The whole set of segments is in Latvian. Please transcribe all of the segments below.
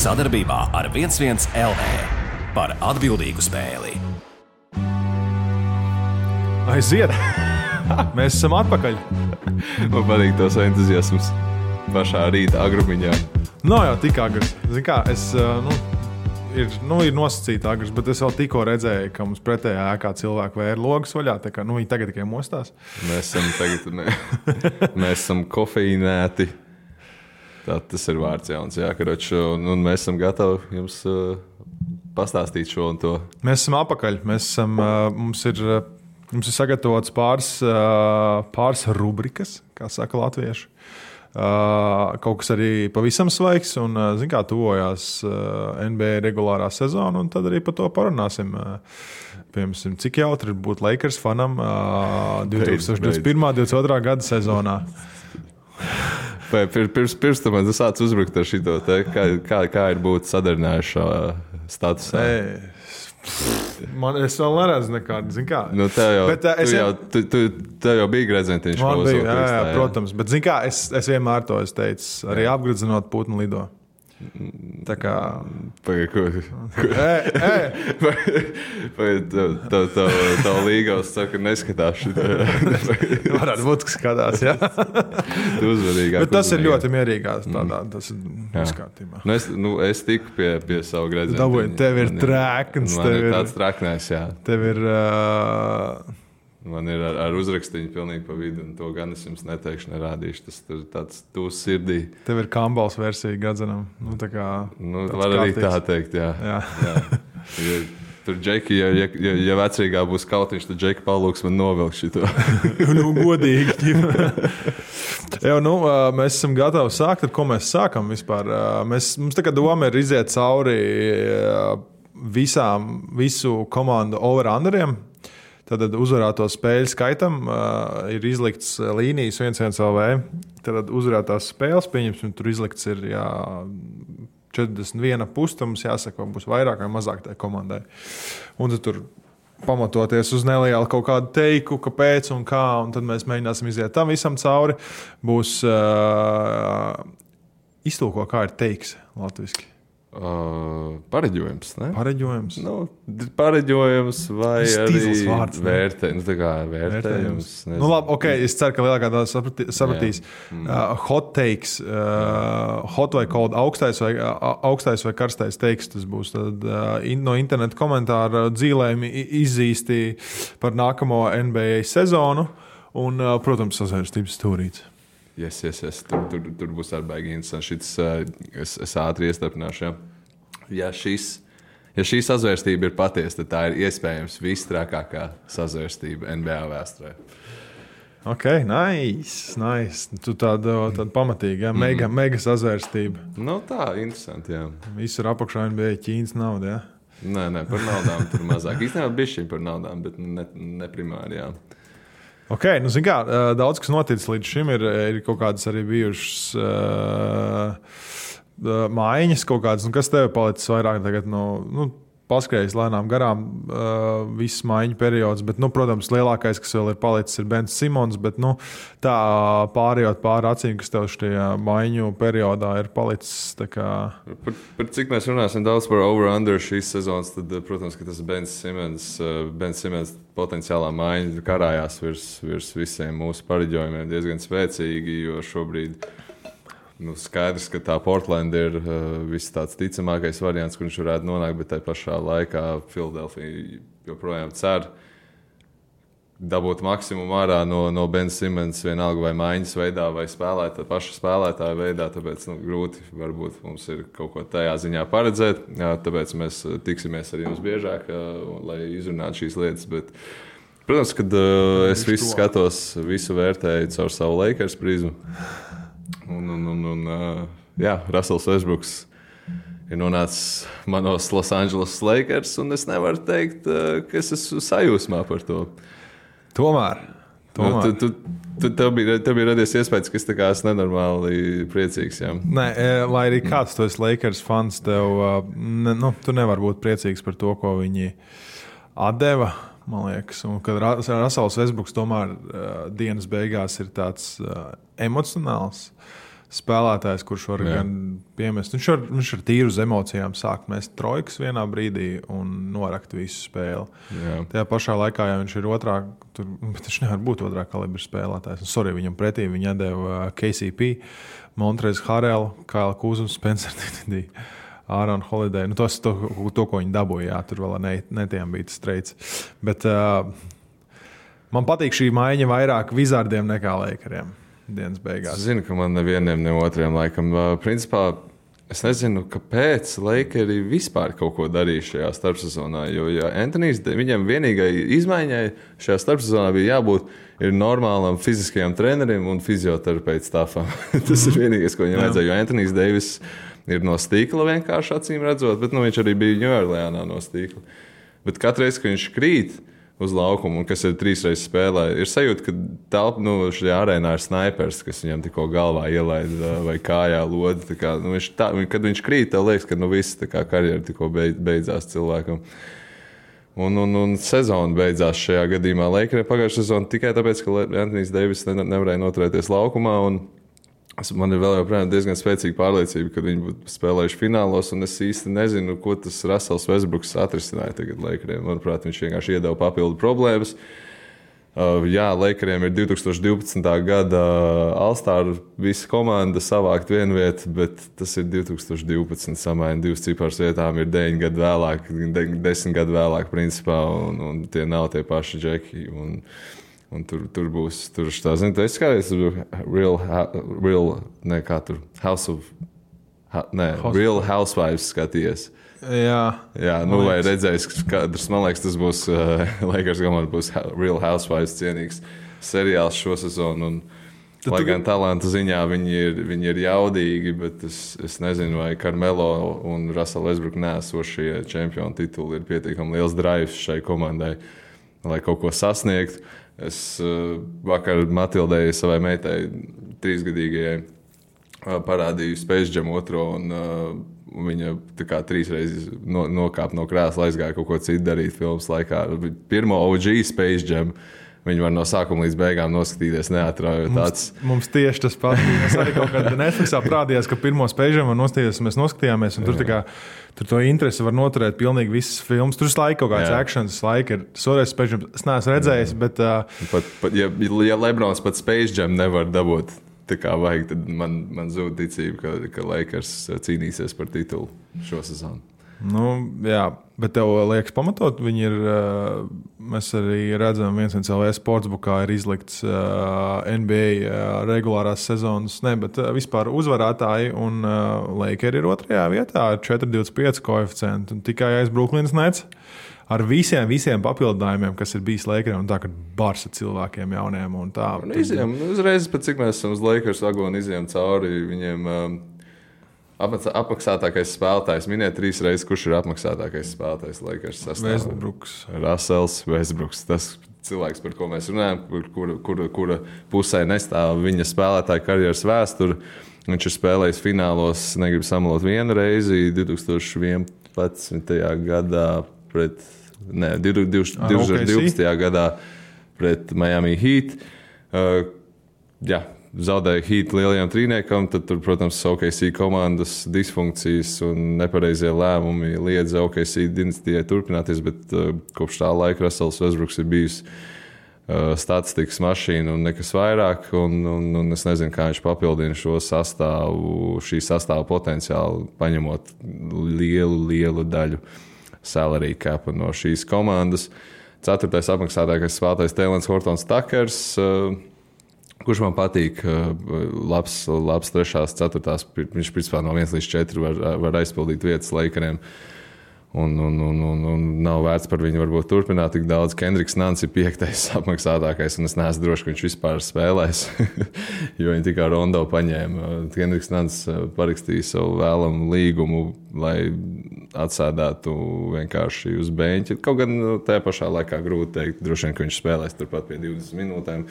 Sadarbībā ar 11 LV par atbildīgu spēli. Aiziet! Mēs esam atpakaļ. Man patīk tos entuziasms pašā rīta agrumiņā. Nav jau tik agrs. Zini kā, ir nosacīta agrs, bet es vēl tikko redzēju, ka mums pretējā ēkā cilvēki vēra logus vaļā. Tā kā, viņi tagad tikai mostās. Mēs esam kofeīnēti. Tas ir vārds jauns, jā, karoči. Un mēs esam gatavi jums pastāstīt šo un to. Mēs esam apakaļ. Mums ir sagatavots pāris rubrikas, kā saka latvieši. Kaut kas arī pavisam svaigs, un, zin kā, tuvojās NBA regulārā sezona, un tad arī par to parunāsim. Piemēram, cik jautri ir būt Lakers fanam 2021.-2022. gada sezonā. Pirms tam man sāc uzbrukt ar šito, kā ir būt sadarinājušā statusā. Es vēl neredzu nekādu, zin kā. Nu, tev jau bija gredzentiņš. Man bija, jā, protams. Bet, zin kā, es vienmēr to teicu, arī apgredzinot putnu lido. Tā kā... Tā līgavs saka, neskatās šitā. Varētu būt, ka skatās, jā. Bet tas ir ļoti mierīgās tādā, tas ir viskārtībā. Es tiku pie savu gredzentiņu. Dabūju, tev ir trekns. Man ir tāds traknēs, jā. Tev ir... Man ir ar uzrakstiņu pilnīgi pa vidu, un to gan es jums neteikšu, nerādīšu. Tas ir tāds tūs sirdī. Tev ir Kambals versija gadzenam. Var arī tā teikt, jā. Tur Džeki, ja vecrīgā būs kautiņš, tad Džeki palūks man novilkt šito. Godīgi. Mēs esam gatavi sākt, ar ko mēs sākam vispār. Mums tagad doma ir iziet cauri visu komandu over-underiem. Tad uzvarēto spēļu skaitam ir izlikts līnijas 1-1 LV. Tad uzvarētās spēles, pieņemsim, tur izlikts ir 41 pusi, mums jāsaka, būs vairāk vai mazāk tai komandai. Un tad tur pamatoties uz nelielu kaut kādu teiku, kāpēc un kā, un tad mēs mēģināsim iziet tam visam cauri. Būs iztulko, kā ir teiks latviski. Pareģojums, ne? Pareģojums. Pareģojums vai arī vārds, vērtējums. Labi, ok, es ceru, ka lielākā daļa sapratīs. Hot takes, hot vai cold, augstais vai karstais teiks, tas būs tad, no interneta komentāra dzīlējumi izzīsti par nākamo NBA sezonu un, protams, sazvērstības stūrīts. Yes. Tur būs arī baigi interesanti. Es ātri iestarpināšu. Ja šī sazvērstība ir patiesa, tad tā ir iespējams visstrakākā sazvērstība NBA vēsturē. Ok, nice. Tu tāda pamatīga, mega sazvērstība. Tā, interesanti, jā. Visur apakšā NBA Ķīnas nauda, jā? Nē, par naudām tur mazāk. Īstenībā bišķiņ par naudām, bet ne primāri, jā. Ok, zin kā, daudz kas noticis līdz šim, ir kaut kādas arī bijušas mājiņas kaut kādas, kas tev palicis vairāk tagad paskrējis lēnām garām viss mājiņu periods, bet, protams, lielākais, kas vēl ir palicis, ir Bens Simons, bet, tā pārējot pāri acīm, kas tev šajā mājiņu periodā ir palicis, tā kā... Par cik mēs runāsim daudz par over-under šīs sezonas, tad, protams, ka tas Bens Simons potenciālā mājiņa karājās virs visiem mūsu pareģojumiem diezgan spēcīgi, jo šobrīd skaidrs, ka tā Portland ir viss tāds ticamākais variants, kur viņš varētu nonākt, bet tai pašā laikā Philadelphia joprojām cer dabūt maksimumu ārā no Ben Simmons vienalga vai mājiņas veidā vai paša spēlētāja veidā, tāpēc grūti varbūt mums ir kaut ko tajā ziņā paredzēt, tāpēc mēs tiksimies ar jums biežāk, lai izrunātu šīs lietas, bet protams, kad es visu skatos, visu vērtēju caur savu Lakers prizmu. Russells Westbrooks ir nonācis manos Los Angeles Lakers, un es nevaru teikt, ka es esmu sajūsmā par to. Tomēr. Tev bija radies iespējas, ka es esmu nenormāli priecīgs. Jā. Nē, lai arī kāds tu esi Lakers fans, tu nevari būt priecīgs par to, ko viņi atdeva. Man liekas, un kad Russells Westbrooks tomēr dienas beigās ir tāds emocionāls spēlētājs, kurš var gan piemest. Viņš ar tīru uz emocijām sāk mest trojkas vienā brīdī un norakt visu spēli. Tajā pašā laikā, ja viņš ir bet viņš nevar būt otrā kalibra spēlētājs. Viņam pretī viņa deva KCP, Montrez Harrell, Kaila Kuzums, Spencer Dinwiddie, Aaron Holiday. To, ko viņi dabūja, tur vēl netiem bija tas streids. Bet man patīk šī maiņa vairāk Wizardiem nekā Lakeriem. Dienas beigās. Es zinu, ka man nevienam, ne otriem laikam. Principā es nezinu, kāpēc Lakeri vispār kaut ko darīja šajā starpsezonā. Jo Anthonijs, viņam vienīgai izmaiņai šajā starpsezonā bija jābūt normālam fiziskajam trenerim un fizioterapeita stāfam. Tas ir vienīgais, ko viņam vajadzēja. Jo Anthonijs Deivis ir no stīkla vienkārši acīm redzot, bet viņš arī bija Ņujorkā no stīkla. Bet katru reizi, kad viņš krīt uz laukumu, un kas ir 3 reizes spēlē, ir sajūta, ka šajā arēnā ir snaipers, kas viņam tikko galvā ielaida vai kājā lodi. Kad viņš krīt, tev liekas, ka viss karjera tikko beidzās cilvēkam. Un sezona beidzās šajā gadījumā. Lakeriem pagājušā sezona tikai tāpēc, ka Anthonijs Deivis nevarēja noturēties laukumā. Man ir vēl joprojām diezgan spēcīga pārliecība, ka viņi būtu spēlējuši finālos, un es īsti nezinu, ko tas Russells Westbrooks atrisināja tagad Lakeriem. Manuprāt, viņš vienkārši iedeva papildu problēmas. Lakeriem ir 2012. gada All-Star visa komanda savākt vienu vietu, bet tas ir 2012. Samaina 2 ciparas vietām, ir 9 gadu vēlāk, 10 gadu vēlāk principā, un tie nav tie paši džeki. Un tur būs tā, zinu, es skaties, Real Housewives skaties. Jā, vai redzējis, kadrs, man liekas, tas būs Lakers komanda būs Real Housewives cienīgs seriāls šo sezonu. Lai gan talanta ziņā viņi ir jaudīgi, bet es nezinu, vai Carmelo un Russell Westbrook neesošie čempionu tituli ir pietiekami liels drives šai komandai, lai kaut ko sasniegtu. Es vakar Matildei, savai meitai, 3-gadīgajai, parādīju Space Jam 2, un viņa 3 reizes nokāpa no krēsla, aizgāja kaut ko citu darīt filmas laikā. Pirmo OG Space Jam viņi var no sākuma līdz beigām noskatīties, neatrājot acis. Mums tieši tas pats. Mēs arī kaut kādā Netflixā parādījās, ka pirmo Space Jam mēs noskatījāmies, un tur to interesi var noturēt pilnīgi visas filmas. Tur laika kaut kāds actions, laika ir soreiz Space Jam. Es neesmu redzējis, bet... Ja Lebrons pat Space Jam nevar dabūt tā kā vajag, tad man zūd ticība, ka Lakers cīnīsies par titulu šo sezonu. Jā, bet tev liekas pamatot, viņi ir, mēs arī redzam, 1LV sportsbookā ir izlikts NBA regulārās sezonas, bet vispār uzvarētāji, un Lakers ir 2. vietā ar 4,25 koeficientu, un tikai aiz Brooklynas Nets ar visiem papildinājumiem, kas ir bijis Lakeriem, un tā, ka bars ar cilvēkiem jauniem un tā. Uzreiz, pat cik mēs esam uz Lakers vagonu izējām cauri, viņiem... Apmaksātākais spēlētājs. Miniet 3 reizes, kurš ir apmaksātākais spēlētājs Lakers sastāvā. Westbrooks. Russells Westbrooks. Tas cilvēks, par ko mēs runājam, kura pusē nestāv viņa spēlētāja karjeras vēsture. Viņš ir spēlējis finālos, negribu samalot vienu reizi, 2011. gadā pret... 2012. gadā pret Miami Heat. Zaudēja Heat lielajam trīniekam, tad tur, protams, OKC komandas disfunkcijas un nepareizie lēmumi liedza OKC dinastijai turpināties, bet kopš tā laika Russells Westbrooks ir bijis statistikas mašīna un nekas vairāk, un es nezinu, kā viņš papildina šo sastāvu, šī sastāva potenciālu, paņemot lielu daļu salary capa no šīs komandas. 4. apmaksātākais spēlētājs Tēlens Hortons Takers, kurš man patīk, labs 3., 4. Viņš principā no 1 līdz 4 var aizpildīt vietas Lakeriem. Un nav vērts par viņu varbūt turpināt tik daudz. Kendriks Nans ir 5. apmaksātākais, un es neesmu drošs, ka viņš vispār spēlēs, jo viņi tikai Rondo paņēma. Kendriks Nans parakstīja savu vēlamu līgumu, lai atsēdētu vienkārši uz beņķa. Kaut gan tajā pašā laikā grūti teikt, droši vien, ka viņš spēlēs turpat pie 20 minūtēm.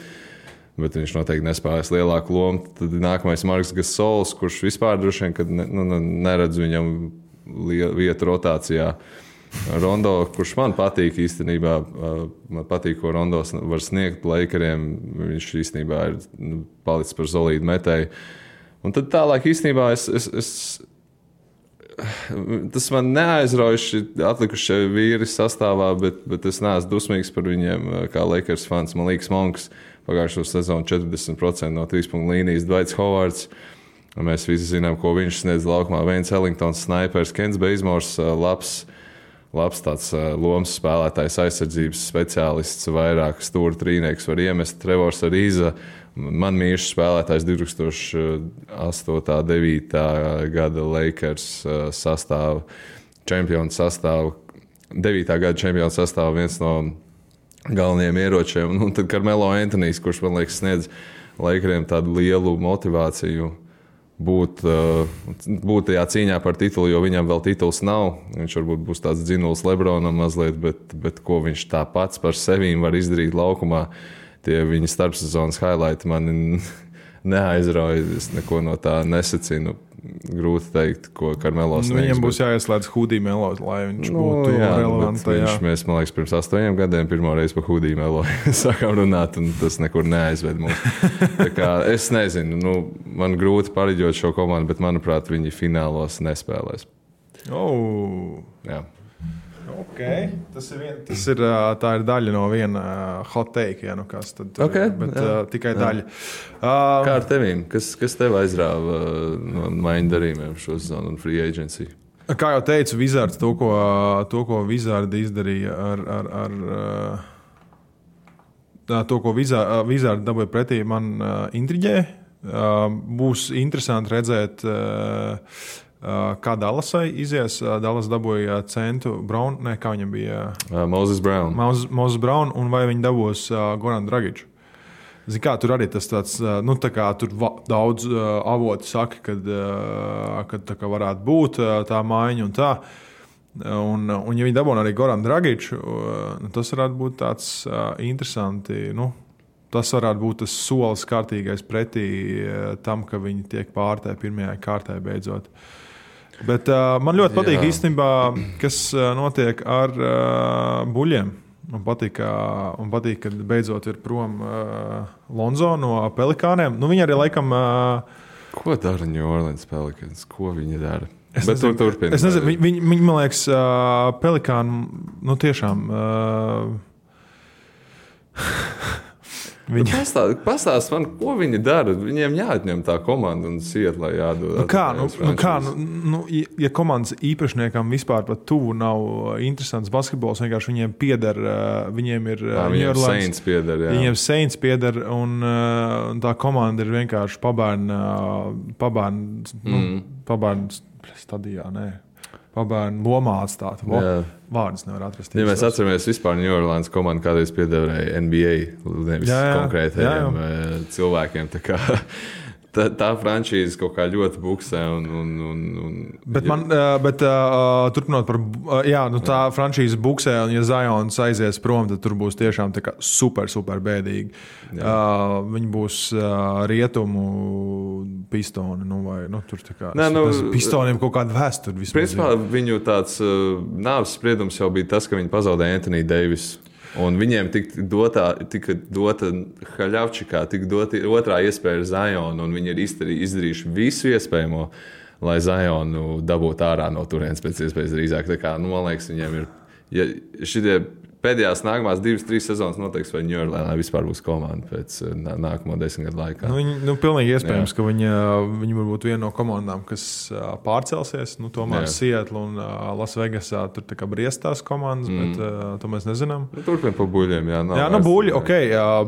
Bet viņš noteikti nespēlēs lielāku lomu. Tad nākamais Marks Gasols, kurš vispār droši vien neredz viņam vietu rotācijā. Rondo, kurš man patīk īstenībā, man patīk, ko Rondo var sniegt Lakeriem. Viņš īstenībā ir palicis par solīdu metēju. Un tad tālāk īstenībā tas man neaizraujuši atlikušie vīri sastāvā, bet es neesmu dusmīgs par viņiem kā Lakers fans. Man liekas, Monks pagājušo sezonu 40% no 3-punktu līnijas, Dwights Howards. Mēs visi zinām, ko viņš sniedz laukumā. Veins Ellingtons, snipers, Kents Bazemors, labs tāds lomas spēlētājs, aizsardzības speciālists, vairāk stūra trīnieks var iemest. Trevors Ariza, man mīļš spēlētājs 2008.-2009. gada Lakers sastāvu, čempionu sastāvu, 9. gada čempionu sastāvu, viens no galvenajiem ieročiem. Un tad Carmelo Anthonijs, kurš man liekas sniedz Lakeriem tādu lielu motivāciju būt tajā cīņā par titulu, jo viņam vēl tituls nav. Viņš varbūt būs tāds dzinuls Lebronam mazliet, bet ko viņš tā pats par sevīm var izdarīt laukumā. Tie viņa starpsezonas highlighti mani neaizrauja. Es neko no tā nesacinu. Grūti teikt, ko Carmelo sniegs. Viņam būs jāieslēdz Hudī Melo, lai viņš būtu relevants. Mēs, man liekas, pirms 8 gadiem pirmo reizi par Hudī Melo sākām runāt, un tas nekur neaizved mums. Tā kā es nezinu, man grūti pareģot šo komandu, bet, manuprāt, viņi finālos nespēlēs. Jā. Okay. Tā ir daļa no viena hot take, ja, bet tikai daļa. Kā ar tevīm? Kas tev aizrāva no maiņu darījumiem šo sezonu un free agency? Kā jau teicu, Wizards to, ko Wizardi izdarīja to, ko Wizardi dabūja pretī, man intriģē. Būs interesanti redzēt, kā Dallasai izies. Dallas dabūja centu Brown, kā viņam bija? Moses Brown. Moses Brown, un vai viņi dabūs Goran Dragiču? Zini kā, tur arī tas tāds, tā kā tur daudz avoti saka, kad tā kā varētu būt tā maiņa un tā. Un ja viņi dabūna arī Goran Dragiču, tas varētu būt tāds interesanti, tas varētu būt tas solis kārtīgais pretī tam, ka viņi tiek pārtē pirmajā kārtē beidzot. Bet man ļoti patīk īstenībā, kas notiek ar buļļiem. Man patīk, ka beidzot ir prom Lonzo no Pelikāniem. Viņi arī laikam... Ko dara New Orleans Pelicans? Ko viņi dara? Es nezinu, viņi man liekas, Pelikāni, tiešām... Pastāst man, ko viņi dara. Viņiem jāatņem tā komanda un iet, lai jādod. Ja komandas īpašniekam vispār pat tuvu nav interesants basketbols, vienkārši viņiem pieder, viņiem ir Saints pieder, jā. Viņiem Saints pieder, un tā komanda ir vienkārši pabērnu stadijā, pabērnu lomā atstāt. Vārdus nevar atrast. Ja mēs atceramies vispār New Orleans komandu kādreiz piedēvēja NBA, nevis konkrētajiem cilvēkiem. Tā franšīze kaut kā ļoti buksē. Turpinot par... tā franšīze buksē, un ja Zions aizies prom, tad tur būs tiešām tā kā super bēdīgi. Viņi būs rietumu pistoni. Tur tā kā... Pistoniem kaut kāda vēsture. Principā viņu tāds nāves spriedums jau bija tas, ka viņi pazaudēja Anthony Davis. Un viņiem tika dota Haļavčikā, tika dota otrā iespēja ar Zionu, un viņi ir izdarījuši visu iespējamo, lai Zionu dabūtu ārā no turienes pēc iespējas drīzāk. Tā kā, man liekas, viņiem ir... Ja šitie pēdējās nākamās 2-3 sezonas noteiks, vai New Orleansā vispār būs komanda pēc nākamo 10 gadu laikā. Pilnīgi iespējams, ka viņi varbūt viena no komandām, kas pārcelsies. Tomēr Seattle un Las Vegasā tur tā kā briestās komandas, bet to mēs nezinām. Turpin pa buļļiem, buļļi,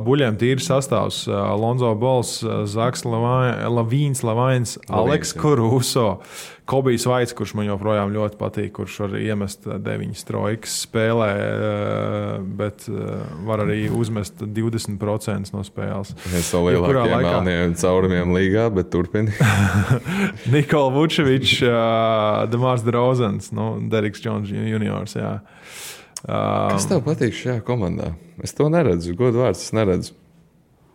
buļļiem tīri sastāvs. Lonzo Balls, Zaks Lavīns, Aleks Caruso, Kobijs Vaits, kurš man joprojām ļoti patīk, kurš var iemest 9 trojkas spēlē, bet var arī uzmest 20% no spēles. Viens no lielākajiem melniem caurumiem līgā, bet turpini. Nikola Vučevičs, Demars DeRozans, Deriks Jones juniors, jā. Kas tev patīk šajā komandā? Es to neredzu, godu vārds, es neredzu.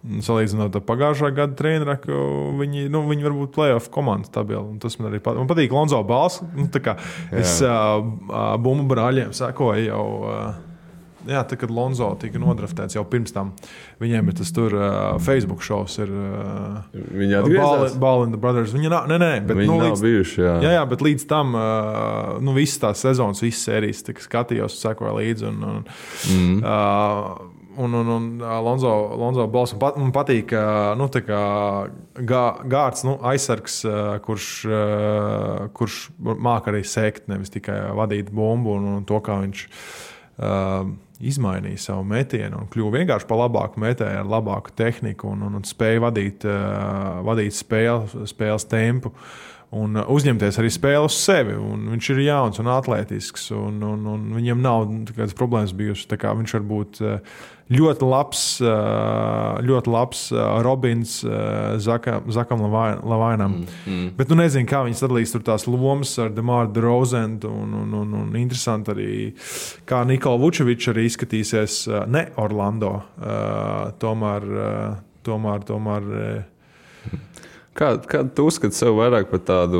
Salīdzinot ar pagājušā gada treneru, ka viņi varbūt playoff komandas tabeli. Tas man arī patīk. Man patīk Lonzo Balls. Es bumbu brāļiem sekoju jau Jā, tad, kad Lonzo tika nodraftēts jau pirms tam, viņiem ir tas tur Facebook šovs. Viņi atgriezās? Ball in the Brothers. Viņi nav bijuši, jā. Jā, bet līdz tam visas tās sezonas, visas sērijas skatījos, sekoju līdzi. Un Lonzo Balls man patīk, gārds, aizsargs, kurš māk arī sekt, nevis tikai vadīt bumbu un to, kā viņš izmainīja savu metienu un kļuva vienkārši par labāku metēju, ar labāku tehniku un spēja vadīt spēles tempu. Un uzņemties arī spēli uz sevi. Viņš ir jauns un atletisks. Un viņam nav kādas problēmas bijušas. Viņš var būt ļoti labs Robins Zakam Lavainam. Bet nezinu, kā viņi sadalīs tur tās lomas ar DeMar DeRozan. Un interesanti arī, kā Nikola Vučevičs arī izskatīsies ne Orlando. Tomēr Kādu tu uzskati sev vairāk par tādu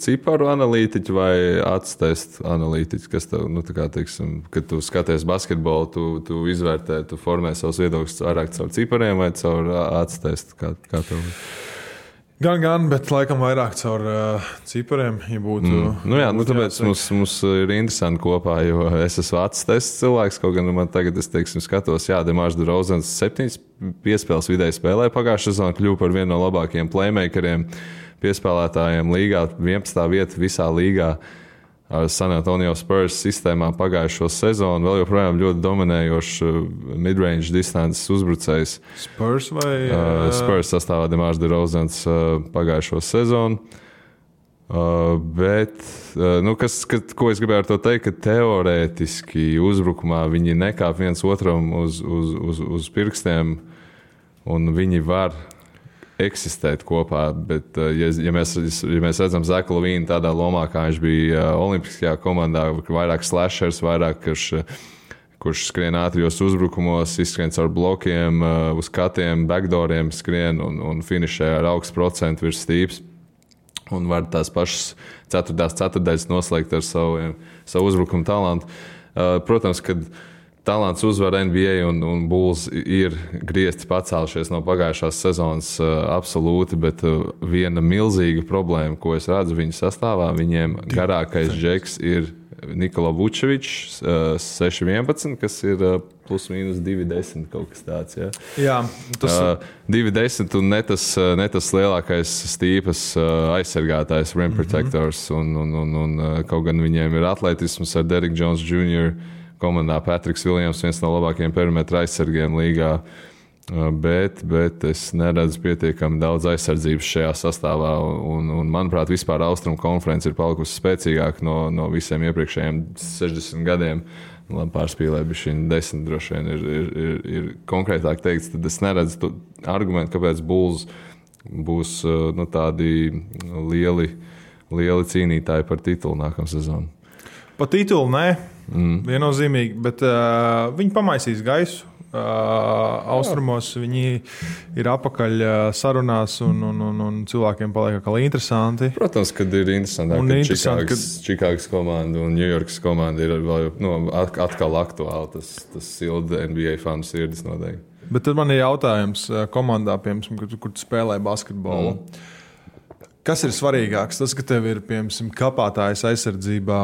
ciparu analītiķu vai acu analītiķu, kas tev, teiksim, kad tu skaties basketbolu, tu izvērtē, tu formē savus viedokļus vairāk caur cipariem vai caur acu testu? Kā tev? Gan, bet laikam vairāk caur cipariem, ja būtu. Tāpēc mums ir interesanti kopā, jo es esmu acu tests cilvēks, kaut gan man tagad, skatos, DeMars DeRozans 7 piespēles vidēji spēlē pagājušā sezonā, kļuva par vienu no labākajiem playmakeriem, piespēlētājiem līgā, 11. vieta visā līgā. San Antonio Spurs sistēmā pagājušo sezonu, vēl joprojām ļoti dominējošs midrange distances uzbrucējs. Spurs vai? Spurs sastāvā DeMars DeRozans pagājušo sezonu. Ko es gribēju ar to teikt, ka teorētiski uzbrukumā viņi nekāp viens otram uz pirkstiem un viņi var eksistēt kopā, bet ja mēs redzam Zaku Lavīnu tādā lomā, kā viņš bija olimpiskajā komandā, vairāk slashers, vairāk, kurš skrien ātrijos uzbrukumos, izskrien caur blokiem, uz katiem, backdooriem skrien un finišē ar augstu procentu virs stīps un var tās pašas ceturtdaļas noslēgt ar savu uzbrukumu talantu. Protams, kad talants uzvar NBA un Bulls ir griezti pacēlušies no pagājušās sezonas absolūti, bet viena milzīga problēma, ko es redzu viņu sastāvā, viņiem garākais džeks ir Nikola Vučevičs 6'11", kas ir plus mīnus 2'10", kaut kas tāds. Ja? Jā, tas 2'10" un ne tas lielākais stīpas aizsargātājs, rim protectors, un kaut gan viņiem ir atletisms ar Derrick Jones Jr., komandā Patriks Viljams, viens no labākajiem perimetra aizsargiem līgā, bet es neredzu pietiekami daudz aizsardzības šajā sastāvā, un manuprāt, vispār Austrumu konference ir palikusi spēcīgāka no visiem iepriekšējiem 60 gadiem. Labi, pārspīlēja, bet šī 10 droši vien ir konkrētāk teikts, tad es neredzu argumentu, kāpēc Bulls būs tādi lieli cīnītāji par titulu nākamā sezonu. Pa titulu nē, viennozīmīgi, bet viņi pamaisīs gaisu. Austrumos viņi ir apakaļ sarunās un cilvēkiem paliek atkal interesanti. Protams, kad ir interesantāk, ka Čikāgas komanda un Ņujorkas komanda ir atkal aktuāli. Tas silda NBA fanu sirdis noteikti. Bet tad man ir jautājums komandā, piemēram, kur tu spēlē basketbolu. Kas ir svarīgāks? Tas, ka tev ir, piemēram, kapātājs aizsardzībā,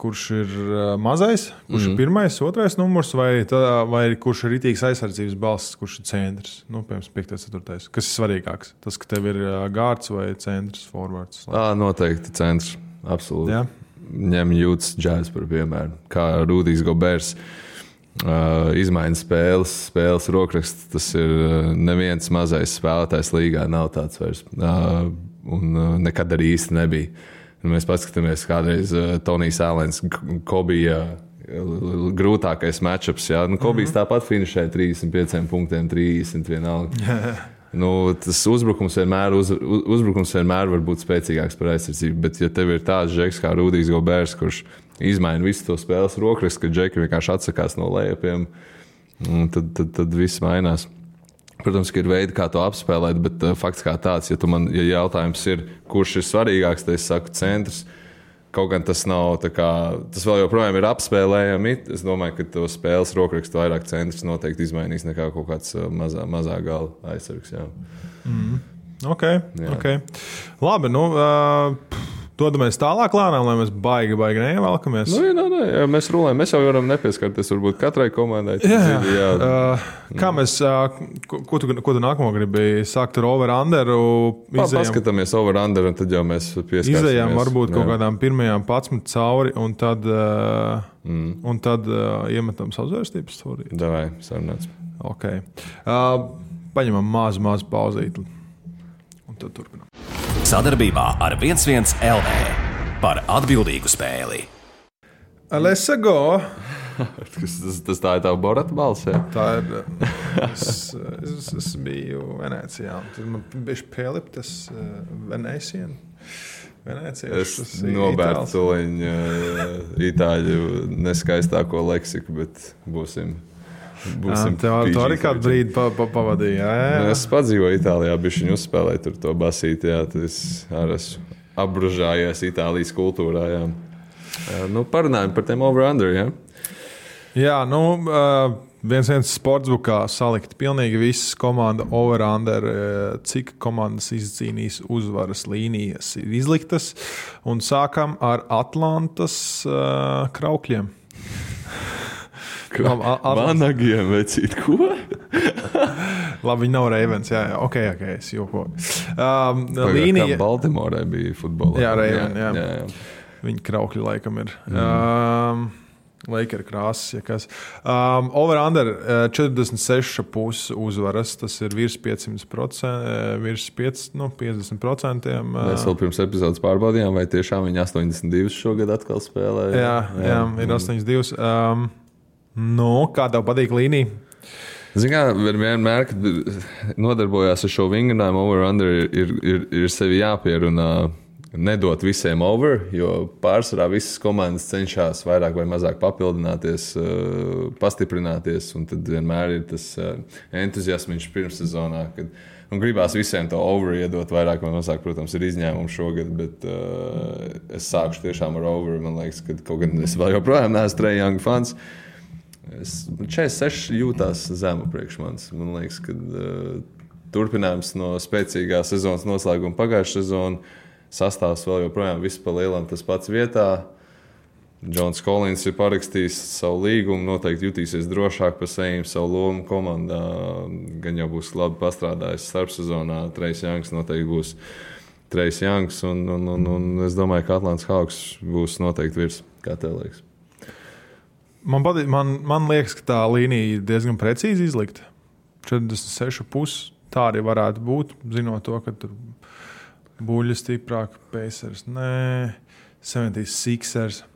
kurš ir mazais, kurš ir pirmais, otrais numurs, vai kurš ir ritīgs aizsardzības balsts, kurš ir centrs? Piemēram, 5. 4. Kas ir svarīgāks? Tas, ka tev ir gārds vai centrs, forwards? Noteikti centrs, absolūti. Jā? Ņem Jūtas Jazz par piemēru, kā Rudijs Gobers. Izmaiņas spēles rokraksts, tas ir neviens mazais spēlētājs līgā, nav tāds vairs. Un nekad arī īsti nebija. Mēs paskatāmies kādreiz Tonijs Alens, Kobija grūtākais matchups. Kobijs tāpat finišēja 35 punktiem, 30 vienalga. Tas uzbrukums vienmēr var būt spēcīgāks par aizsardzību, bet ja tev ir tāds džeks kā Rudijs Gobers, kurš izmaina visu to spēles rokrakstu, ka džeki vienkārši atsakās no lejupiem, tad viss mainās. Protams, ka ir veidi, kā to apspēlēt, bet fakts kā tāds, ja jautājums ir, kurš ir svarīgāks, tad es saku centrs. Kaut gan tas nav tā kā, tas vēl joprojām ir apspēlējami. Es domāju, ka to spēles rokrakstu vairāk centrs noteikti izmainīs nekā kaut kāds mazā gala aizsargs. Jā. Ok. Labi, dodamies tālāk lēnām, lai mēs baigi neievelkamies. Jā, mēs rulējam. Mēs jau varam nepieskarties varbūt katrai komandai. Kā mēs, ko tu nākamo gribi sākt ar over-underu? Paskatāmies over-under, un tad jau mēs pieskarsimies. Izējām varbūt kaut kādām pirmajām 11 cauri, un tad iemetam savzvērstības stūrī. Davai, sarunāts. Ok. Paņemam mazu pauzīti, un tad turpinām. Sadarbībā ar 1-1 LV par atbildīgu spēli. Let's go! Tas tā ir tā Borata balss, jā? Tā ir. Es biju Venecijā. Tad man bija pieliptas Venēcienu. Es nobērtu tuliņu itāļu neskaistāko leksiku, bet būsim. Tev arī kādu brīdi pavadīja. Jā. Es padzīvoju Itālijā, bišķiņu uzspēlēju tur to basīti. Jā, tad es arī esmu apbružājies Itālijas kultūrā. Jā. Parunājam par tiem over-under. Jā, 1-1 sportsbukā salikt pilnīgi visas komandas over-under, cik komandas izcīnīs uzvaras līnijas ir izliktas. Un sākam ar Atlantas Kraukļiem. Vanagiem vecīt, ko? Labi, viņi nav Ravens, jā. Ok, es jokoju. Līnija... Baltimorai bija futbolā. Jā, Raven, jā. Viņi Kraukļi laikam ir. Lakers krāsas, ja kas. Over-under 46,5 uzvaras, tas ir virs 500%, virs 50%. Mēs vēl pirms epizodes pārbaudījām, vai tiešām viņi 82 šogad atkal spēlē. Jā, ir 82. Kā tev patīk līnija? Vienmēr, kad nodarbojās ar šo vingrinājumu, over-under ir sevi jāpierunā, nedot visiem over, jo pārsvarā visas komandas cenšas vairāk vai mazāk papildināties, pastiprināties, un tad vienmēr ir tas entuziasms pirmssezonā, kad gribās visiem to over iedot vairāk vai mazāk. Protams, ir izņēmumi šogad, bet es sākšu tiešām ar over. Man liekas, ka kaut gan es vēl joprojām neesmu Trae Young fans. 46 jūtās zemu priekš manis. Man liekas, ka turpinājums no spēcīgā sezonas noslēguma pagājušā sezona sastāvs vēl joprojām viss pa lielam tas pats vietā. Džons Kolins ir parakstījis savu līgumu, noteikti jutīsies drošāk par sevi, savu lomu komandā. Gan jau būs labi pastrādājis starpsezonā. Trae Youngs noteikti būs Trae Youngs, un es domāju, ka Atlantas Hawks būs noteikti virs. Kā tev liekas? Man liekas, ka tā līnija ir diezgan precīzi izlikta. 46,5 tā arī varētu būt, zinot to, ka tur buļļi stiprāk, Pacers, 76ers.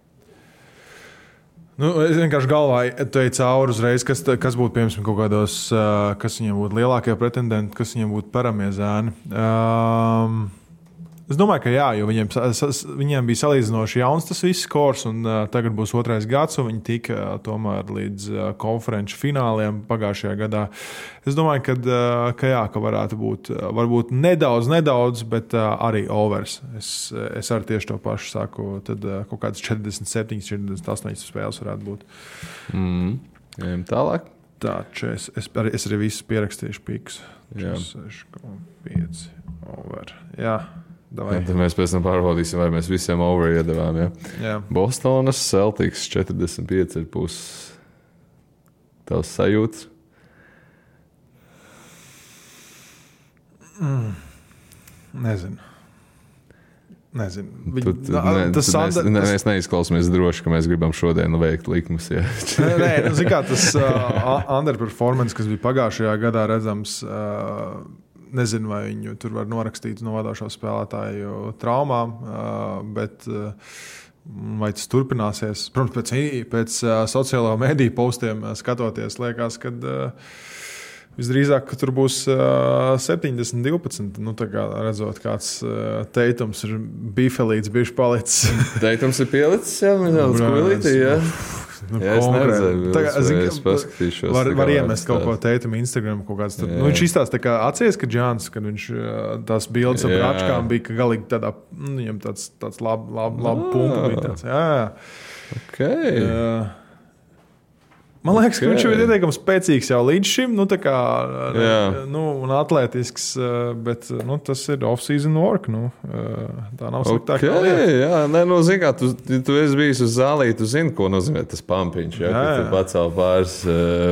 Es vienkārši galvā teju cauri uzreiz, kas būtu, piemēram, kaut kādos, kas viņiem būtu lielākie pretendenti, kas viņiem būtu paramie zēni. Es domāju, ka jā, jo viņiem bija salīdzinoši jauns tas viss skors, un tagad būs otrais gads, un viņi tika tomēr līdz konferenču fināliem pagājušajā gadā. Es domāju, ka varētu būt varbūt nedaudz, bet arī overs. Es arī tieši to pašu saku, tad kaut kāds 47, 48 spēles varētu būt. Ejam tālāk. Tā, es arī visus pierakstīšu pikus. 6,5 over. Jā. Tad mēs pēc tam pārbaudīsim, vai mēs visiem over iedavām. Jā. Bostonas Celtics 45,5. Tavs sajūtas? Nezinu. Mēs neizklausāmies droši, ka mēs gribam šodien veikt likumus. Tas underperformance, kas bija pagājušajā gadā redzams, nezinu, vai viņu tur var norakstīt no vadošo spēlētāju traumām, bet vai tas turpināsies? Protams, pēc sociālo mediju postiem skatoties, liekas, ka visdrīzāk ka tur būs 70-12. Tā kā redzot, kāds Teitums ir bifelīts, bišķi palicis. Teitums ir pielicis, jā, nedaudz kuilītī, jā. es neredzēju, es paskatīšos. Var iemest kaut ko Teitam Instagram, kaut kāds tur. Viņš izstāsta tā kā atcies, ka Džāns, kad viņš tās bildes ar bračkām bija, ka galīgi tādā, viņam tāds labu punktu bija tāds. Jā. Okay. Man liekas, ka viņš ir ieteikams spēcīgs jau līdz šim, tā kā, un atlētisks, bet, tas ir off-season work, tā nav sliktāk. Jā, zin kā, tu esi bijis uz zālī, tu zini, ko nozīmē tas pampiņš, kad tu pacēl pāris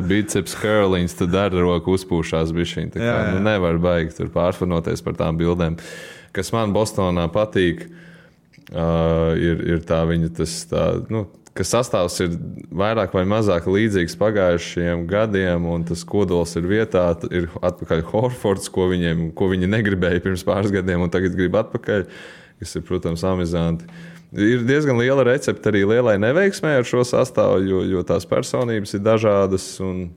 biceps curliņus, tad ar roku uzpūšās bišķiņ, tā kā, nevar baigi tur pārfanoties par tām bildēm. Kas man Bostonā patīk, ir tā viņa ka sastāvs ir vairāk vai mazāk līdzīgs pagājušajiem gadiem, un tas kodols ir vietā, ir atpakaļ Horfords, ko viņi negribēja pirms pāris gadiem, un tagad grib atpakaļ, kas ir, protams, amizanti. Ir diezgan liela recepte arī lielai neveiksmē ar šo sastāvu, jo tās personības ir dažādas, un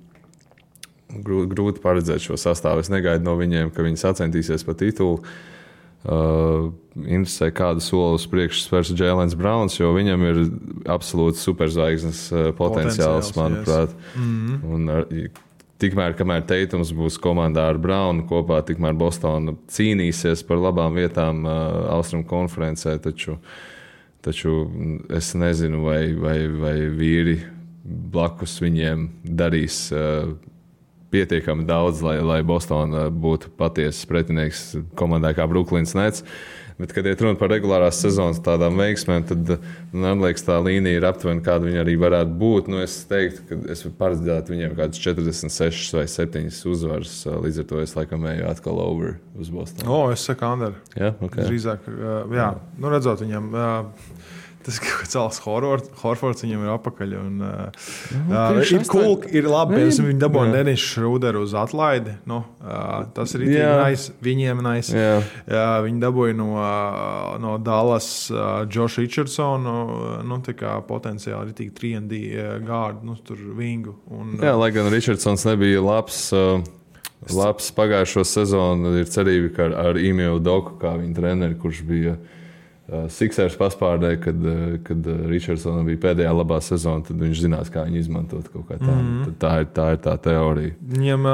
grūti paredzēt šo sastāvu. Es negaidu no viņiem, ka viņi sacentīsies pa titulu. Interesē, kādu soli uz priekšu spērs Jēlens Brauns, jo viņam ir absolūti superzvaigznes potenciāls, manuprāt. Un tikmēr, kamēr Teitums būs komandā ar Braunu kopā, tikmēr Bostona cīnīsies par labām vietām Austrum konferencē, taču es nezinu, vai vīri blakus viņiem darīs pietiekami daudz, lai Bostona būtu patiesas pretinieks komandai kā Brooklyns Nets. Bet, kad iet runa par regulārās sezonas tādām veiksmēm, tad, man liekas, tā līnija ir aptuveni, kāda viņa arī varētu būt. Es teiktu, ka es paredzētu viņiem kādas 46 vai 7 uzvaras. Līdz ar to es laikam eju atkal over uz Bostonu. Es saku Ander. Jā, ok. Drīzāk, redzot viņam... Tas cels Horfords viņam ir apakaļ. Ir cool, ir labi, piemēram, viņi dabūja Dennis Schroederu uz atlaidi. Tas ir viņiem nice. Viņi dabūja no Dallas Josh Richardsonu, tā kā potenciāli ir 3&D gārdu, tur vingu. Lai gan Richardsons nebija labs pagājušo sezonu, ir cerība, ka ar Ime Udoku, kā viņa treneri, kurš bija Sixers paspārdē, kad Richardsonam bija pēdējā labā sezona, tad viņš zinās, kā viņu izmantot kaut kā tā. Tā ir tā teorija. Viņam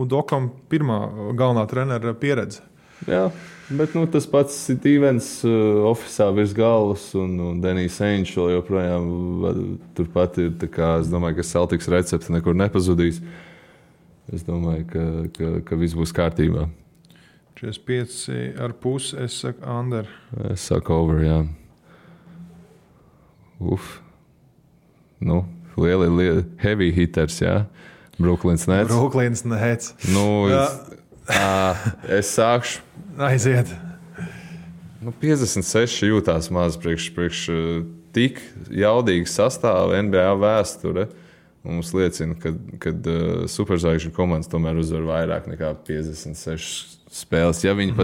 Udokam pirmā galvenā trenera pieredze. Jā, bet tas pats Stevens ofisā virs galvas un Denijs Ainge vēl joprojām turpat ir. Tā kā es domāju, ka Celtics recepte nekur nepazudīs. Es domāju, ka viss būs kārtībā. 45,5, es saku Ander. Es saku over, jā. Lieli heavy hitters, jā. Brooklyns Nets. Brooklyns Nets. Es sākšu. Aiziet. 56 jūtās maz priekš tik jaudīgu sastāvu NBA vēsture. Mums liecina, ka superzvaigžņu komandas tomēr uzvar vairāk nekā 56 spēles. Ja viņi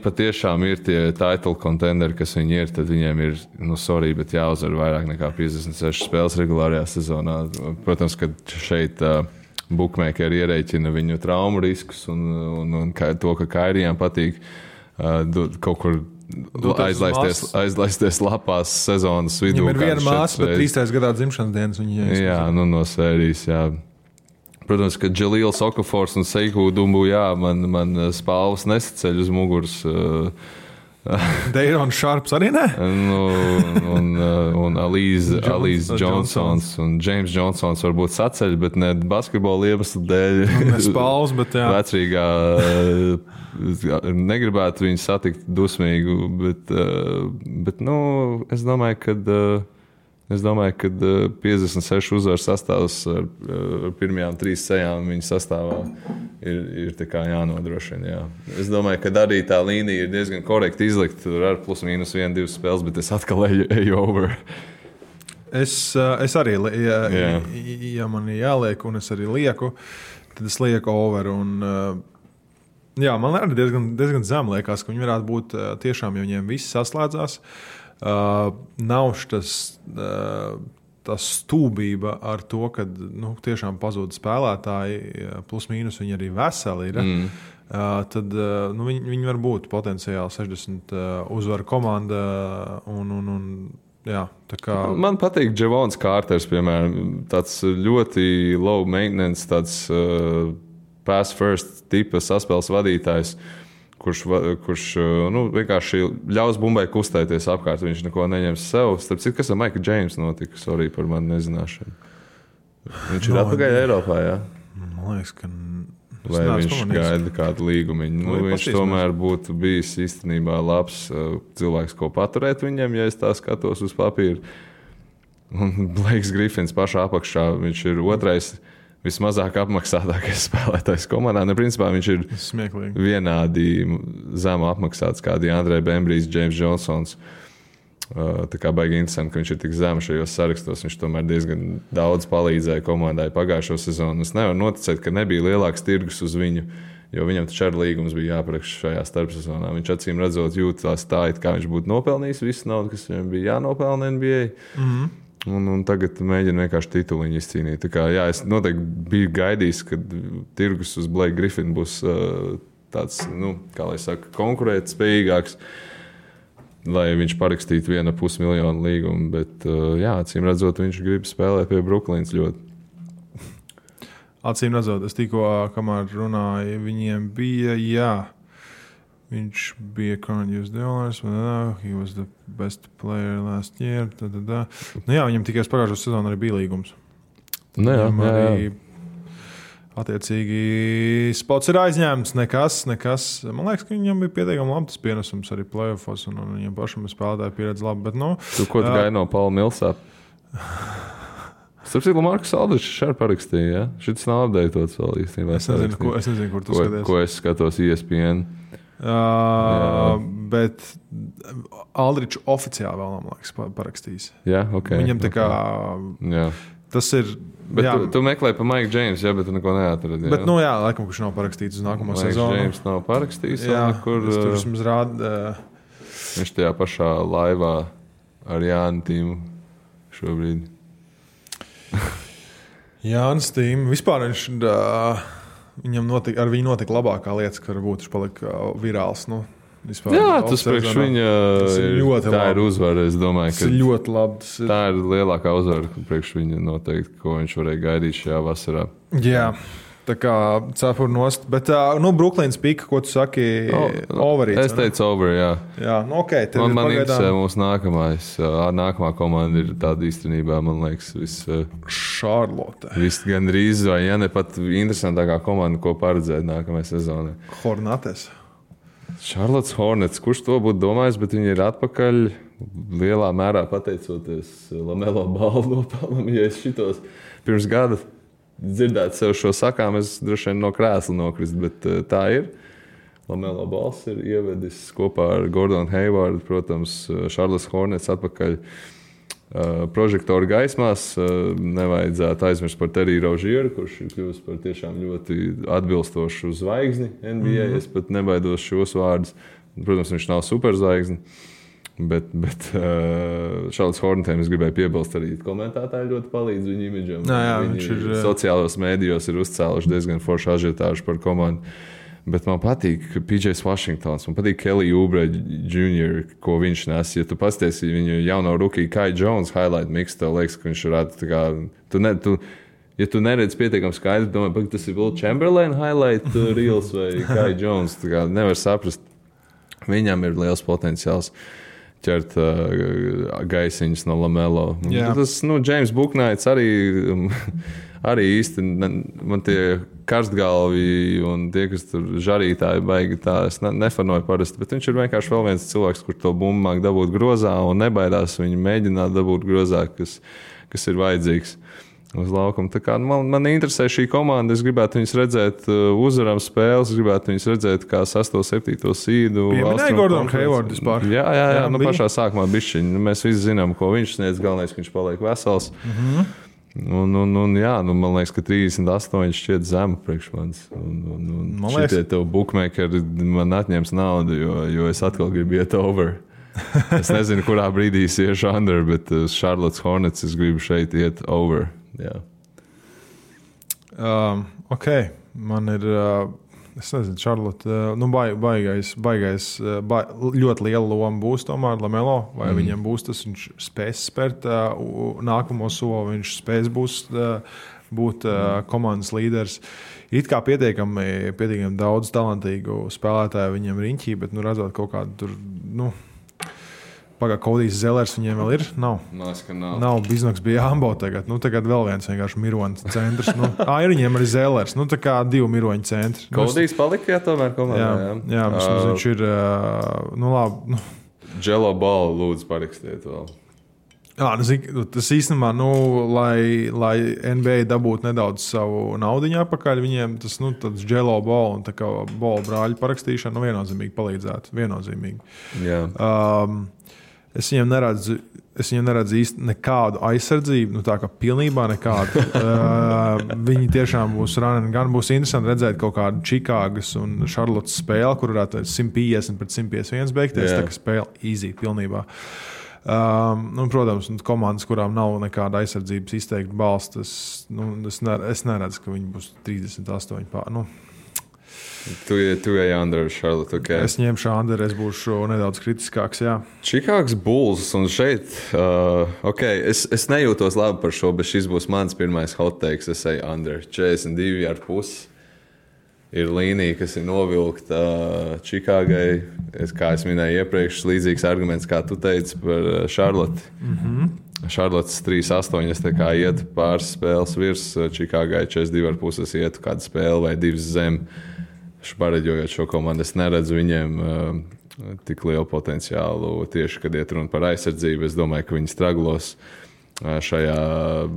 patiešām ir tie title contenderi, kas viņi ir, tad viņiem ir, bet jāuzvar vairāk nekā 56 spēles regulārajā sezonā. Protams, ka šeit bookmakeri ierēķina viņu traumu riskus un to, ka Kairijām patīk kaut kur aizlaisties lapās sezonas vidū. Viņam ir viena māsa, bet 3. gadā dzimšanas dienas. Jā, no sērijas, jā. Protams, ka Džalīls Okafors un Seiku Dumbu, man spalvas nesaceļ uz muguras. Deirons Šarps arī ne? Un Alīze Johnsons un James Johnsons varbūt saceļ, bet ne basketbola iemeslu dēļ. Ne spalvas, bet jā. Vecrīgā negribētu viņu satikt dusmīgu, bet es domāju, ka 56 uzvaru sastāvs ar pirmajām 3 sejām viņa sastāvā ir tā kā jānodrošina. Jā. Es domāju, ka arī tā līnija ir diezgan korekti izlikt. Tur ar plus mīnus 1-2 spēles, bet es atkal eju over. Es arī, ja man ir jāliek, un es arī lieku, tad es lieku over. Man arī diezgan zem liekas, ka viņi varētu būt tiešām, ja viņiem viss saslēdzās. Nav tas stūbība ar to, ka tiešām pazūd spēlētāji, plus mīnus viņi arī veseli ir. Tad viņi var būt potenciāli 60 uzvaru komanda un Jā, tā kā... Man patīk Javons Kārters, piemēram, tāds ļoti low maintenance, tāds pass first tipa saspēles vadītājs, kurš vienkārši ļaus bumbai kustēties apkārt. Viņš neko neņems sev. Starp citu, kas ar Maiku Džeimsu notika? Sorry par manu nezināšanu. Viņš ir atpakaļ Eiropā, jā? Man liekas, ka... Vai viņš gaida kādu līgumiņu? Viņš tomēr būtu bijis īstenībā labs cilvēks, ko paturēt viņam, ja es tā skatos uz papīra. Un Blakes Griffins pašā apakšā, viņš ir otrais vismazāk apmaksātākais spēlētājs komandā. Principā viņš ir smieklīgi. Vienādi zemu apmaksāts kā Andrē Bembrijs, James Johnsons. Tā kā baigi interesanti, ka viņš ir tik zemu šajos sarakstos. Viņš tomēr diezgan daudz palīdzēja komandai pagājušo sezonu. Es nevaru noticēt, ka nebija lielāks tirgus uz viņu, jo viņam taču ar līgums bija jāparaksta šajā starpsezonā. Viņš acīm redzot jūtās tā, it kā viņš būtu nopelnījis visu naudu, kas viņam bija jānopelna NBA. Un tagad mēģina vienkārši tituliņu izcīnīt. Tā kā, jā, es noteikti biju gaidījis, ka tirgus uz Blake Griffin būs tāds, kā lai saka, konkurētspējīgāks, lai viņš parakstītu 1,5 miljonu līgumu, bet, jā, acīm redzot, viņš grib spēlēt pie Brooklynas ļoti. Acīm redzot, es tikko, kamēr runāju, viņiem bija, jā, viņš bija current US dollars, he was the best player last year, jā, viņam tikai pagājušo sezonu arī bija līgums. Jā. Attiecīgi, spots ir aizņēmts, nekas. Man liekas, ka viņam bija pietiekami labs pienesums arī playoffos, un viņam pašam spēlētāja pieredze labi. Bet, Ko tu gaidi no Paula Millsapa? Starp citu, Markus Aldričs šeit parakstīja, ja? Šis nav updatēts vēl īstenībā. Es nezinu, kur tu skaties. Ko es skatos ESPN. Bet Aldričs oficiāli vēl, man liekas, parakstījis. Jā, ok. Viņam tā kā... Jā. Tas ir... Bet tu meklēji pa Maiku Džeimsu, bet tu neko neatradi. Bet, laikam, kurš nav parakstīts uz nākamo sezonu. Maiks Džeims nav parakstījis. Es tur vismaz rādu. Viņš tajā pašā laivā ar Jānu Tīmu šobrīd. Jānis Tīm. Vispār viņš, ar viņu notika labākā lieta, ka varbūt viņš palika virāls. Vispār, jā, tas priekš viņa tā ir uzvara. Es domāju, ka tas ir ļoti labi. Tā ir lielākā uzvara priekš viņa noteikti, ko viņš varēja gaidīt šajā vasarā. Jā, tā kā cepur nost. Bet, Brooklynas pika, ko tu saki, overīts? Es teicu over, jā. Jā, okay, man interesē mūsu nākamā komanda ir tāda īstenībā, man liekas, Charlotte. Gandrīz, vai ja ne pat interesantākā komanda, ko paredzēt nākamajai sezonai. Hornets. Charlotte Hornets, kurš to būtu domājis, bet viņi ir atpakaļ lielā mērā pateicoties Lamelo Ballu nopelnam. Ja es šitos pirms gada dzirdētu sev šo sakām, es droši vien no krēsla nokrist, bet tā ir. Lamelo Balls ir ievedis kopā ar Gordonu Haywardu, protams, Charlotte Hornets atpakaļ prožektoru gaismās. Nevajadzētu aizmirst par Teriju Rozieru, kurš ir kļuvis par tiešām ļoti atbilstošu zvaigzni NBA. Es pat nebaidos šos vārdus. Protams, viņš nav superzvaigzni, bet Charlotte Hornetiem es gribēju piebilst arī komentētāji ļoti palīdz viņu imidžam. Viņi sociālos mēdījos ir uzcēluši diezgan foršu ažiotāžu par komandu. Bet man patīk PJs Washingtons, man patīk Kelly Oubre Jr., ko viņš nes. Ja tu pasties viņu jauno rookie Kai Jones highlight mix, tev liekas, ka viņš varētu tā kā... Ja tu neredz pietiekami skaidri, domāju, ka tas ir Will Chamberlain highlight reels vai Kai Jones, tā kā nevar saprast. Viņam ir liels potenciāls ķert gaisiņus no Lamelo. Tas, James Bouknights arī īsti man tie karstgalvi un tie, kas tur žarītāji baigi, tā es nefanoju parasti, bet viņš ir vienkārši vēl viens cilvēks, kur to bumbu māk dabūt grozā un nebaidās viņu mēģināt dabūt grozā, kas ir vajadzīgs uz laukuma. Tā kā man interesē šī komanda, es gribētu viņus redzēt uzvaram spēles, es gribētu viņus redzēt kā 6. 7. sīdu. Pieminēja Gordonu Haywardu vispār. Jā, pašā sākumā bišķiņ. Mēs visi zinām, ko viņš sniedz, galvenais, ka viņš paliek vesels. Man liekas, ka 38 šķiet zemu priekš manis. Šitie tev bookmakeri man atņems naudu, jo es atkal gribu iet over. Es nezinu, kurā brīdī es iešu under, bet Charlotte Hornets es gribu šeit iet over. Jā. Ok, man ir Es nezinu, Charlotte, ļoti liela loma būs tomēr Lamelo, vai viņam būs tas, viņš spēs spērt nākamo soli, viņš spēs būt komandas līderis. It kā pietiekami daudz talantīgu spēlētāju viņiem riņķī, bet redzot kaut kādu tur, Kodijs Zelers viņiem vēl ir? Nav. Nav. Biznoks bija Ambo tagad. Tagad vēl viens vienkārši miroņu centrs. Ir viņiem arī Zelers. Tā kā 2 miroņu centri. Kodijs palika, tomēr komandā. Jā, viņš ir, labi. Jello Ball lūdzu parakstiet vēl. Tas īstenībā, lai NBA dabūtu nedaudz savu naudiņu atpakaļ, viņiem tas Jello Ball un tā kā Ball brāļu parakstīšana viennozīmīgi palīdzētu. Viennozīmīgi. Jā. Es viņiem neredzu īsti nekādu aizsardzību, tā kā pilnībā nekādu. Viņi tiešām būs running, gan būs interesanti redzēt kaut kādu Čikāgas un Charlottes spēli, kur varētu 150 pret 151 beigties, tā kā spēle easy pilnībā. Protams, komandas, kurām nav nekāda aizsardzības izteikta balsts, es neredzu, ka viņi būs 38 pār. Tu ej under Charlotte, ok. Es ņemšu under, es būšu nedaudz kritiskāks, jā. Čikāgas Bulls un šeit, es nejūtos labi par šo, bet šis būs mans pirmais hot takes, es eju under. 42,5 ir līnija, kas ir novilkta Čikāgai. Kā es minēju iepriekš, līdzīgs arguments, kā tu teici par Charlotte. Charlottes 3,8, es tā kā ietu pāris spēles virs, Čikāgai 42,5, es ietu kādu spēli vai 2 zem. Pareģojot šo komandu, es neredzu viņiem tik lielu potenciālu tieši, kad iet runa par aizsardzību. Es domāju, ka viņi straglos šajā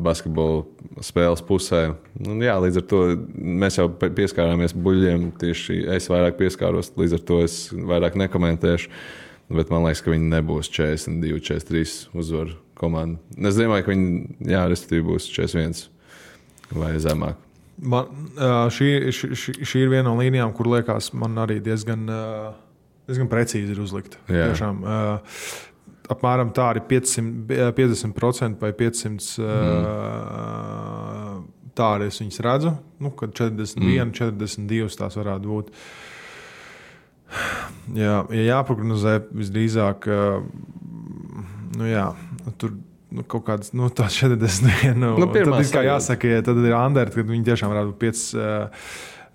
basketbola spēles pusē. Līdz ar to mēs jau pieskārāmies buļļiem, tieši es vairāk pieskāros, līdz ar to es vairāk nekomentēšu, bet man liekas, ka viņi nebūs 42, 43 uzvaru komanda. Es domāju, ka viņi, respektīvi būs 41 vai zemāk. Šī ir viena no līnijām, kur liekas, man arī diezgan precīzi ir uzlikta. Tiešām, apmēram tā arī 50% vai 500 tā arī es viņas redzu, kad 41, 42 tās varētu būt. Ja jāprognozē visdrīzāk, tur kaut kāds, tā 41. Tad ir kā jāsaka, tad ir under, kad viņi tiešām varētu būt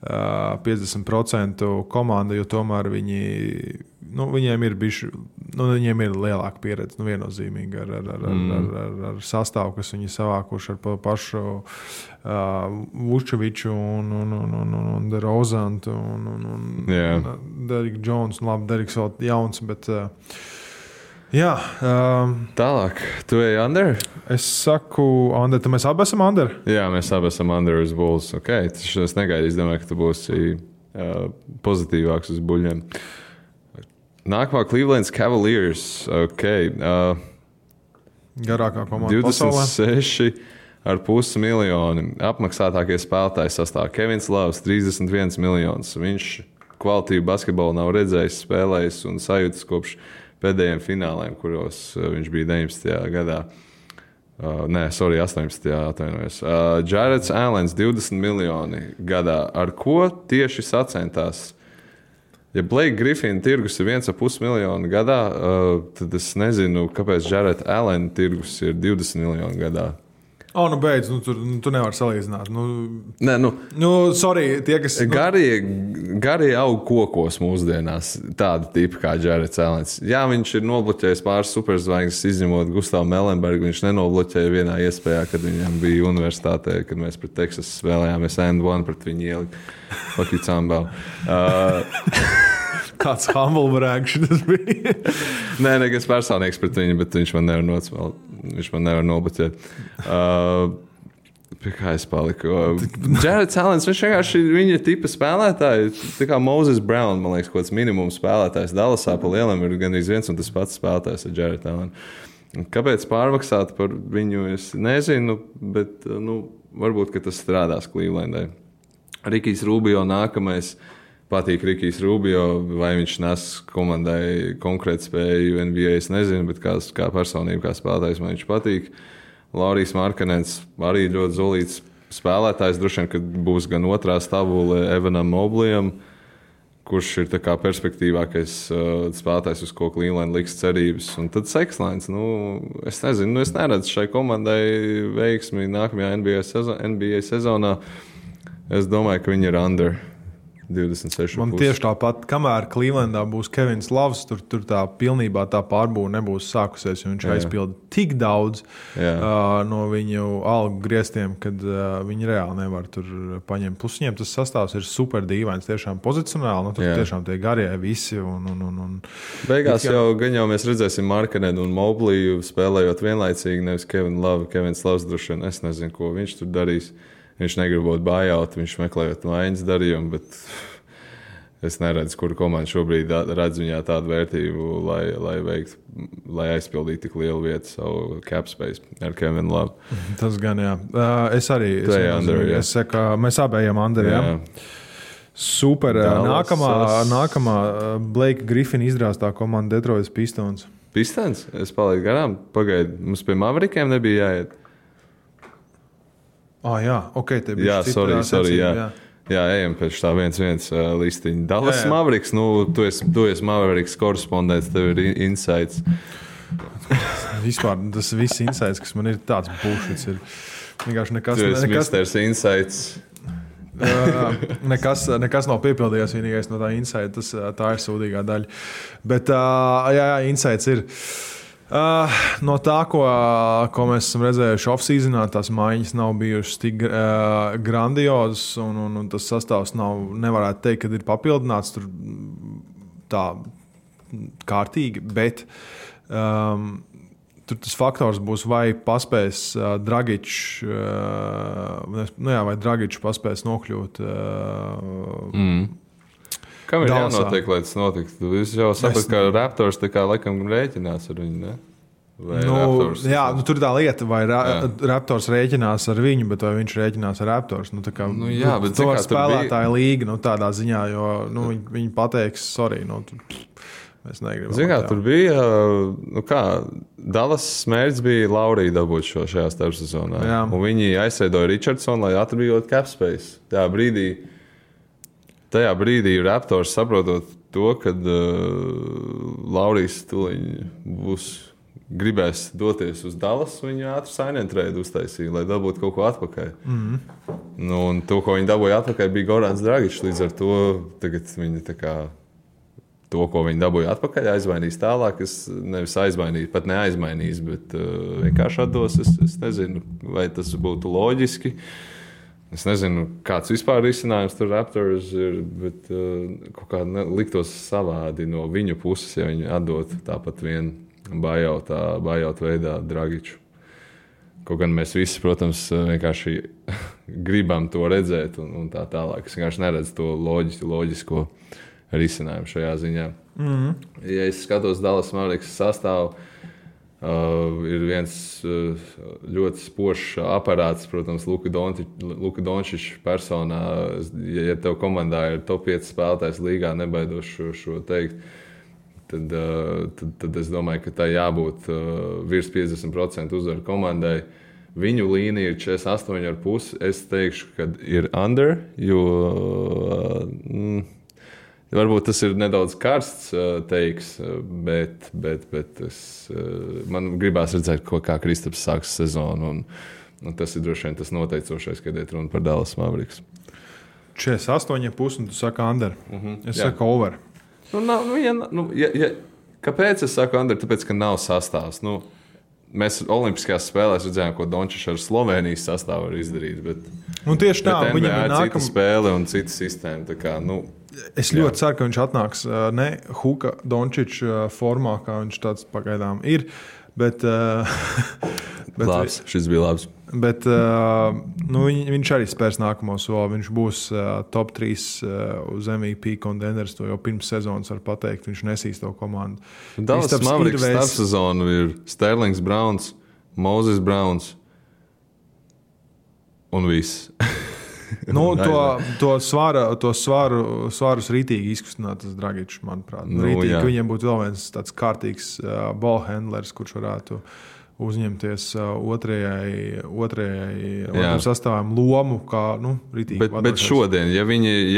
50% komanda, jo tomēr viņiem ir bijuši, viņiem ir lielāka pieredze, viennozīmīgi ar sastāvu, kas viņi savākuši ar pašu Vučeviču un DeRozantu un Derrick Jones, labi, Derricks vēl jauns, bet jā. Tālāk, tu ej under? Es saku under, tad mēs abi esam under? Jā, mēs abi esam under uz Bulls. Okay, es negaidīju, es domāju, ka tu būsi pozitīvāks uz buļļiem. Nākamā Cleveland Cavaliers. Okay, garākā komanda pasaulē. 26,5 miljoni. Apmaksātākie spēlētāji sastāv Kevins Loves, 31 miljonus. Viņš kvalitīvu basketbolu nav redzējis, spēlējis un sajūtas kopš pēdējiem fināliem, kuros viņš bija 19. gadā. 18. atvainojos. Jareds Allens 20 miljoni gadā. Ar ko tieši sacentās? Ja Blake Griffina tirgus ir 1,5 miljonu gadā, tad es nezinu, kāpēc Jared Allen tirgus ir 20 miljonu gadā. Beidz, tu nevari salīdzināt. Nē, sorry, tie, kas... Garie aug kokos mūsdienās, tāda tipa kā Jareds Allens. Jā, viņš ir nobloķējis pāris superzvaigznes, izņemot Gustavu Melenbergu. Viņš nenobloķēja vienā iespējā, kad viņam bija universitātē, kad mēs pret Texas spēlējāmies and-one pret viņu ielikt. Fuck you, Cambau. Kāds humble brag šitas bija? Nē, nekas personīgs pret viņu, bet viņš man nevar nocmelt. Viņš man nevar nobloķēt. Pie kā es paliku? Jareds Allens, viņš vienkārši ir viņa tipa spēlētāji. Tā kā Moses Brown, man liekas, kaut kāds minimums spēlētājs. Dallasā pa lielam ir gandrīz viens un tas pats spēlētājs ar Jared Allen. Kāpēc pārmaksāt par viņu, es nezinu, bet varbūt, ka tas strādās Clevelandai. Rikijs Rubio nākamais. Patīk Rikijs Rubio, vai viņš nes komandai konkrēti spēju NBA, es nezinu, bet kā personība, kā spēlētājs man viņš patīk. Laurijs Markanens arī ļoti zolīts spēlētājs, droši vien, kad būs gan otrā stabule Evanam Mobleyam, kurš ir tā kā perspektīvākais spēlētājs, uz ko Cleveland liks cerības. Un tad Sekslēns, es nezinu, es neredzu šai komandai veiksmi nākamajā NBA sezonā. Es domāju, ka viņi ir under 26. Man tieši tāpat, kamēr Clevelandā būs Kevins Loves, tur tā pilnībā tā pārbūve nebūs sākusies, jo viņš aizpilda tik daudz no viņu algu griestiem, kad viņi reāli nevar tur paņemt. Plus viņiem tas sastāvs ir super dīvains, tiešām pozicionāli, tur tiešām tie garie visi. Beigās jau mēs redzēsim Markanenu un Mobliju spēlējot vienlaicīgi, nevis Kevins Loves droši vien, es nezinu, ko viņš tur darīs. Viņš negribot buyout, viņš meklējot maiņas darījumu, bet es neredzu, kura komanda šobrīd redz viņā tādu vērtību, lai aizpildītu tik lielu vietu savu cap space ar Kevinu Love. Tas gan, jā. Es arī. Es saku, mēs abējām under, jā. Super. Nākamā Blake Griffin izrāstā komanda Detroit Pistons. Pistons? Es palaidu garām. Pagaid, mums pie Maverikiem nebija jāiet. Jā, ok, te bija sorry, jā. Jā, ejam pēc tā 1-1 listiņa. Dallas Mavericks, tu esi Mavericks korespondents, tev ir insights. Vispār tas viss insights, kas man ir tāds bullshits, ir vienkārši nekas. Tu esi Mr. Insights. Nekas nav piepildījies, vienīgais no tā insight, tā ir sūdīgā daļa. Bet, insights ir. No tā, ko mēs esam redzējuši off-seasonā, tās maiņas nav bijušas tik grandiozas, un tas sastāvs nevarētu teikt, ka ir papildināts tur tā kārtīgi, bet tur tas faktors būs, vai paspēs Dragičs, vai Dragičs paspēs nokļūt. Kam ir jānotiek, lai tas notiktu? Jūs jau saprotat, ka Raptors tā kā laikam rēķinās ar viņu, ne? Tur ir tā lieta, vai Raptors rēķinās ar viņu, bet vai viņš rēķinās ar Raptors. Bet to spēlētāja līga tādā ziņā, jo viņi pateiks, sorry, mēs negribam. Zin kā, tur bija, Dallas smērķis bija Laurija dabūt šajā starpsezonā. Un viņi aizsēdoja Richardsonu, lai atbrīvot cap space. Tajā brīdī Raptors saprotot to, kad Laurijs gribēs doties uz Dallas, viņi ātri sign-and-trade uztaisīja, lai dabūtu kaut ko atpakaļ. Un to, ko viņi dabūja atpakaļ, bija Gorans Dragičs. Līdz ar to tagad viņi to, ko viņi dabūja atpakaļ, aizmainīs tālāk. Es nevis aizmainīju, pat neaizmainīs, bet vienkārši atdos. Es nezinu, vai tas būtu loģiski. Es nezinu, kāds vispār risinājums tur Raptors ir, bet kaut kā liktos savādi no viņu puses, ja viņi atdot tāpat vienu buyout veidā Dragiču. Kaut gan mēs visi, protams, vienkārši gribam to redzēt un tā tālāk. Es vienkārši neredzu to loģisko risinājumu šajā ziņā. Ja es skatos Dallas Mavericks sastāvu, ir viens ļoti spožs aparāts, protams, Luka Dončičs personā. Ja tev komandā ir top 5 spēlētājs līgā, nebaidos šo teikt, tad es domāju, ka tā jābūt virs 50% uzvaru komandai. Viņu līnija ir 48,5. Es teikšu, ka ir under, jo varbūt tas ir nedaudz karsts teiks, bet man gribās redzēt, kā Kristaps sāks sezonu. Un tas ir droši vien tas noteicošais, kad iet runa par Dallas Mavericks. 48,5 un tu saki under. Es saku over. Kāpēc es saku under? Tāpēc, ka nav sastāvs. Mēs Olimpiskajās spēlēs redzējām, ko Dončičs ar Slovenijas sastāvu var izdarīt. Bet tieši tā, viņam ir cita spēle un cita sistēma. Tā kā, es ļoti ceru, ka viņš atnāks ne Huka Dončiča formā, kā viņš tāds pagaidām ir. Bet labs, šis bija labs. Bet viņš arī spērs nākamo soli. Viņš būs top 3 uz MVP contenders. To jau pirms sezonas var pateikt. Viņš nesīs to komandu. Dallas Mavericks starpsezonu ir Sterlings Browns, Moses Browns un viss. To svārus rītīgi izkustināt tas Dragičs, manuprāt. Rītīgi, ka viņiem būtu vēl viens tāds kārtīgs ballhandlers, kurš varētu uzņemties otrajai sastāvam lomu, kā ritīgi. Bet šodien, ja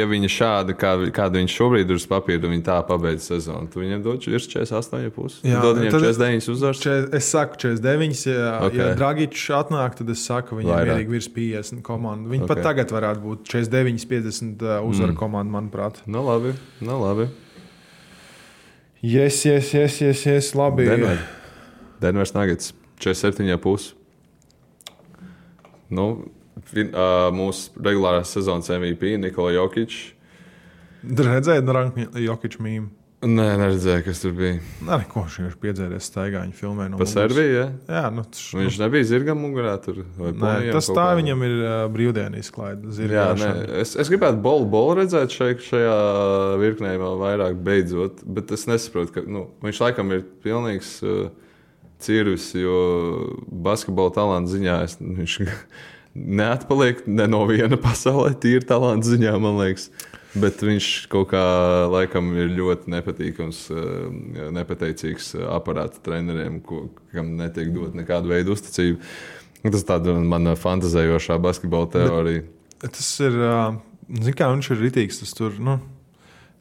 viņi šādi, kādu viņš šobrīd ir uz papīra, viņi tā pabeidz sezonu, tu viņiem dod virs 48,5? Jā, dod viņiem 49 uzvars? Es saku 49, ja Dragičs atnāk, tad es saku, viņiem mierīgi virs 50 komandu. Viņi pat tagad varētu būt 49, 50 uzvaru komandu, manuprāt. Nu labi. Yes, labi. Denvers Nuggets 47,5. Mūsu regulārās sezonas MVP Nikola Jokic. Redzēji Jokic mīmu? Nē, neredzēju, kas tur bija. Ko viņš piedzēries staigā, viņa filmē no muguras. Pa Serbiju, ja? Jā. Viņš nebija zirgam mugurā tur? Nē, tas tā viņam ir brīvdienu izklaide. Jā, es gribētu bolu redzēt šajā virknē vēl vairāk beidzot, bet es nesaprotu, ka viņš laikam ir pilnīgs cirvis, jo basketbola talanta ziņā viņš neatpaliek ne no viena pasaulē, tīri talanta ziņā, man liekas. Bet viņš kaut kā laikam ir ļoti nepateicīgs aparāta treneriem, kam netiek dot nekādu veidu uzticību. Tas tāda mana fantazējošā basketbola teorija. Tas ir, viņš ir ritīgs, tas tur,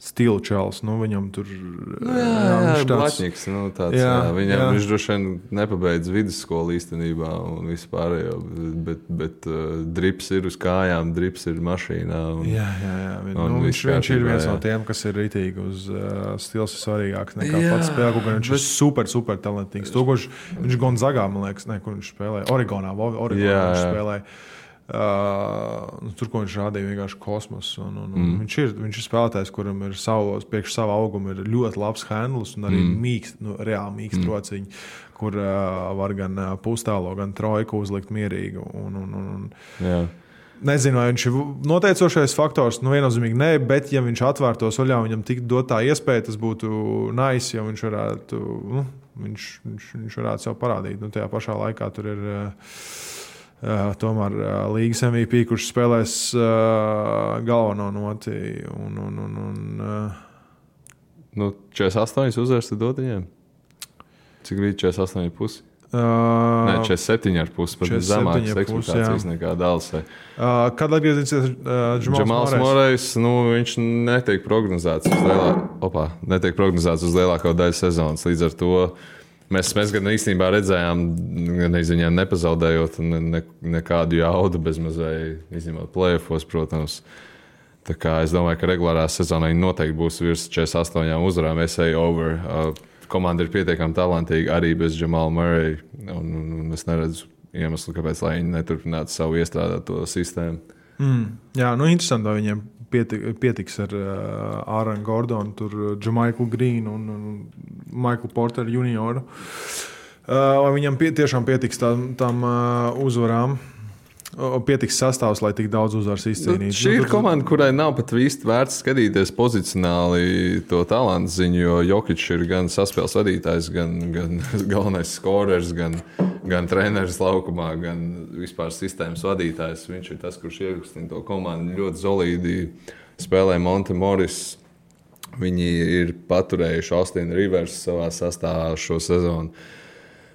stilu čels, viņam tur... Jā, Blatņiks, viņš droši vien nepabeidz vidusskolu īstenībā un vispārējo, bet drips ir uz kājām, drips ir mašīnā. Viņš ir viens no tiem, kas ir ritīgi uz stils ir svarīgāks nekā pats spēle, gan viņš ir super talantīgs. Viņš Gonzagā, man liekas, kur viņš spēlēja, Oregonā viņš spēlēja. Tur, ko viņš rādīja, vienkārši kosmos. Viņš ir spēlētājs, kuram ir priekš sava auguma ir ļoti labs handlis un arī reāli mīkst rociņi, kur var gan pustālo, gan trojku uzlikt mierīgi. Nezinu, vai viņš ir noteicošais faktors, viennozīmīgi nē, bet ja viņš atvērtos vaļā, viņam tik dot tā iespēja, tas būtu nice, ja viņš varētu, viņš varētu sev parādīt. Tajā pašā laikā tur ir... tomēr līgas MVP, kurš spēlēs galveno noti. 48 uzvars tu dod viņiem? Cik bija 48,5? Nē, 47,5. Pat zemākas ekspektācijas nekā Dallasai. Kad atgriezīsies Džamals Morejs? Viņš netiek prognozēts uz lielāko daļu sezonas. Līdz ar to Mēs gan īstenībā redzējām, gan viņiem nepazaudējot nekādu jaudu bezmazliet, izņemot play-offos, protams. Tā kā es domāju, ka regulārā sezonā viņi noteikti būs virs 48 uzvarām. over. Komanda ir pietiekami talantīga arī bez Jamala Murray. Un es neredzu iemeslu, kāpēc viņi neturpinātu savu iestrādāto sistēmu. Jā, interesanti, vai viņiem pietiks ar Āronu Gordonu, Jamaiku Grīnu un Michael Porter junioru. Vai viņam tiešām pietiks tam uzvarām? Pietiks sastāvs, lai tik daudz uzvaras izcīnītu. Šī ir komanda, kurai nav pat īsti vērts skatīties pozicionāli to talantu ziņu, jo Jokic ir gan saspēles vadītājs, gan galvenais skorers, gan treneris laukumā, gan vispār sistēmas vadītājs. Viņš ir tas, kurš iekustina to komandu ļoti solīdi. Spēlē Monte Morris. Viņi ir paturējuši Austinu Rivers savā sastāvā šo sezonu.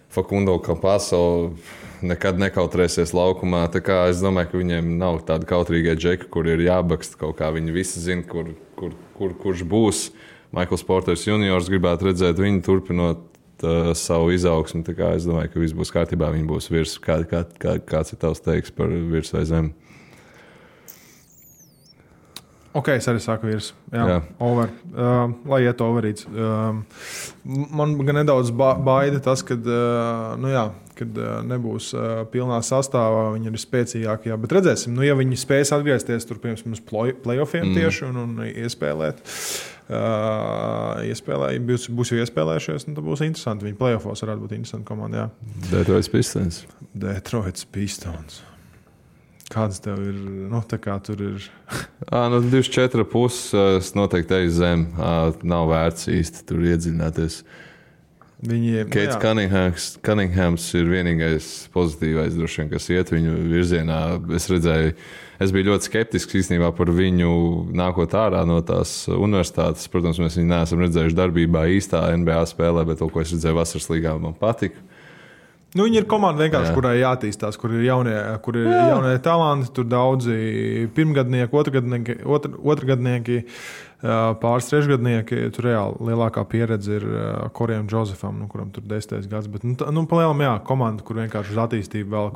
Facundo Campaso nekad nekautrēsies laukumā. Tā kā es domāju, ka viņiem nav tāda kautrīga džeka, kur ir jābakst kaut kā. Viņi visi zina, kurš būs. Michaels Porters juniors gribētu redzēt viņu turpinot savu izaugsmu. Tā kā es domāju, ka viss būs kārtībā. Viņi būs virs. Kāds ir tavs teiks par virs vai zem? Ok, es arī saku virs. Jā. Over. Lai iet overīts. Man gan nedaudz baida tas, kad nebūs pilnā sastāvā, viņi ir spēcīgākie. Bet redzēsim, ja viņi spēs atgriezties tur piemēram uz playoffiem tieši un iespēlēt. Būs jau iespēlējušies, tad būs interesanti. Viņi playoffos varētu būt interesanti komanda. Detroits Pistons. Kāds tev ir? Tā kā tur ir. 24,5. Es noteikti eju zem. Nav vērts īsti tur iedziļināties. Keits Cunninghams ir vienīgais pozitīvais, droši vien, kas iet viņu virzienā. Es biju ļoti skeptisks īstenībā par viņu nākot ārā no tās universitātes. Protams, mēs viņu neesam redzējuši darbībā īstā NBA spēlē, bet to, ko es redzēju vasaras līgā, man patika. Nu, viņi ir komanda vienkārši, kurai jātīstās, kur ir jaunie talanti, tur daudzi pirmgadnieki, otrgadnieki, pāris trešgadnieki. Tur reāli lielākā pieredze ir Korejam Džozefam, kuram tur 10. gads. Bet, palielam, komanda, kur vienkārši uz attīstību velk.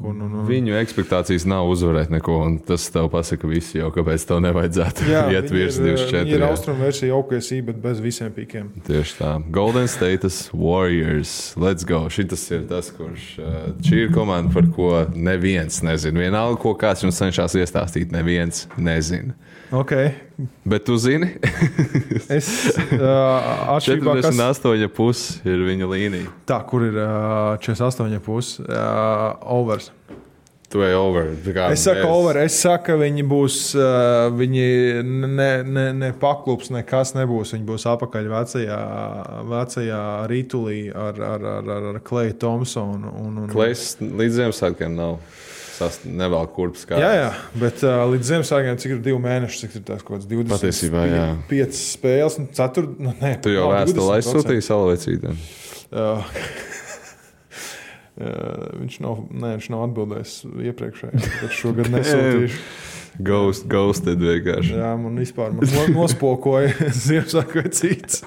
Viņu ekspektācijas nav uzvarēt neko, un tas tev pasaka visi jau, kāpēc tev nevajadzētu iet virs 24. Viņi ir austrumu versija OKC, bet bez visiem pīkiem. Tieši tā. Golden State Warriors. Let's go. Šitas ir tas, kurš šī ir komanda, par ko neviens nezina. Vienalga, ko kāds jums cenšas iestāstīt, neviens nezina. Okay. Bet tu zini? Es 48,5 ir viņa līnija. Tā, kur ir 48,5 overs. Tu ej over. Es saku over. Es saku, ka viņi būs, viņi ne paklups, nekas nebūs. Viņi būs apakaļ vecajā ritulī ar Kleju Thompsonu. Klejs līdz Ziemassvētkiem nav. Nevēl kurpes kā. Jā, bet līdz Ziemassvētkiem, cik ir 2 mēneši, cik ir tās kaut kāds 20. Patiesībā, jā. 5 spēles, un 4. Tu jau vēstuli aizsūtīji Salavecītiem? Viņš nav atbildējis iepriekšējā, bet šogad nesūtīšu. Ghosted vienkārši. Jā, man vispār nospokoja Ziemassvētku vai cits.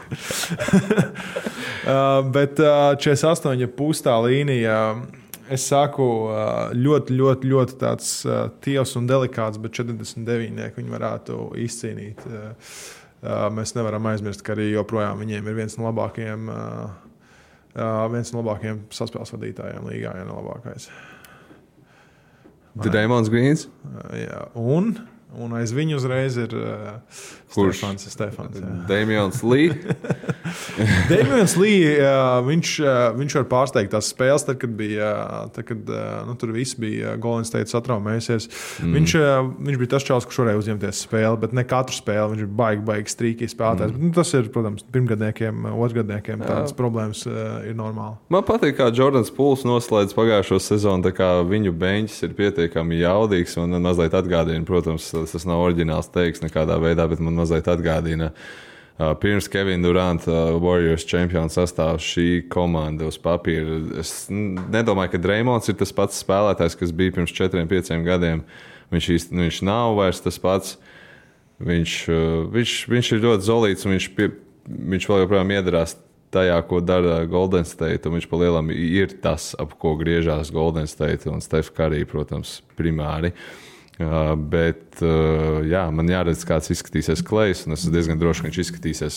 Bet 48,5 tā līnija. Es saku, ļoti tāds tievs un delikāts, bet 49 viņi varētu izcīnīt. Mēs nevaram aizmirst, ka arī joprojām viņiem ir viens no labākajiem saspēles vadītājiem līgā, ja ne labākais. Draymond Greens? Jā, un aiz viņu uzreiz ir Stefans. Damians Lee. Damians Lee, viņš var pārsteigt tās spēles, tad, kad tur viss bija Golden State satraumējusies. Viņš bija tas čalis, kurš varēja uzņemties spēli, bet ne katru spēli. Viņš ir baigi strīkīgi spēlētājs. Bet, tas ir, protams, pirmgadniekiem, otrgadniekiem tādas problēmas ir normāli. Man patīk, kā Jordans Pools noslēdz pagājušo sezonu, tā kā viņu beņķis ir pietiekami jaudīgs un mazliet atgādina, protams, tas nav oriģināls teiks nekādā veidā, bet man mazliet atgādina pirms Kevina Duranta Warriors čempionu sastāvs šī komanda uz papīra. Es nedomāju, ka Draymonds ir tas pats spēlētājs, kas bija pirms 4-5 gadiem. Viņš nav vairs tas pats. Viņš ir ļoti zolīts un viņš vēl joprojām iedarās tajā, ko dara Golden State. Viņš pa lielam ir tas, ap ko griežās Golden State un Steph Curry, protams, primāri. Bet man jāredz, kāds izskatīsies Klejs, un es esmu diezgan droši, ka viņš izskatīsies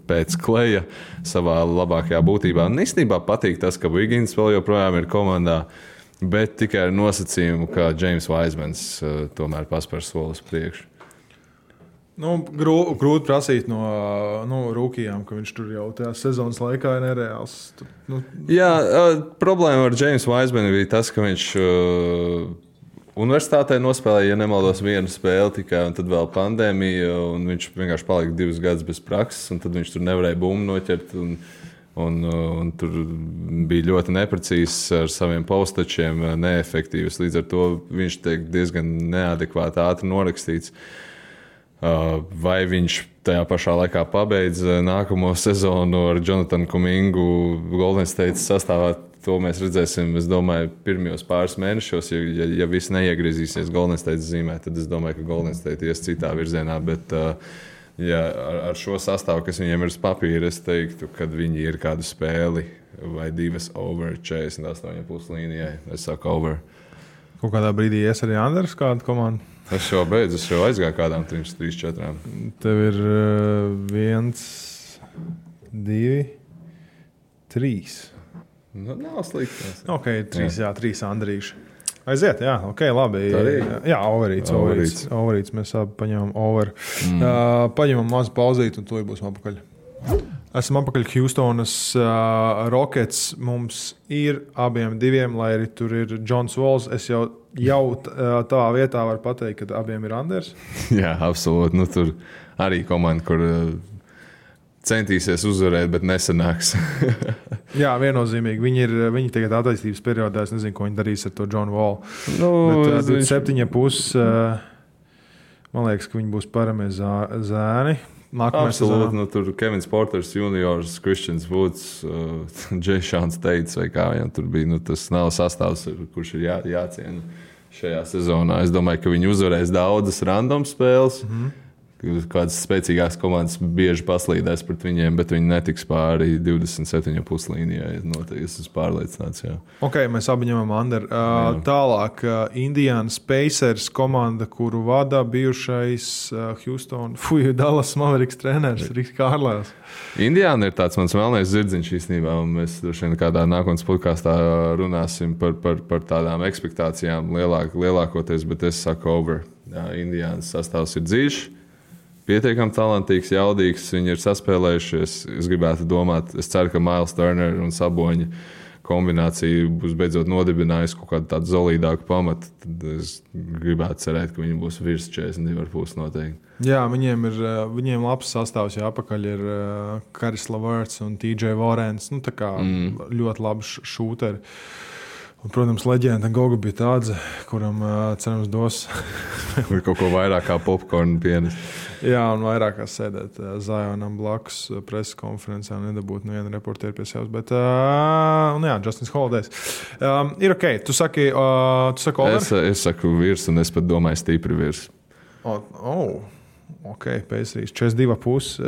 pēc Kleja savā labākajā būtībā. Un īstenībā patīk tas, ka Wiggins vēl joprojām ir komandā, bet tikai ar nosacījumu, ka James Wisemans tomēr paspēr solis priekšu. Grūti prasīt no rūkījām, ka viņš tur jau tajā sezonas laikā ir nereāls. Jā, problēma ar James Wisemanu bija tas, ka viņš universitātē nospēlēja, ja nemaldos, vienu spēli tikai, un tad vēl pandēmija, un viņš vienkārši palika 2 gadus bez prakses, un tad viņš tur nevarēja bumbu noķert, un tur bija ļoti neprecīzs ar saviem postačiem, neefektīvs. Līdz ar to viņš tiek diezgan neadekvāti ātri norakstīts. Vai viņš tajā pašā laikā pabeidz nākamo sezonu ar Jonatanu Kumingu Golden State sastāvā? To mēs redzēsim, es domāju, pirmajos pāris mēnešos. Ja viss neiegriezīsies Golden State zīmē, tad es domāju, ka Golden State ies citā virzienā. Bet ar šo sastāvu, kas viņiem ir uz papīra, es teiktu, ka viņi ir kādu spēli vai 2 over 48,5 līnijai. Es saku over. Kaut kādā brīdī ies arī Anders kādu komandu? Es jau beidzu, es jau aizgāju kādām 3-4. Tev ir 1, 2, 3. Nav slikti. Ok, 3 Andrīši. Aiziet, jā, ok, labi. Jā, overīts. Mēs abi paņemam over. Paņemam mazu pauzīt un to būsim apakaļ. Esam apakaļ Houstonas Rockets. Mums ir abiem 2, lai arī tur ir Johns Walls. Es jau tavā vietā varu pateikt, ka abiem ir Anders. Jā, absolūti. Tur arī komanda, kur centīsies uzvarēt, bet nesanāks. Jā, viennozīmīgi. Viņi tagad attīstības periodā, es nezinu, ko viņi darīs ar to Johnu Wallu. 7,5. Man liekas, ka viņi būs paramie zēni. Absolūti. Nu, tur Kevins Porters juniors, Christians Woods, Jayšons Teits vai kā viņam tur bija. Nu, tas nav sastāvs, kurš ir jāciena šajā sezonā. Es domāju, ka viņi uzvarēs daudzas random spēles. Kādas spēcīgākas komandas bieži paslīdēs pret viņiem, bet viņi netiks pāri 27,5 līnijai. Es esmu pārliecināts. Jā. Ok, mēs abi ņemam Anderu. Tālāk, Indiana Pacers komanda, kuru vada bijušais Dallas Mavericks treneris Riks Kārlēls. Indiana ir tāds mans melnais zirdziņš īstenībā, un mēs droši vien kādā nākotnes podkāstā runāsim par tādām ekspektācijām lielākoties, bet es saku over. Indianas sastāvs ir dziļš. Pietiekami talantīgs, jaudīgs, viņi ir saspēlējušies. Es gribētu domāt, es ceru, ka Miles Turner un Saboņa kombinācija būs beidzot nodibinājusi kaut kādu tādu solidāku pamatu. Tad es gribētu cerēt, ka viņi būs virs 42,5 noteikti. Jā, viņiem labs sastāvs, jā, apakaļ ir Karis Leverts un TJ Warrens. Nu, tā kā ļoti labi šūteri. Un, protams, leģenda Goga bija tāds, kuram cerams dos kaut ko vairāk kā popkornu pienes. Jā, un vairāk kā sēdēt Zionam blakus preses konferencē un nedabūt nevienu reportieru pie sevis. Bet, jā, Justins Holidays. Ir ok, tu saki over? Es saku virs, un es pat domāju stipri virs. Ok, Pacers 42,5.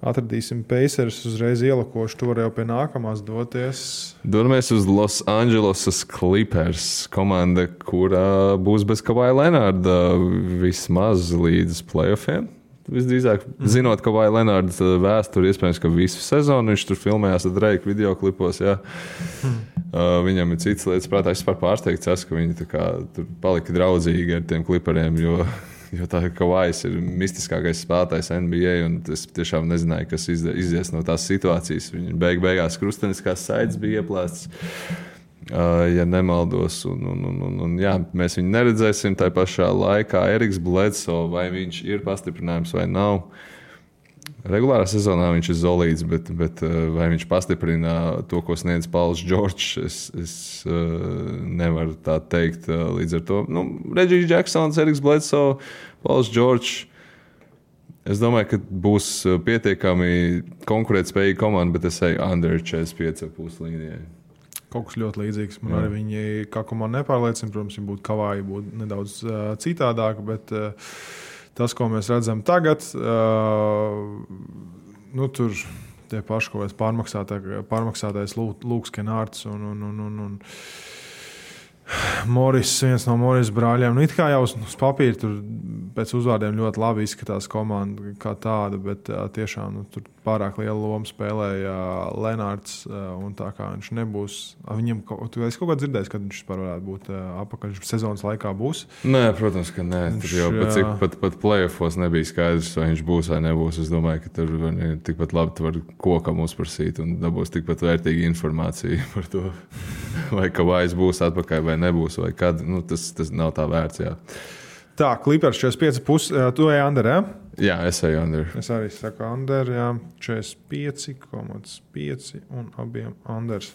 Atradīsim Pacers, uzreiz ielakošu, tu vari jau pie nākamās doties. Dodamies uz Los Angeles Clippers, komanda, kurā būs bez Kavaja Lenarda vismaz līdz playoffiem. Visdrīzāk, zinot Kavaja Lenarda vēsturi, iespējams, ka visu sezonu viņš tur filmējās ar Drake videoklipos. Jā. Viņam ir citas lietas prātā. Es pārsteigts esmu, ka viņi tā kā, tur palika draudzīgi ar tiem Clipperiem, jo tā Kavajs ir mistiskākais spēlētājs NBA, un es tiešām nezināju, kas izies no tās situācijas. Viņa beigās krusteniskās saites bija ieplēstas, ja nemaldos. Un, jā, mēs viņu neredzēsim tā pašā laikā. Eriks Bledsoe, vai viņš ir pastiprinājums vai nav. Regulārā sezonā viņš ir solīds, bet vai viņš pastiprina to, ko sniedz Pauls Džordžs, es nevaru tā teikt. Līdz ar to Reggie Jacksons, Eriks Bledsoe, Pauls Džordžs. Es domāju, ka būs pietiekami konkurētspējīga komanda, bet es eju under 45,5 līnijai. Kaut kas ļoti līdzīgs. Man arī viņi kā komanda nepārliecina. Protams, viņi būtu Kavaji, būtu nedaudz citādāk, bet tas, ko mēs redzam tagad, tur tie paši kaut kāds pārmaksātais Lūks Kenārds un Moris, viens no Moris brāļiem. It kā jau uz papīra tur pēc uzvārdiem ļoti labi izskatās komanda kā tāda, bet tiešām tur pārāk liela loma spēlēja Lenārds, un tā kā viņš nebūs. Viņam es kaut kā dzirdēju, kad viņš vispār varētu būt apakaļ sezonas laikā būs. Nē, protams, ka nē. Tur jau pat playoffos nebija skaidrs, vai viņš būs vai nebūs. Es domāju, ka tur tikpat labi tu vari kokam uzprasīt un dabūs tikpat vērtīgu informāciju par to, vai Kavajs būs atpakaļ vai nebūs, vai kad. Tas nav tā vērts, jā. Tā, Clippers 45,5. Tu ej under, jā? Jā, es eju under. Es arī saku under, jā. 45,5 un abiem unders.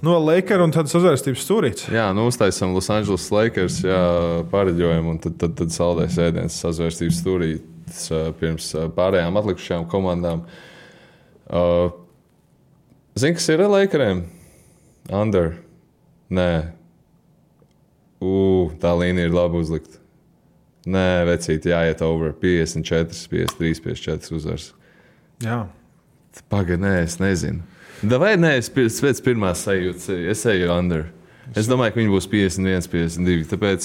No Lakers un tad sazvērstības stūrīts. Jā, uztaisam Los Angeles Lakers, jā, pareģojumu, un tad saldēs ēdienas sazvērstības stūrīts pirms pārējām atlikušajām komandām. Zini, kas ir ar Lakeriem? Under. Nē. Tā līnija ir labi uzlikta. Nē, vecīt, jāiet over 54, 53, 54 uzvars. Jā. Pagaid, nē, es nezinu. Vai nē, es pēc pirmās sajūtas, es eju under. Es domāju, ka viņi būs 51, 52, tāpēc,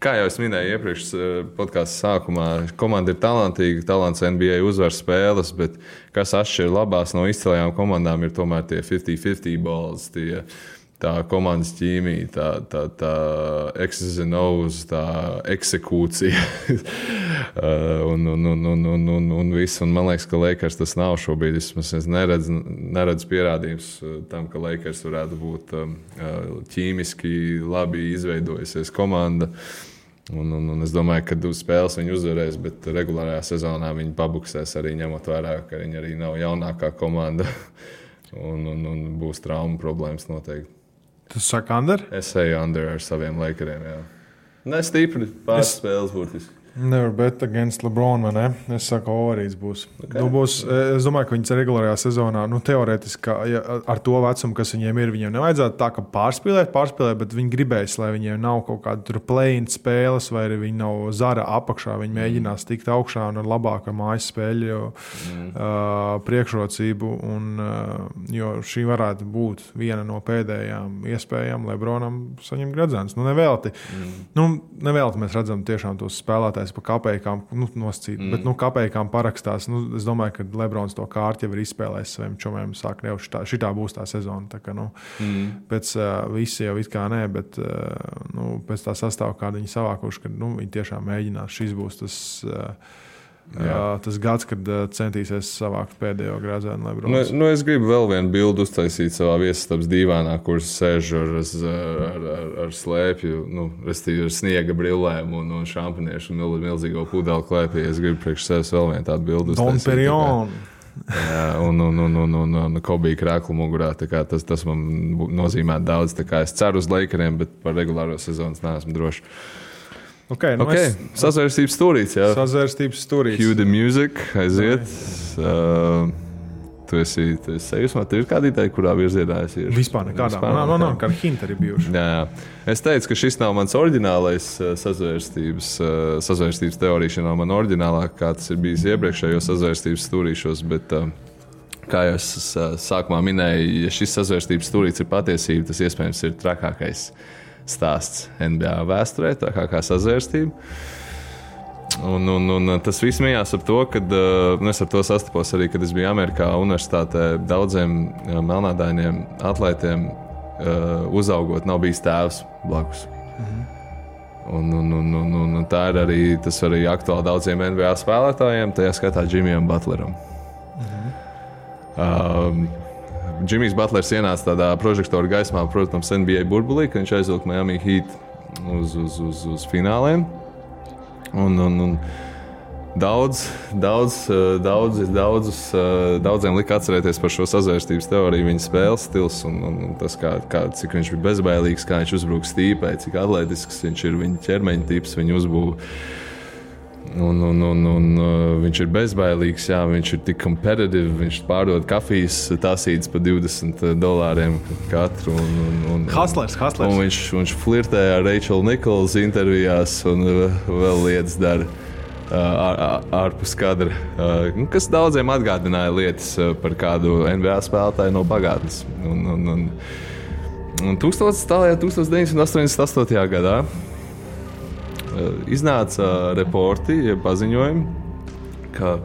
kā jau es minēju iepriekš podkāstu sākumā, komanda ir talantīga, talants NBA uzvar spēles, bet kas atšķir labās no izcilajām komandām ir tomēr tie 50-50 balls, tā komandas ķīmija, tā X's and O's, tā eksekūcija un viss. Un man liekas, ka Lakers tas nav šobrīd. Es neredzu pierādījums tam, ka Lakers varētu būt ķīmiski labi izveidojusies komanda. Un es domāju, ka uz spēles viņi uzvarēs, bet regulārajā sezonā viņi pabuksēs arī ņemot vērā, ka viņi arī nav jaunākā komanda un būs traumu problēmas noteikti. Tu saki under? Es eju under ar saviem Lakeriem, jā. Ne stipri, pāris spēles būtiski. Never bet against LeBron, vai ne? Es saku, overīts būs. Okay. Es domāju, ka viņas regulārajā sezonā, teorētiski, ar to vecumu, kas viņiem ir, viņiem nevajadzētu tā, ka pārspīlēt, bet viņi gribēs, lai viņiem nav kaut kāda play-in spēles, vai arī viņi nav zara apakšā. Viņi mēģinās tikt augšā un ar labāku mājas spēļu priekšrocību. Jo šī varētu būt viena no pēdējām iespējām LeBronam saņemt gredzens. Nevelti. Nevelti mēs redzam tiešām tos spēlētājus pa kapējām nosacīt, bet kapējām parakstās. Es domāju, ka Lebrons to kārti jau ir izspēlējis saviem čomiem. Sāk jau šitā būs tā sezona. Tā kā, pēc visi jau it kā nē, bet pēc tā sastāva, kādu viņi savākuši, ka viņi tiešām mēģinās. Šis būs tas gads, kad centīsies savākt pēdējo grāzēnu Lebrons. Es gribu vēl vienu bildu uztaisīt savā viesistabas dīvānā, kur sēž ar slēpju, restīvi ar sniega brillēm un šampaniešu un milzīgo pudeli klēpī. Es gribu priekš sevis vēl vienu tādu bildu uztaisīt. Don Perignon. Jā, un Kobija krēklu mugurā. Tas man nozīmē daudz. Es ceru uz Lakeriem, bet par regulāro sezonu neesmu drošs. Okay. Sazvērstības stūrīts, jā. Sazvērstības stūrīts. Cue the music, aiziet. Tu esi sajūsmā, tev ir kāda ideja, kurā virzienā es iešu? Vispār nekādā. Nav, kāda hinta arī bijuši. Jā. Es teicu, ka šis nav mans oriģinālais sazvērstības teorija, šī nav man oriģinālā, kā tas ir bijis iepriekšējos sazvērstības stūrīšos, bet kā jau es sākumā minēju, ja šis sazvērstības stūrīts ir patiesība, tas iespējams ir trakākais stāsts NBA vēsturē, tā kā sazvērstība. Un tas viss mījās ap to, kad es ar to sastapos arī, kad es biju Amerikā universitātē. Daudziem melnādainiem atlētiem uzaugot nav bijis tēvs blakus. Un tā ir arī, tas arī aktuāli daudziem NBA spēlētājiem, tajā skaitā Jimmyam Butleram. Jimmy's Butlers ienāca tādā prožektora gaismā, protams, NBA burbulī, kad viņš aizvilka Miami Heat uz fināliem. Un daudziem lika atcerēties par šo sazvērstības teoriju, viņa spēles stils un tas, cik viņš bija bezbailīgs, kā viņš uzbrūk stīpai, cik atletisks viņš ir, viņa ķermeņa tips, viņa uzbūve. Un viņš ir bezbailīgs, jā, viņš ir tik competitive, viņš pārdod kafijas tasītes par $20 katru. Hustlers. Un viņš flirtē ar Rachel Nichols intervijās un vēl lietas dara ārpus kadra, kas daudziem atgādināja lietas par kādu NBA spēlētāju no pagātnes. Un 1988. gadā iznāca reporti, paziņojumi, ka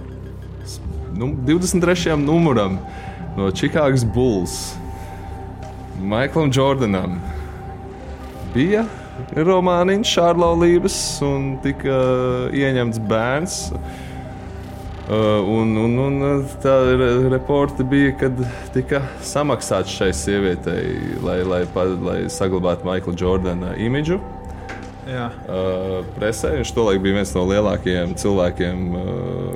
23. numuram no Chicago Bulls Michaelam Jordanam bija romāniņš ārlaulības un tika ieņemts bērns. Un tā reporti bija, kad tika samaksāts šai sievietei, lai saglabātu Michaela Jordana imidžu. Presē. Viņš tolaik bija viens no lielākajiem cilvēkiem.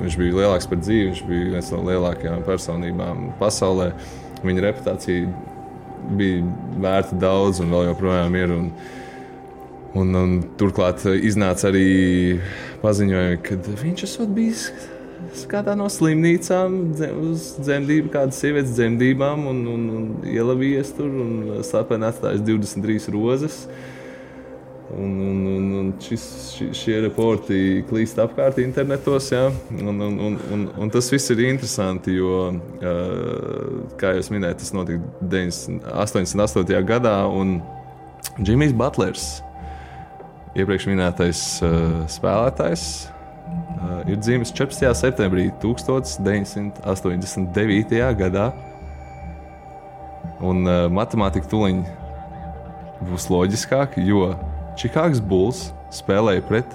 Viņš bija lielāks par dzīvi, viņš bija viens no lielākajām personībām pasaulē. Viņa reputācija bija vērta daudz un vēl joprojām ir. Un turklāt iznāca arī paziņojumi, ka viņš esot bijis kādā no slimnīcām uz dzemdību, kādas sievietes dzemdībām un ielavījies tur un slepeni atstājis 23 rozes. Un šie reporti klīst apkārt internetos, jā. Un tas viss ir interesanti, jo, kā jūs minējat, tas notika 88. gadā, un Jimmy's Butlers, iepriekš minētais spēlētājs, ir dzimis 14. septembrī 1989. gadā. Un matemātika tuliņ būs loģiskāk, jo Chicago Bulls spēlēja pret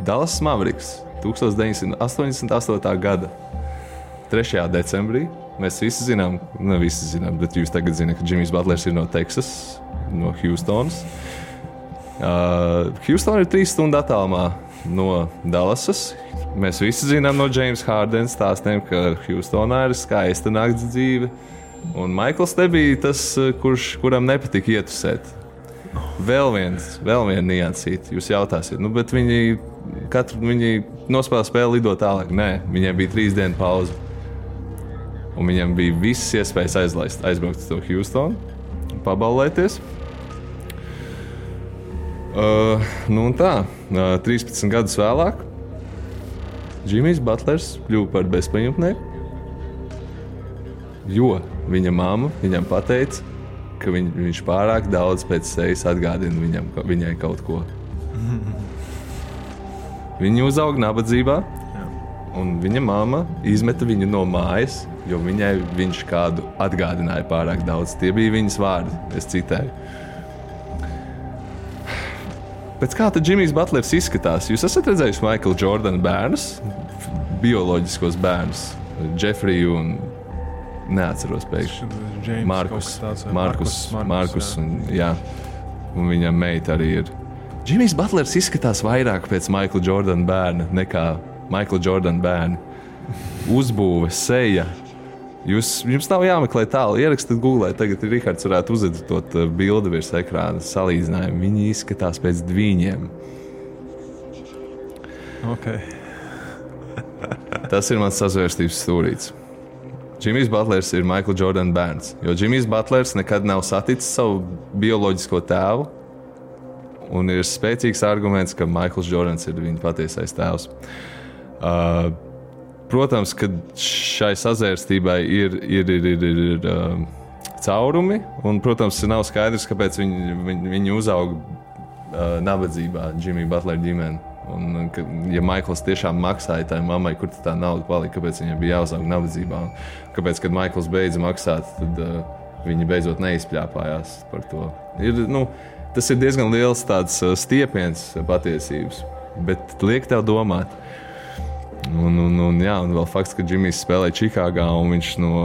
Dallas Mavericks 1988. gada 3. decembrī. Mēs visi zinām, bet jūs tagad zināt, ka Jimmy's Butlers ir no Teksas, no Houstonas. Houstona ir 3 stundu attālumā no Dallasas. Mēs visi zinām no James Hardena stāstiem, ka Houstonā ir skaista nakts dzīve. Un Maikls nebija tas, kuram nepatika ietusēt. Vēl viena niansīte. Jūs jautāsiet, bet viņi viņi nospēlēja spēli, lido tālāk. Nē, viņiem bija 3 dienu pauze. Un viņiem bija visas iespējas aizbraukt uz to Houstonu, pabaulēties. Nu un tā, 13 gadus vēlāk Jimmijs Butlers kļuva par bezpajumtnieku, jo viņa mamma viņam pateica, ka viņš pārāk daudz pēc sejas atgādina viņai kaut ko. Viņa uzauga nabadzībā, un viņa mamma izmeta viņu no mājas, jo viņai viņš kādu atgādināja pārāk daudz. Tie bija viņas vārdi, es citēju. Pēc kā tad Jimmijs Butlers izskatās? Jūs esat redzējuši Michaela Jordana bērnus, bioloģiskos bērnus, Jeffriju un neatceros pēkšņi. Markus un viņa meita arī ir. Jimmijs Butlers izskatās vairāk pēc Michaela Jordana bērna nekā Michaela Jordana bērni. Uzbūve, seja. Jums nav jāmeklē tālu. Ierakstiet Google, tagad Rihards varētu uzeditot bildi virs ekrāna salīdzinājumu. Viņi izskatās pēc dviņiem. Okay. Tas ir mans sazvērstības stūrīts. Jimmijs Butlers ir Michaela Jordana bērns, jo Jimmijs Butlers nekad nav saticis savu bioloģisko tēvu, un ir spēcīgs arguments, ka Michaels Jordans ir viņa patiesais tēvs. Protams, ka šai sazvērstībai ir caurumi, un, protams, nav skaidrs, kāpēc viņi uzauga nabadzībā, Jimmija Butlera ģimene. Un, ja Maikls tiešām maksāja tai mammai, kur tā nauda palika, kāpēc viņai bija jāuzaug nabadzībā, un kāpēc, kad Maikls beidza maksāt, tad viņi beidzot neizpļāpājās par to. Tas ir diezgan liels tāds stiepiens patiesības, bet liek tev domāt. Un vēl fakts, ka Jimmijs spēlēja Čikāgā un viņš no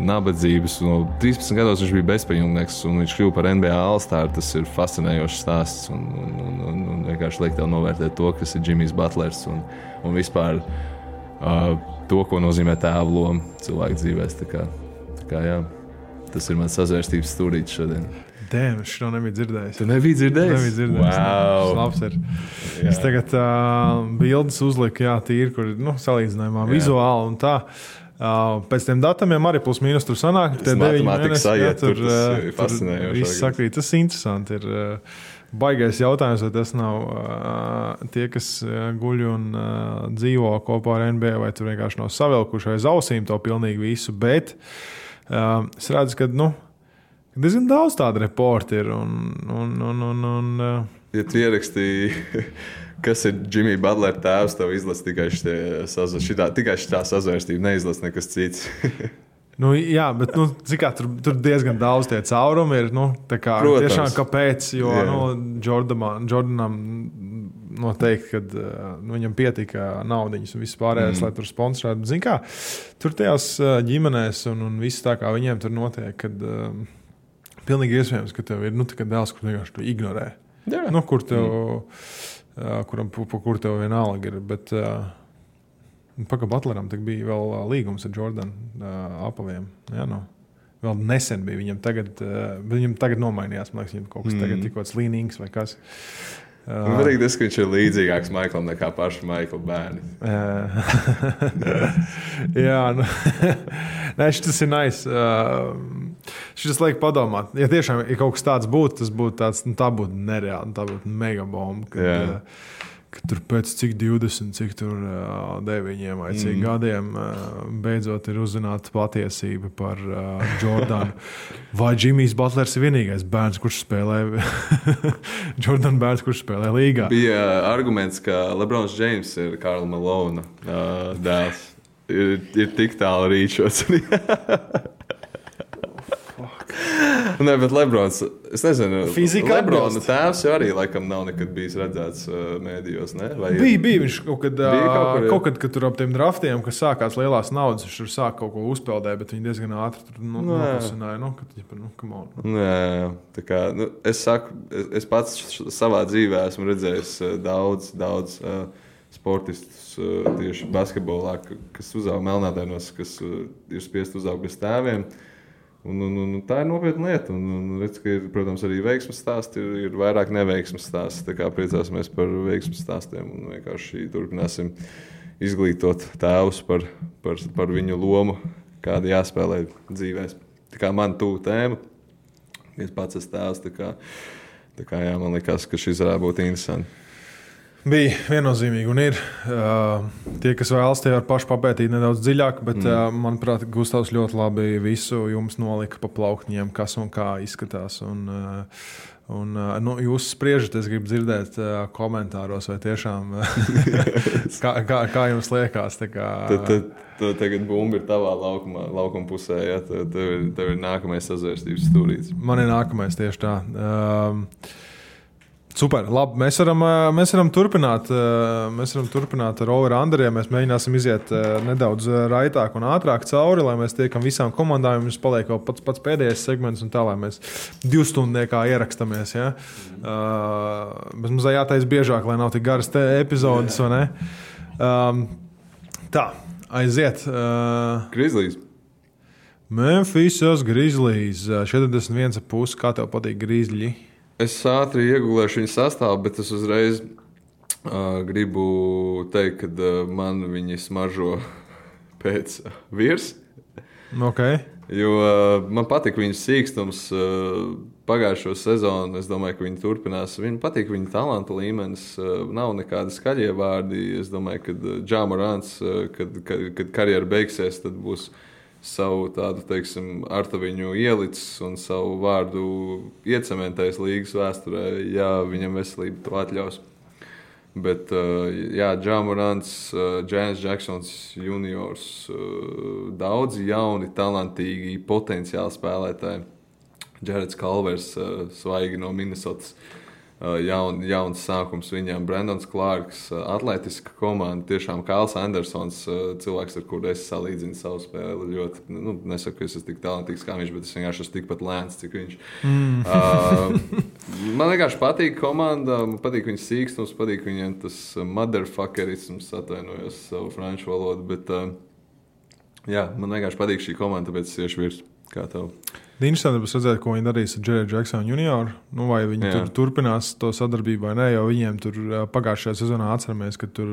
nabadzības, no 13 gados viņš bija bezpajumtnieks un viņš kļuva par NBA All-Star. Tas ir fascinējošs stāsts un vienkārši liek tev novērtēt to, kas ir Jimmijs Butlers un vispār to, ko nozīmē tēva loma cilvēku dzīvēs. Tā kā jā, tas ir mans sazvērstības stūrītis šodien. Dēm, es šo nebiju dzirdējis. Tu nebija dzirdējis? Nebija dzirdējis. Wow. Labs ir. Jā. Es tagad bildes uzliku, tīri, kur salīdzinājumā vizuāli un tā. Pēc tiem datumiem arī plus mīnus tur sanāk. Tas matemātikas sajiet, tur tas ir fascinējoši. Viss sakrīt, tas interesanti ir. Baigais jautājums, vai tas nav tie, kas guļ un dzīvo kopā ar NBA, vai tur vienkārši nav savilkuši aiz ausīm to pilnīgi visu, bet es redzu, ka, diezgan daudz tādu reportu ir. Ja tu ierakstīji, kas ir Jimmija Butlera tēvs, tev izlasa tikai šitā sazvērstība, neizlasa nekas cits. Jā, bet tur diezgan daudz tie caurumi ir. Tiešām kāpēc? Jo Jordanam noteikti, kad viņam pietika naudiņas un viss pārējais, lai tur sponsorētu. Zini kā, tur tajās ģimenēs un viss tā kā viņiem tur notiek, kad pilnīgi iespējams, ka tev ir dēls, kur vienkārši tu ignorē. Kur tev vienalga ir. Bet Paka Butleram bija vēl līgums ar Jordanu apaviem. Vēl nesen bija. Viņam tagad nomainījās. Man liekas, viņam kaut kas tagad tikko slīnīgs vai kas. Varīgi tas, ka viņš ir līdzīgāks Maiklam nekā paši Maikla bērni. Jā, nē, šis ir nice. Šis liek padomāt. Ja tiešām kaut kas tāds būtu, tas būtu tāds, tā būtu nereāli, tā būtu megabomba. Kad tur pēc cik 20, cik tur 9 vai cik gadiem beidzot ir uzzināta patiesība par Jordanu. Vai Jimmijs Butlers ir vienīgais bērns, kurš spēlē Jordan bērns, kurš spēlē līgā? Bija arguments, ka LeBrons James ir Karla Malona dēls. Ir tik tālu rīčots. Nē, bet Lebrons, es nezinu, Lebrona tēvs jau arī laikam nav nekad bijis redzēts mēdījos, ne? Bija viņš kaut kad, kad tur ap tiem draftiem, kas sākās lielās naudas, viņš tur sāk kaut ko uzpeldēt, bet viņi diezgan ātri tur nopasināja, come on. Jā, tā kā, es pats savā dzīvē esmu redzējis daudz sportistus tieši basketbolā, kas uzauga melnādainos, kas ir spiest uzaugt bez tēviem. Un tā ir nopietna lieta. Un redz, ka ir, protams, arī veiksmes stāsti, ir vairāk neveiksmes stāsti. Tā kā priecāsimies par veiksmes stāstiem un vienkārši turpināsim izglītot tēvus par viņu lomu, kāda jāspēlē dzīvēs. Tā kā man tuvu tēma, es pats esmu tēvs, tā kā jā, man likās, ka šis varētu būt interesanti. Bija viennozīmīgi, un ir tie, kas vēlas, tie var paši papētīt nedaudz dziļāk, bet, manuprāt, Gustavs ļoti labi visu jums nolika pa plauktiņiem, kas un kā izskatās. Jūs spriežat, es gribu dzirdēt komentāros, vai tiešām kā jums liekas. Tad tagad bumba ir tavā laukuma pusē, ja? Tev ir nākamais sazvērstības stūrītis. Man ir nākamais tieši tā. Super, labi. Mēs varam turpināt ar over-underiem. Mēs mēģināsim iziet nedaudz raitāk un ātrāk cauri, lai mēs tiekam visām komandām. Mums paliek vēl pats pēdējais segments, un tā, lai mēs 2 stundniekā ierakstamies. Ja? Bet mums jātaisa biežāk, lai nav tik garas epizodes, vai ne? Tā, aiziet. Grizzlies. Memphisas Grizzlies. 41,5. Kā tev patīk Grizzļi? Es ātri iegūlēšu viņu sastāvu, bet es uzreiz gribu teikt, ka man viņi smaržo pēc virs. Okay. Jo man patīk viņu sīkstums pagājušo sezonu. Es domāju, ka viņi turpinās. Viņam patīk viņa talantu līmenis. Nav nekādi skaļie vārdi. Es domāju, ka Ja Morants, kad karjera beigsies, tad būs savu tādu, teiksim, artaviņu ielicis un savu vārdu iecementējis līgas vēsturē, ja viņam veselība to atļaus. Bet, jā, Ja Morants, Jaren Jacksons juniors, daudzi jauni, talantīgi, potenciāli spēlētāji. Jareds Kalvers, svaigi no Minnesotas. Jauns sākums viņam, Brandons Clarks, atletiska komanda, tiešām Kāls Andersons, cilvēks, ar kuru es salīdzinu savu spēli. Ļoti, nesaku, ka es esmu tik talantīgs kā viņš, bet es vienkārši esmu tikpat lēns, cik viņš. Man vienkārši patīk komanda, man patīk viņas sīkstums, patīk viņam tas motherfuckerisms, atvainojos savu franču valodu, bet jā, man vienkārši patīk šī komanda, tāpēc es iešu virs. Kā tev? Interesanti būs redzēt, ko viņi darīs ar Jared Jacksonu junioru. Vai viņi tur turpinās to sadarbību vai nē, jo viņiem tur pagājušajā sezonā atceramies, ka tur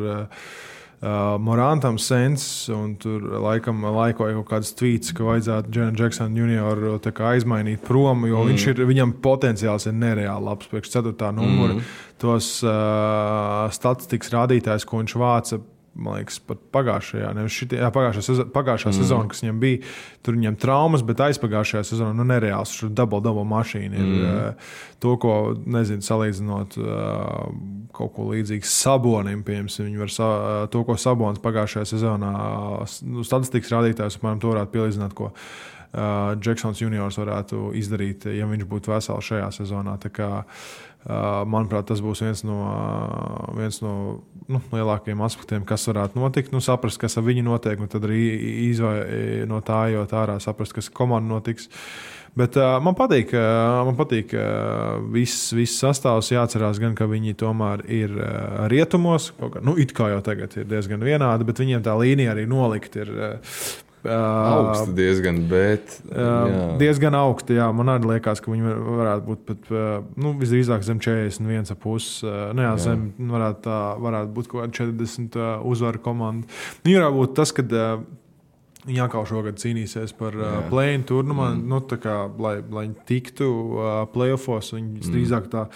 Morantam sens un tur laikam laikoja kaut kāds tweets, ka vajadzētu Jared Jacksonu junioru tā kā aizmainīt prom, jo viņam potenciāls ir nereāli labs priekš 4. numura. Tos statistikas rādītājs, ko viņš vāca, man liekas, pat pagājušā sezona, kas viņam bija, tur viņam traumas, bet aizpagājušajā sezonā nereāls. Tur double mašīna ir to, ko, nezinu, salīdzinot kaut ko līdzīgu Sabonim, piemēram, viņi var to, ko Sabons pagājušajā sezonā statistikas rādītājs, apmēram to varētu pielīdzināt, ko Jacksons juniors varētu izdarīt, ja viņš būtu vesels šajā sezonā. Tā kā, manuprāt, tas būs viens no lielākajiem aspektiem, kas varētu notikt. Saprast, kas ar viņu notiek, un tad arī no tā jau ārā saprast, kas komanda notiks. Bet man patīk viss sastāvs. Jāatcerās gan, ka viņi tomēr ir rietumos. It kā jau tagad ir diezgan vienādi, bet viņiem tā līnija arī nolikt ir augsti diezgan, bet diezgan augsti, jā. Man arī liekas, ka viņi varētu būt pat, visdrīzāk zem 41,5. Zem varētu būt kaut kāda 40 uzvaru komanda. Varētu būt tas, kad viņi atkal šogad cīnīsies par play-in turnumu, lai viņi tiktu play-offos. Viņi drīzāk tā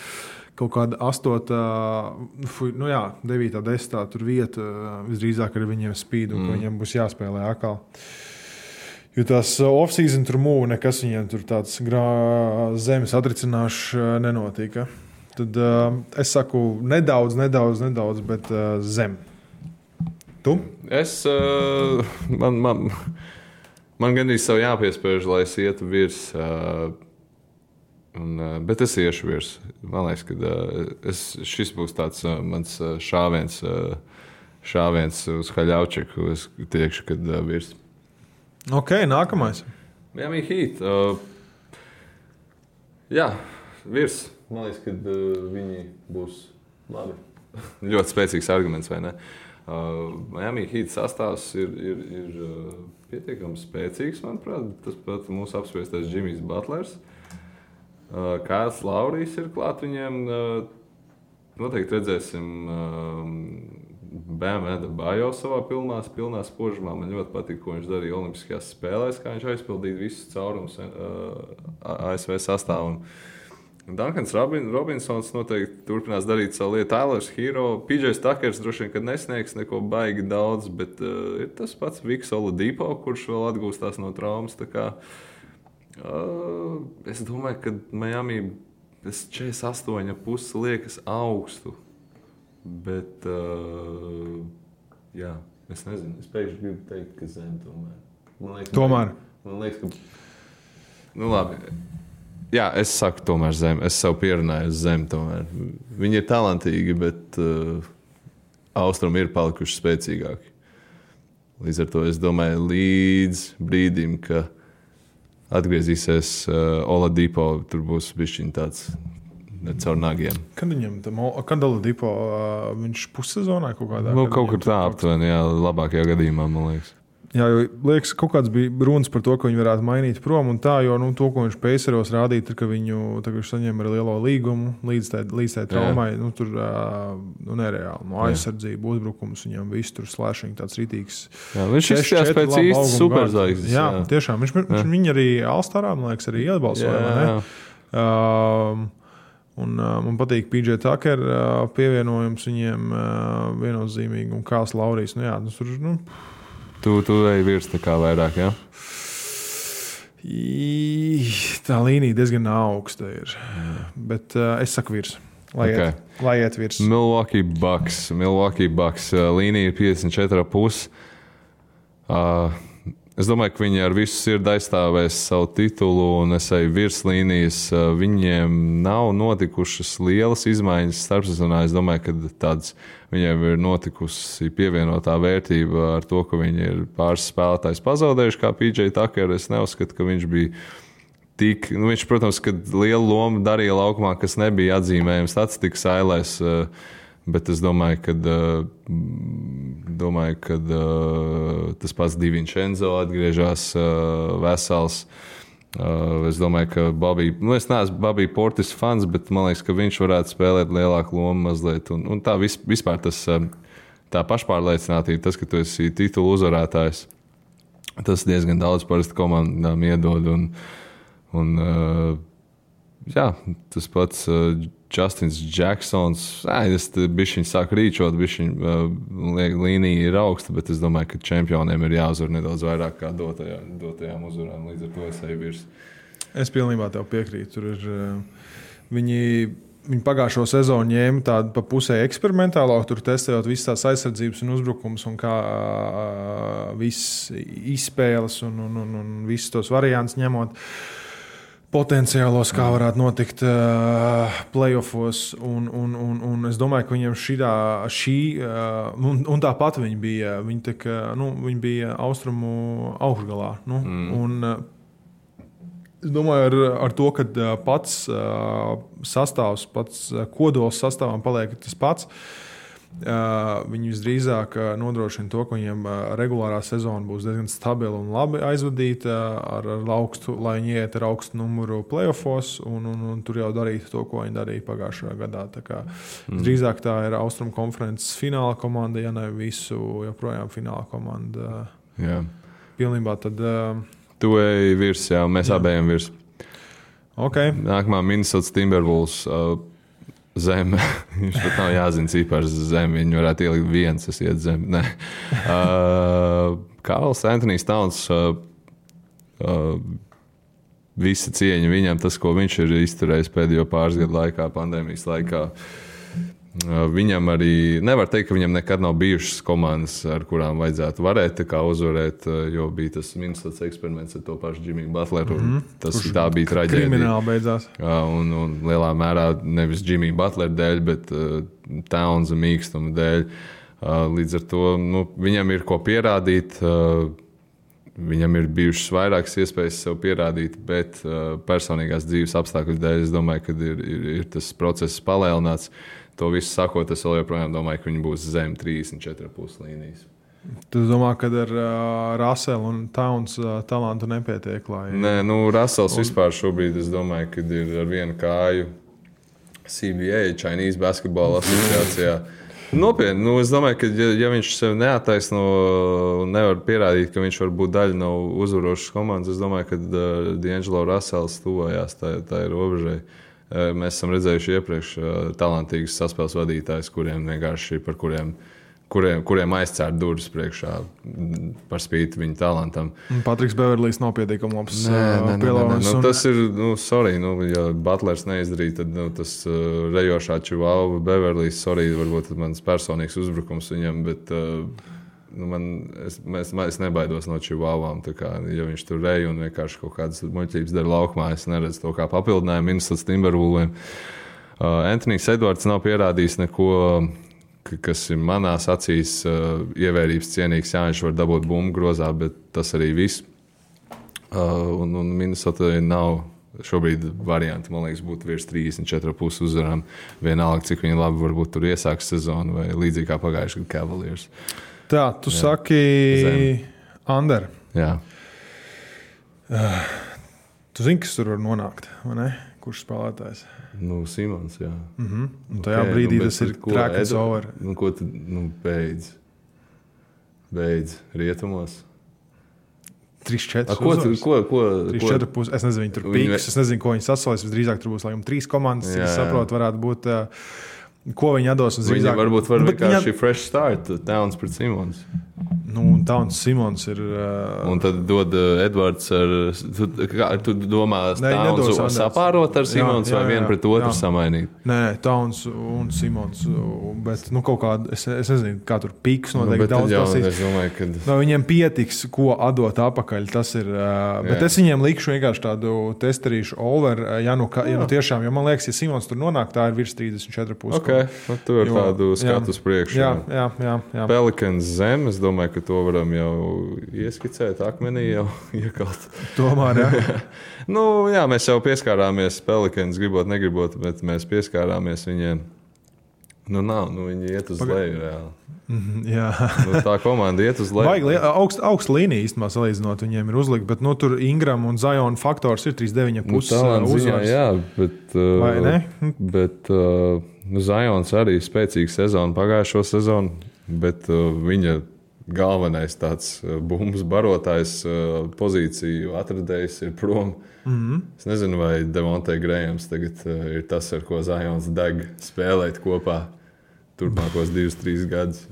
kaut kāda 8, 9, 10 tur vieta visdrīzāk ar viņiem spīd un ka viņiem būs jāspēlē atkal. Jo tās off-season tur mūvi, nekas viņiem tur tāds zemes atricināšs nenotika. Tad es saku nedaudz, bet zem. Tu? Man gandrīz savu jāpiespēž, lai es ietu virs. Bet es iešu virs. Man liekas, ka šis būs tāds mans šāviens uz Haļaučeku. Es tiekšu, kad virs. Ok, nākamais. Miami Heat. Jā, virs. Man liekas, ka viņi būs labi. Ļoti spēcīgs arguments, vai ne? Miami Heat sastāvs ir pietiekami spēcīgs, manuprāt. Tas pat mūsu apspriestais Jimmys Butlers. Kāds Laurijs ir klāt viņiem. Noteikti redzēsim Bam Adebayo savā pilnā spožumā. Man ļoti patīk, ko viņš darīja Olimpiskajās spēlēs, kā viņš aizpildīja visus caurumus ASV sastāvam. Duncans Robinsons noteikti turpinās darīt savu lietu. Tylers Hero, PJs Tuckers droši vien, kad nesniegs neko baigi daudz, bet ir tas pats Viks Oladipo, kurš vēl atgūstās no traumas. Tā kā, es domāju, ka Miami 48,5 liekas augstu. Bet, jā, es nezinu. Es pēkšņi gribu teikt, ka zem tomēr. Man liekas, ka... Nu labi. Jā, es saku tomēr zem. Es sev pierunāju uz zem tomēr. Viņi ir talantīgi, bet austrumi ir palikuši spēcīgāki. Līdz ar to es domāju līdz brīdim, ka atgriezīsies Oladipo, tur būs bišķiņ tāds caur nagiem. Kad Oladipo, viņš pussezonā kaut kādā? Kaut kur tā aptuveni, jā, labākajā gadījumā, man liekas. Jā, jo liekas, kaut kāds bija runas par to, ka viņi varētu mainīt prom un tā, jo to, ko viņš Paceros rādīja, ka viņš saņem ar lielo līgumu līdz tai traumai, tur nereāli. Aizsardzība, uzbrukums, viņam viss tur slēšiņi tāds rītīgs. Jā, viņš izskatās pēc īsti superzvaigznes. Jā, tiešām. Viņš viņu arī All-Starā, man liekas, arī atbalsoja, vai ne? Un man patīk PJ Tucker pievienojums viņiem viennozīmīgi un Kāls Laurijs. Tu ej virs tā kā vairāk, jā? Tā līnija diezgan augsta ir. Bet es saku virs. Lai iet virs. Milwaukee Bucks. Līnija ir 54,5. Es domāju, ka viņi ar visu sirdi aizstāvēs savu titulu un es eju virs līnijas. Viņiem nav notikušas lielas izmaiņas starpsezonā. Es domāju, ka viņiem ir notikusi pievienotā vērtība ar to, ka viņi ir pāris spēlētājs pazaudējuši, kā PJ Tucker. Es neuzskatu, ka viņš bija tik... viņš, protams, kad lielu lomu darīja laukumā, kas nebija atzīmējams statistikas ailēs, bet es domāju, ka tas pats DiVincenzo atgriežas vesels. Es domāju, ka es neesmu Bobby Portis fans, bet man liekas, ka viņš varētu spēlēt lielāku lomu mazliet. Un tā vispār tā pašpārliecinātība, tas, ka tu esi titulu uzvarētājs, tas diezgan daudz parasti komandām iedod. Jā, tas pats Justins Jacksons. Es bišķiņ sāku rīčot, līnija ir augsta, bet es domāju, ka čempioniem ir jāuzvar nedaudz vairāk kā dotajām uzvarām. Līdz ar to es eju virs. Es pilnībā tev piekrītu. Tur ir, viņi pagājušo sezonu ņēma tādu pa pusē eksperimentālo, tur testējot visas tās aizsardzības un uzbrukums un kā viss izspēles un visus tos variantus ņemot. Potenciālos, kā varētu notikt playoffos, un es domāju, ka viņiem un tāpat viņi bija, viņi bija austrumu augšgalā. Un es domāju, ar to, ka pats sastāvs, pats kodols sastāvam paliek tas pats, viņi visdrīzāk nodrošina to, ka viņiem regulārā sezona būs diezgan stabila un labi aizvadīta ar augstu, lai viņi iet ar augstu numuru playoffos un tur jau darītu to, ko viņi darīja pagājušajā gadā. Tā kā drīzāk tā ir Austrumu konferences fināla komanda, ja ne visu joprojām fināla komanda. Jā. Pilnībā tad... Tu ej virs, jā, mēs abējam virs. Okay. Nākamā Minnesota Timberwolves zem. Viņš pat nav jāzina cipars zem. Viņi varētu ielikt viens, es iet zem. Karls Anthony Towns, visa cieņa viņam, tas, ko viņš ir izturējis pēdējo pāris gadu laikā, pandēmijas laikā. Viņam arī nevar teikt, ka viņam nekad nav bijušas komandas, ar kurām vajadzētu varēt uzvarēt, jo bija tas Minnesota eksperiments ar to pašu Jimmy Butleru. Tā bija traģēdija. Krimināli beidzās. Un lielā mērā nevis Jimmy Butler dēļ, bet Townsa mīkstuma dēļ. Līdz ar to viņam ir ko pierādīt. Viņam ir bijušas vairākas iespējas sev pierādīt, bet personīgās dzīves apstākļu dēļ es domāju, ka ir tas process palielināts. To visu sakot, es vēl joprojām domāju, ka viņi būs zem 34,5 līnijas. Tu domā, ka ar Russell un Towns talantu nepietiek? Nē, Russells vispār šobrīd, es domāju, ka ir ar vienu kāju CBA, Chinese Basketball asociācijā. Nopietni, es domāju, ka ja viņš sev neattaisno un nevar pierādīt, ka viņš var būt daļa no uzvarošas komandas, es domāju, ka D'Angelo Russells tuvojās tā ir robežai. Mēs esam redzējuši iepriekš talantīgus saspēles vadītājus, kuriem vienkārši par kuriem aizcērt durvis priekšā par spīti viņa talantam. Patriks Beverlijs nav pietiekami labs pielāgojums. Tas ir, ja Butlers neizdarīja, tad tas rejošā Čivāva Beverlijs, varbūt mans personīgs uzbrukums viņam, bet es nebaidos no Čivāvām. Ja viņš tur reja un vienkārši kaut kādas muļķības dara laukumā, es neredzu to kā papildinājumu Minnesotas Timberwolviem. Anthony's Edwards nav pierādījis neko, kas ir manās acīs ievērības cienīgs. Jā, viņš var dabūt bumbu grozā, bet tas arī viss. Un Minnesota nav šobrīd varianti, man liekas, būtu virs 34,5 uzvarām. Vienalga, cik viņi labi varbūt tur iesāks sezonu vai līdzīgi kā pagājuši gadu Cavaliers. Tā, tu saki Ander. Jā. Tu zini, kas tur var nonākt, vai ne? Kurš spēlētājs? Simons, jā. Un tajā brīdī tas ir trackers over. Ko tu beidz rietumos? 3-4 uzvaras. Es nezinu, viņi tur pīks, es nezinu, ko viņi sasolīs. Visdrīzāk tur būs, laikam, 3 komandas, cik es saprotu, varētu būt, ko viņi atdos. Viņi varbūt var vienkārši fresh start, Towns pret Simons. Un Towns Simons ir... Un tad dod Edvards ar... Tu domā Towns sapārot ar Simons vai vienu pret otru samainīt? Nē, Towns un Simons. Bet kaut kādu... Es nezinu, kā tur pīks noteikti daudz prasīs. Es domāju, ka... Viņiem pietiks, ko atdot apakaļ. Tas ir... Bet es viņiem likšu vienkārši tādu testerīšu over. Ja tiešām, jo man liekas, ja Simons tur nonāk, tā ir virs 34,5. Ok, tu ar tādu skatu uz priekšu. Jā. Pelicans zem, es domāju, ka to varam jau ieskicēt, akmenī jau iekalt. Tomēr, jā. Jā, mēs jau pieskārāmies Pelicans, gribot, negribot, bet mēs pieskārāmies viņiem. Viņi iet uz leju reāli. Jā. Tā komanda iet uz leju. Baigi augsta līnija īstenībā salīdzinot, viņiem ir uzlikt, bet tur Ingram un Zion faktors ir 3,9,5 uzvaras. Jā, bet... Vai ne? Bet Zions arī spēcīga sezona pagājušo sezonu, bet viņa galvenais tāds bumbas barotājs pozīciju atradējs ir prom. Es nezinu, vai Devonte Grahams tagad ir tas, ar ko Zions deg spēlēt kopā turpmākos 2-3 gadus.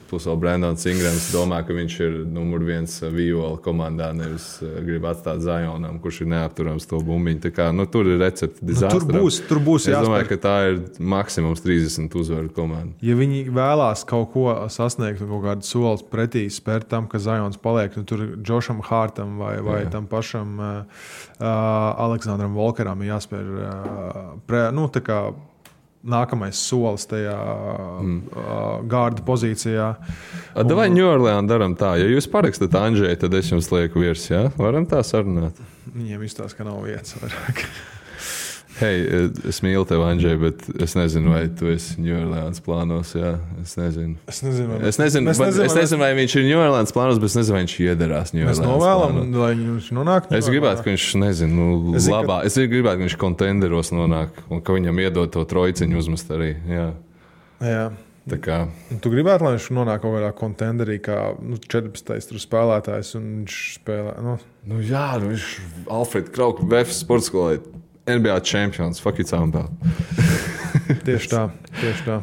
Plus vēl Brandons Ingrams domā, ka viņš ir numur 1 viola komandā, nevis grib atstāt Zionam, kurš ir neapturams to bumbiņu. Tā kā, tur ir recepti dizastram. Tur būs jāspēr. Es domāju, ka tā ir maksimums 30 uzvaru komanda. Ja viņi vēlās kaut ko sasniegt un kaut kādu solis pretī spērt tam, ka Zions paliek, tur Josham Hartam vai tam pašam Aleksandram Volkeram ir jāspēr tā kā nākamais solis tajā gārda pozīcijā. Vai New Orleans daram tā? Ja jūs parakstat Andžēju, tad es jums lieku virs, jā? Varam tā sarunāt? Viņiem izstāsta, ka nav vietas vairāk. Hei, es mīlu tevi, Andžej, bet es nezinu, vai tu esi New Orleans plānos, jā? Es nezinu. Es nezinu, vai viņš ir New Orleans plānos, bet es nezinu, vai viņš iederās New Orleans plānos. Mēs novēlam, lai viņš nonāk. Es gribētu, ka viņš, labā. Es gribētu, ka viņš kontenderos nonāk un ka viņam iedod to trojciņu uzmest arī, jā. Jā. Tā kā... Tu gribētu, lai viņš nonāk kaut kādā kontenderī, kā 14. tur spēlētājs, un viņš spēlē, Jā, viņš Alfred Krauk, VF sportskolē. NBA čempions, fuck it sound about. Tieši tā.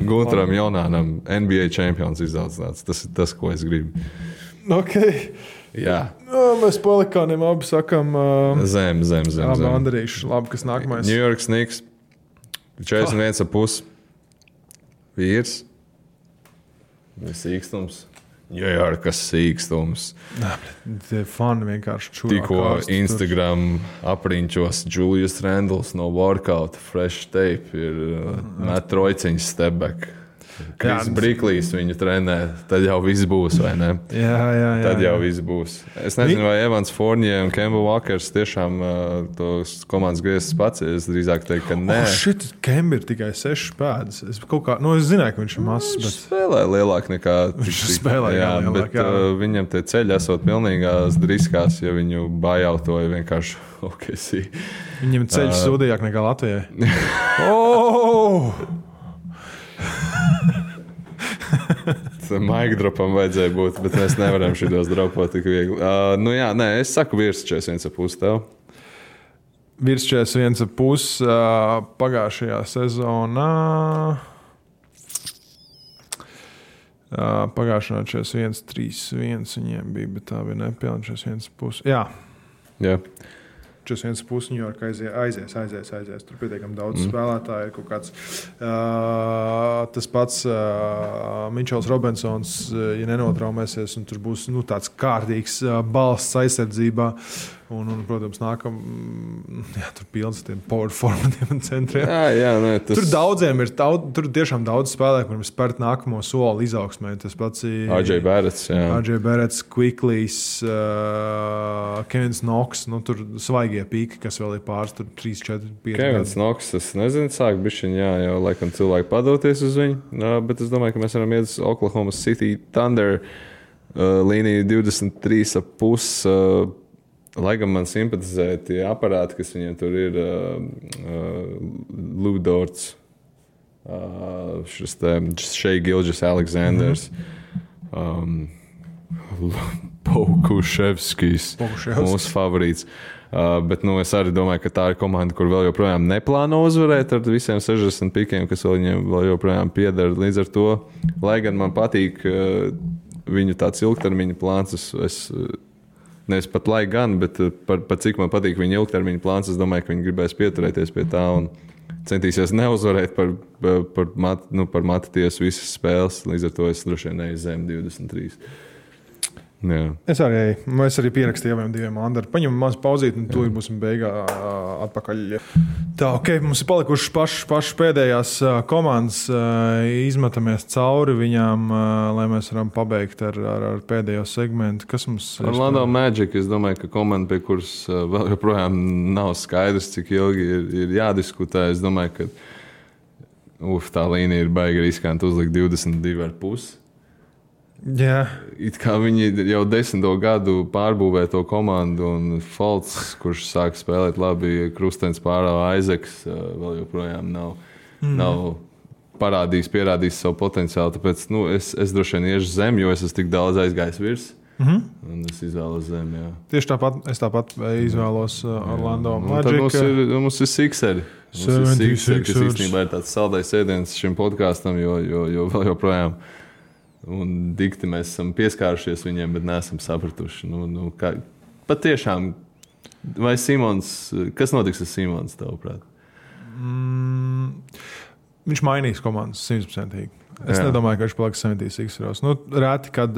Gunteram Jaunānam NBA čempions izaudzināts. Tas ir tas, ko es gribu. Ok. Jā. Mēs Pelikāniem abi sakam... Zem. Abi Andrīši. Labi, kas nākamais? New York Knicks. 41,5. Vīrs. Sīkstums. Jārkas sīkstums. Tie fani vienkārši čurā. Tikko Instagram apriņķos Julius Randles no workout fresh tape ir met trojciņas step back. Kris Briklīs viņu trenē, tad jau viss būs, vai ne? Jā. Tad jau viss būs. Es nezinu, vai Evans Fournier un Kemba Walkers tiešām tos komandas grieztas pats. Es drīzāk teiktu, ka nē. Kemba ir tikai 6 pēdas. Es zināju, ka viņš ir mazs. Viņš spēlē lielāk nekā... Viņš spēlē lielāk, jā. Viņam tie ceļi esot pilnīgās driskās, ja viņu bajautoja vienkārši OKC. Viņam ceļš sūdījāk nekā Latvijai. Oh! Maika dropam vajadzēja būt, bet mēs nevaram šitos dropot tik viegli. Es saku virs 41,5 tev. Virs 41,5 pagājušajā sezonā. Pagājušajā 41,3,1 viņiem bija, bet tā bija nepilna 41,5. Jā. 41,5 New York aizies. Tur pietiekami daudz spēlētāju. Ir kaut kāds tas pats Mičels Robinsons, ja nenotraumēsies, un tur būs tāds kārtīgs balsts aizsardzībā. Un, protams, tur pilns ar tiem power formatiem un centriem. Tur daudziem ir tur tiešām daudz spēlētāju, kuriem spērt nākamo soli izaugsmē. Tas pats ir RJ Barretts, Quickleys, Kevins Knox. Tur svaigie pīki, kas vēl ir pāris, 3, 4, 5 Kevins Knox, es nezinu, sāk bišķiņ, jau laikam cilvēki padoties uz viņu, bet es domāju, ka mēs varam iet uz Oklahoma City Thunder līniju 23,5. Lai gan man simpatizē tie aparāti, kas viņiem tur ir, Lou Dorts, šis te Shai Gilgeous-Alexanders, Pokuševskis, mūsu favorīts. Bet es arī domāju, ka tā ir komanda, kur vēl joprojām neplāno uzvarēt ar visiem 60 pikiem, kas viņiem vēl joprojām pieder. Līdz ar to, lai gan man patīk viņu tāds ilgtermiņa plāns, es nevis pat lai gan, bet par cik man patīk viņa ilgtermiņa plāns, es domāju, ka viņi gribēs pieturēties pie tā un centīsies neuzvarēt par matu tiesu visas spēles. Līdz ar to es droši vien neju zem 23. Jā. Es arī pierakstīju abiem diviem Andari. Paņemam maz pauzīt, un tūlīt būsim beigā atpakaļ. Tā, mums ir palikušas pašas pēdējās komandas. Izmetamies cauri viņām, lai mēs varam pabeigt ar pēdējo segmentu. Kas mums ir? Orlando Magic, es domāju, ka komanda, pie kuras vēl joprojām nav skaidrs, cik ilgi ir jādiskutē. Es domāju, ka tā līnija ir baigi riskanti uzlikt 22,5. Jā. It kā viņi jau 10. gadu pārbūvē to komandu, un Folts, kurš sāk spēlēt labi, Krustens pārāva Aizeks, vēl joprojām nav pierādījis savu potenciālu. Tāpēc es droši vien iešu zem, jo es esmu tik daudz aizgājis virs. Un es izvēlos zem, jā. Tieši tāpat izvēlos Orlando Magic. Tad mums ir Sixeri. Mums ir Sixeri, kas īstenībā ir tāds saldais ēdiens šim podkāstam, jo vēl joprojām. Un dikti mēs esam pieskārušies viņiem, bet neesam sapratuši. Patiešām, vai Simons, kas notiks ar Simons, tavuprāt? Viņš mainīs komandas 100%. Es nedomāju, ka viņš paliks 76. Reti, kad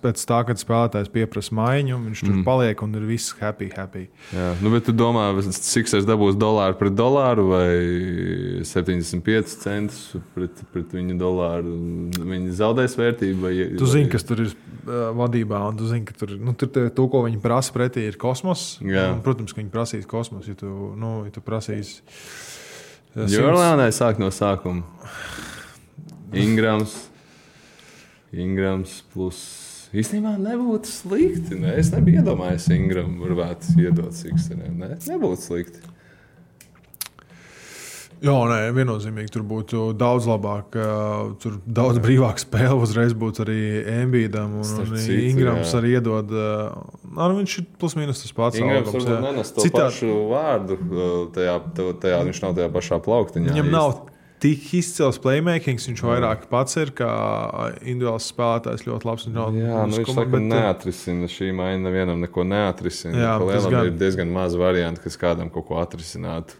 pēc tā, kad spēlētājs pieprasa maiņu, viņš tur paliek un ir viss happy. Jā. Bet tu domā, Sixers dabūs dolāru pret dolāru vai 75 centus pret viņu dolāru? Viņi zaudēs vērtību? Tu zini, kas tur ir vadībā, un tu zini, ka tur to, ko viņi prasa pretī, ir kosmos. Un, protams, ka viņi prasīs kosmos, ja tu prasīs... Jorlānai sāk no sākuma. Ingrams plus. Īstenībā nebūtu slikti. Es nebiju iedomājies, Ingram varētu iedot Sixeriem. Nebūtu slikti. Jā, viennozīmīgi tur būtu daudz labāk. Tur daudz brīvāk spēle uzreiz būtu arī Embiidam. Un Ingrams arī iedod. Viņš ir plus mīnus tas pats. Ingrams varbūt nenes to pašu vārdu. Tajā viņš nav tajā pašā plauktiņā. Viņam nav tik izcils playmakings, viņš vairāk pats ir kā individuāls spēlētājs, ļoti labs. Viņš saka, neatrisina šī maiņa, nevienam neko neatrisina. Ir diezgan maz varianti, kas kādam kaut ko atrisinātu.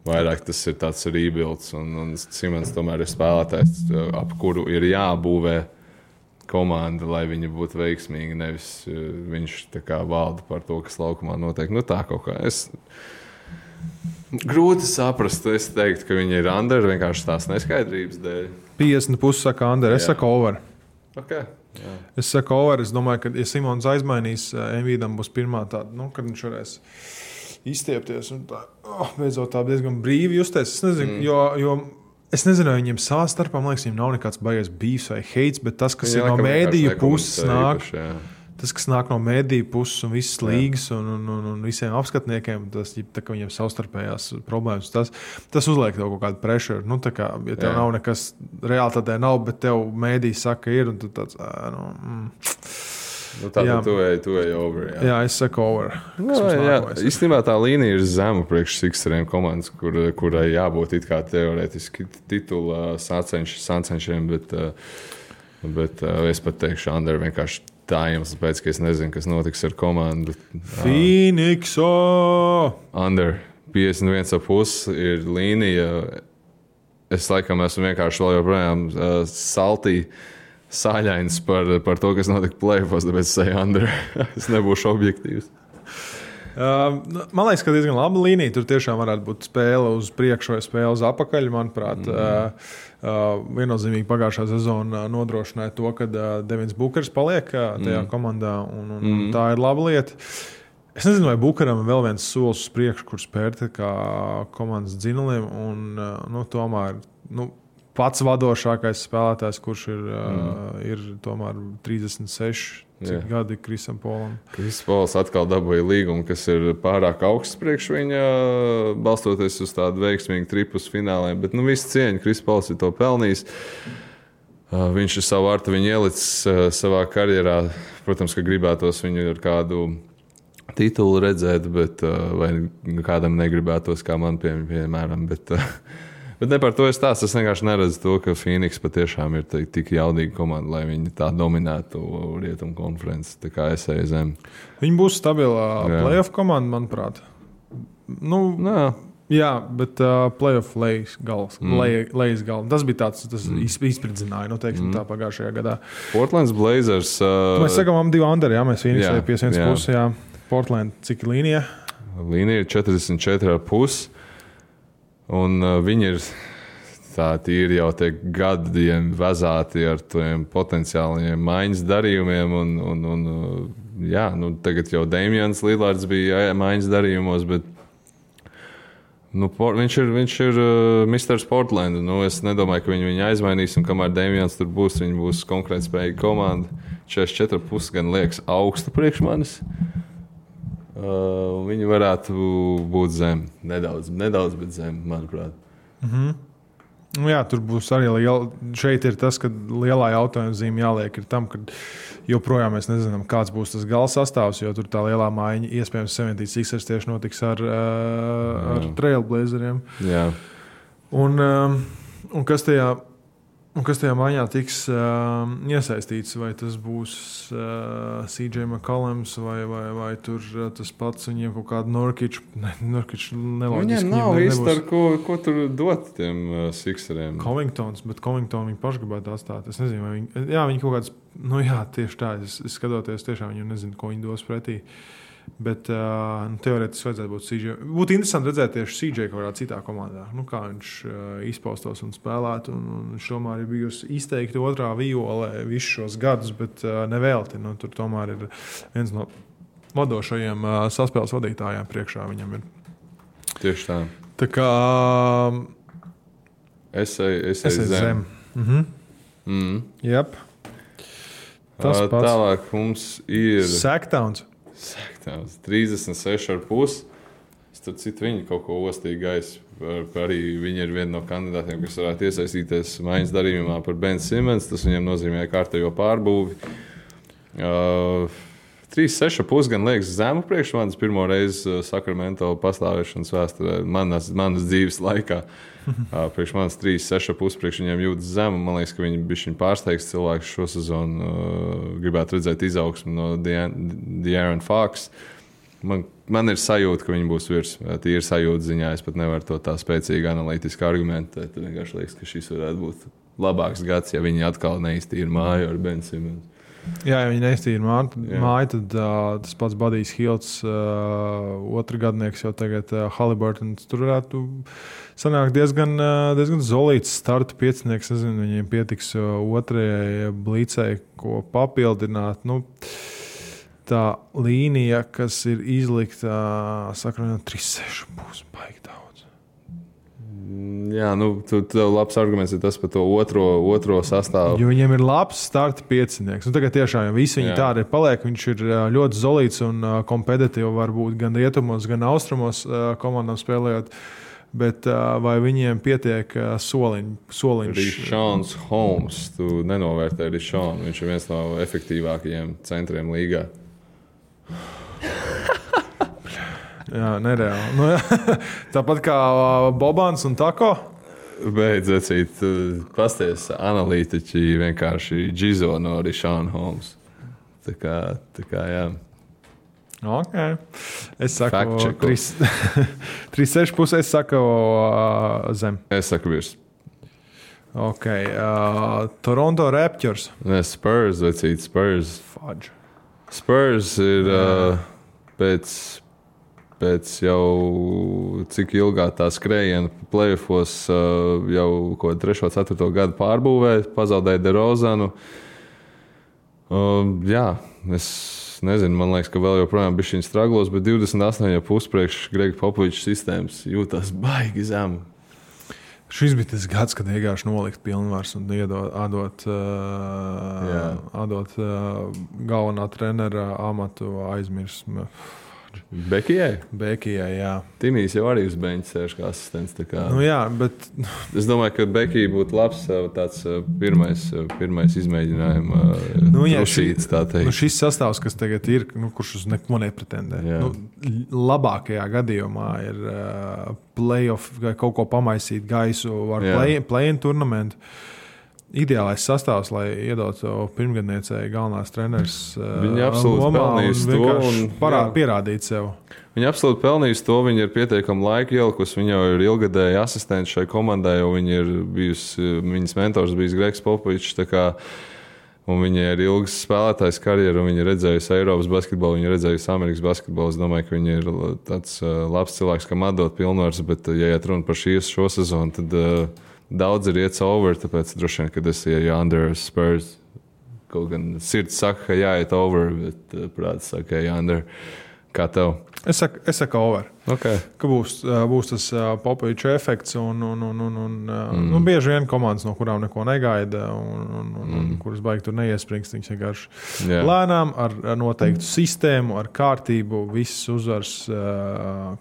Vairāk tas ir tāds rebuilds, un Simons tomēr ir spēlētājs, ap kuru ir jābūvē komanda, lai viņa būtu veiksmīga, nevis viņš tā kā valda par to, kas laukumā notiek. Tā kaut kā. Grūti saprast, es teiktu, ka viņi ir under vienkārši tās neskaidrības dēļ. 50,5 saka Ander. Es saku over. Okay. Jā. Es saku over. Es domāju, ka, ja Simons aizmainīs, Embiidam būs pirmā tāda, kad viņš varēs izstiepties un tā, beidzot tā diezgan brīvi justies. Es nezinu, jo es nezinu, vai viņiem savā starpā, man liekas, viņiem nav nekāds baigies beefs vai hates, bet tas, kas ir no mēdīju puses nāk, tas, kas nāk no mēdīju puses un visas līgas un visiem apskatniekiem, tas, tā, ka viņiem savstarpējās problēmas, tas uzliek tev kaut kādu pressure. Nu, tā kā, ja tev nav nekas reāli tādē nav, bet tev mēdīji saka ir, un tu tāds, tātad tu ej over. Jā, es saku over. Īstenībā tā līnija ir zema priekš Sixeriem komandas, kurai jābūt it kā teorētiski titula sācenšiem, bet es pat teikšu, Ander vienkārši tā iemesls pēc, ka es nezinu, kas notiks ar komandu. Phoenixo! Ander 51,5 ir līnija. Es laikam esmu vienkārši vēl joprojām sāļains par to, kas notika play-offs, tāpēc es eju Ander. Es nebūšu objektīvs. Man liekas, ka diezgan laba līnija. Tur tiešām varētu būt spēle uz priekšu vai spēle uz apakaļ. Manuprāt, viennozīmīgi pagājušā sezona nodrošināja to, ka Devins Bukers paliek tajā komandā, un tā ir laba lieta. Es nezinu, vai Bukeram ir vēl viens solis uz priekšu, kur spērt kā komandas dzinuliem, un tomēr pats vadošākais spēlētājs, kurš ir tomēr 36. Cik gadi Krisam Polam? Kris Pols atkal dabūja līgumu, kas ir pārāk augsts priekš viņa, balstoties uz tādu veiksmīgu tripus fināliem. Bet visu cieņu Kris Pols ir to pelnījis. Viņš ir savu artu viņu ielicis savā karjerā. Protams, ka gribētos viņu ar kādu titulu redzēt, bet vai kādam negribētos, kā man piemēram. Bet ne par to es stāstu. Es vienkārši neredzu to, ka Phoenix patiešām ir tik jaudīga komanda, lai viņi tā dominētu Rietumu konferenci. Tā kā es eju zem. Viņi būs stabilā playoff komanda, manuprāt. Jā, bet playoff lejas gals. Tas bija tāds, tas izspridzināja, tā pagājušajā gadā. Portlands Blazers. Mēs sakām, 2 Ander, jā, mēs Phoenix eju 51,5, jā. Portland, cik līnija? Līnija ir 44,5. Un viņi ir tīri jau gadiem vezāti ar tiem potenciāliem maiņas darījumiem. Tagad jau Damians Lillards bija maiņas darījumos, bet viņš ir Mr. Portland. Es nedomāju, ka viņu aizmainīs, un kamēr Damians tur būs, viņi būs konkurētspējīga komanda. 44,5 gan liekas augstu priekš manis. Viņi varētu būt zem. Nedaudz, bet zem, manuprāt. Jā, tur būs arī šeit ir tas, ka lielā jautājuma zīme jāliek ir tam, ka joprojām mēs nezinām, kāds būs tas gala sastāvs, jo tur tā lielā maiņa iespējams 76ers tieši notiks ar Trailblazeriem. Jā. Un kas tajā maiņā tiks iesaistīts, vai tas būs CJ McCollums vai tur tas pats viņiem kaut kādu Nurkic neloģiski. Viņiem nav īsti ar ko tur dot tiem Sixeriem. Covingtons, bet Covington viņi paši gribētu atstāt. Es nezinu, vai viņi kaut kāds, tieši tā, es skatoties tiešām viņu nezinu, ko viņi dos pretī. Bet teorētiski vajadzētu būt CJ. Būtu interesanti redzēt tieši CJ kaut kādā citā komandā. Kā viņš izpaustos un spēlētu. Viņš tomēr ir bijusi izteikti otrā violē visus šos gadus, bet nevelti. Tur tomēr ir viens no vadošajiem saspēles vadītājiem priekšā viņam ir. Tieši tā. Tā kā es eju zem. Jep. Tas pats. Tālāk mums ir Sacktowns. 36,5. Starp citu, viņi kaut ko ostīgi gaisa. Arī viņi ir viena no kandidātiem, kas varētu iesaistīties maiņas darījumā par Ben Simmons. Tas viņiem nozīmē kārtējo pārbūvi. 36,5 gan liekas zemu priekš manis pirmo reizi Sacramento pastāvēšanas vēsturē, manas dzīves laikā. Priekš manis 36,5 priekš viņiem jūtas zemu. Man liekas, ka viņi bišķiņ pārsteigs cilvēks šo sezonu. Gribētu redzēt izaugsmu no De'Aaron Fox. Man ir sajūta, ka viņi būs virs. Tīri sajūta ziņā. Es pat nevaru to tā spēcīgi analītiski argumentēt. Vienkārši liekas, ka šis varētu būt labāks gads, ja viņi atkal neiztīra māju ar Ben Simmons. Jā, ja viņi neiztīra māju, tad tas pats Budijs Hilts, otru gadnieks jau tagad Haliburtons. Tur varētu sanākt diezgan zolīts starta piecinieks. Nezinu, viņiem pietiks otrajai blīcei, ko papildināt. Nu, tā līnija, kas ir izlikta, sakra, 3-6 būs baigi daudz. Jā, nu, tev labs arguments ir tas par to otro sastāvu. Jo viņiem ir labs starta piecinieks. Nu, tagad tiešām jau visi viņi tādi ir paliek. Viņš ir ļoti zolīts un kompetitīvi varbūt gan rietumos, gan austrumos komandām spēlējot. Bet vai viņiem pietiek soliņš? Rišons Holmes, tu nenovērtē Rišonu. Viņš ir viens no efektīvākajiem centriem līgā. Jā, nereāli. Nu, tāpat kā Bobans un Tako. Beidz acīt, pasties analītiķi vienkārši džizo no Rišona Holmes. Tā kā jā. Ok. Es saku 3-6 pusē, es saku zem. Es saku virs. Ok. Toronto Raptors. Ne, Spurs, vecīt, Spurs. Fudge. Spurs ir pēc jau cik ilgā tā skrējiena playoffos jau 3. 4. gadu pārbūvē, pazaudēja DeRozanu. Jā, es nezinu, man liekas, ka vēl joprojām bišķiņ straglos, bet 28,5 priekš Grega Popoviča sistēmas jūtās baigi zemu. Šis bija tas gads, kad vienkārši nolikt pilnvars un atdot galvenā trenera amatu aizmirsmu. Bekijai, jā. Timijs jau arī uz beņķa sēž kā asistents. Nu jā, bet... Es domāju, ka Bekija būtu labs tāds pirmais izmēģinājuma trusīts, tā teikt. Nu šis sastāvs, kas tagad ir, kurš uz neko nepretendē. Labākajā gadījumā ir playoff, kaut ko pamaisīt gaisu ar play-in turnamentu. Ideālais sastāvs, lai iedotu pirmgadniecei galvenās treneris. Viņi absolūti pelnījusi to un pierādīt sev. Viņi absolūti pelnījusi to, viņi ir pietiekami laika ielikusi. Viņa jau ir ilgadēji asistenti šai komandai, jo viņa ir bijusi, viņas mentors bijis Gregs Popovičs. Un viņa ir ilgas spēlētājs karjeru, un viņa ir redzējusi Eiropas basketbolu, viņa ir redzējusi Amerikas basketbolu. Es domāju, ka viņa ir tāds labs cilvēks, kam atdot pilnvars, bet, ja iet runa par šo sezonu, tad daudz ir iets over, tāpēc droši vien, kad es ieju under Spurs. Kaut gan sirds saka, ka jāiet over, bet prāts saka, ka under. Kā tev? Es saku over. Okay. Ka būs tas Popoviča efekts un bieži vien komandas, no kurām neko negaida un kuras baigi tur neiesprings. Viņas vienkārši lēnām ar noteiktu sistēmu, ar kārtību, visas uzvaras,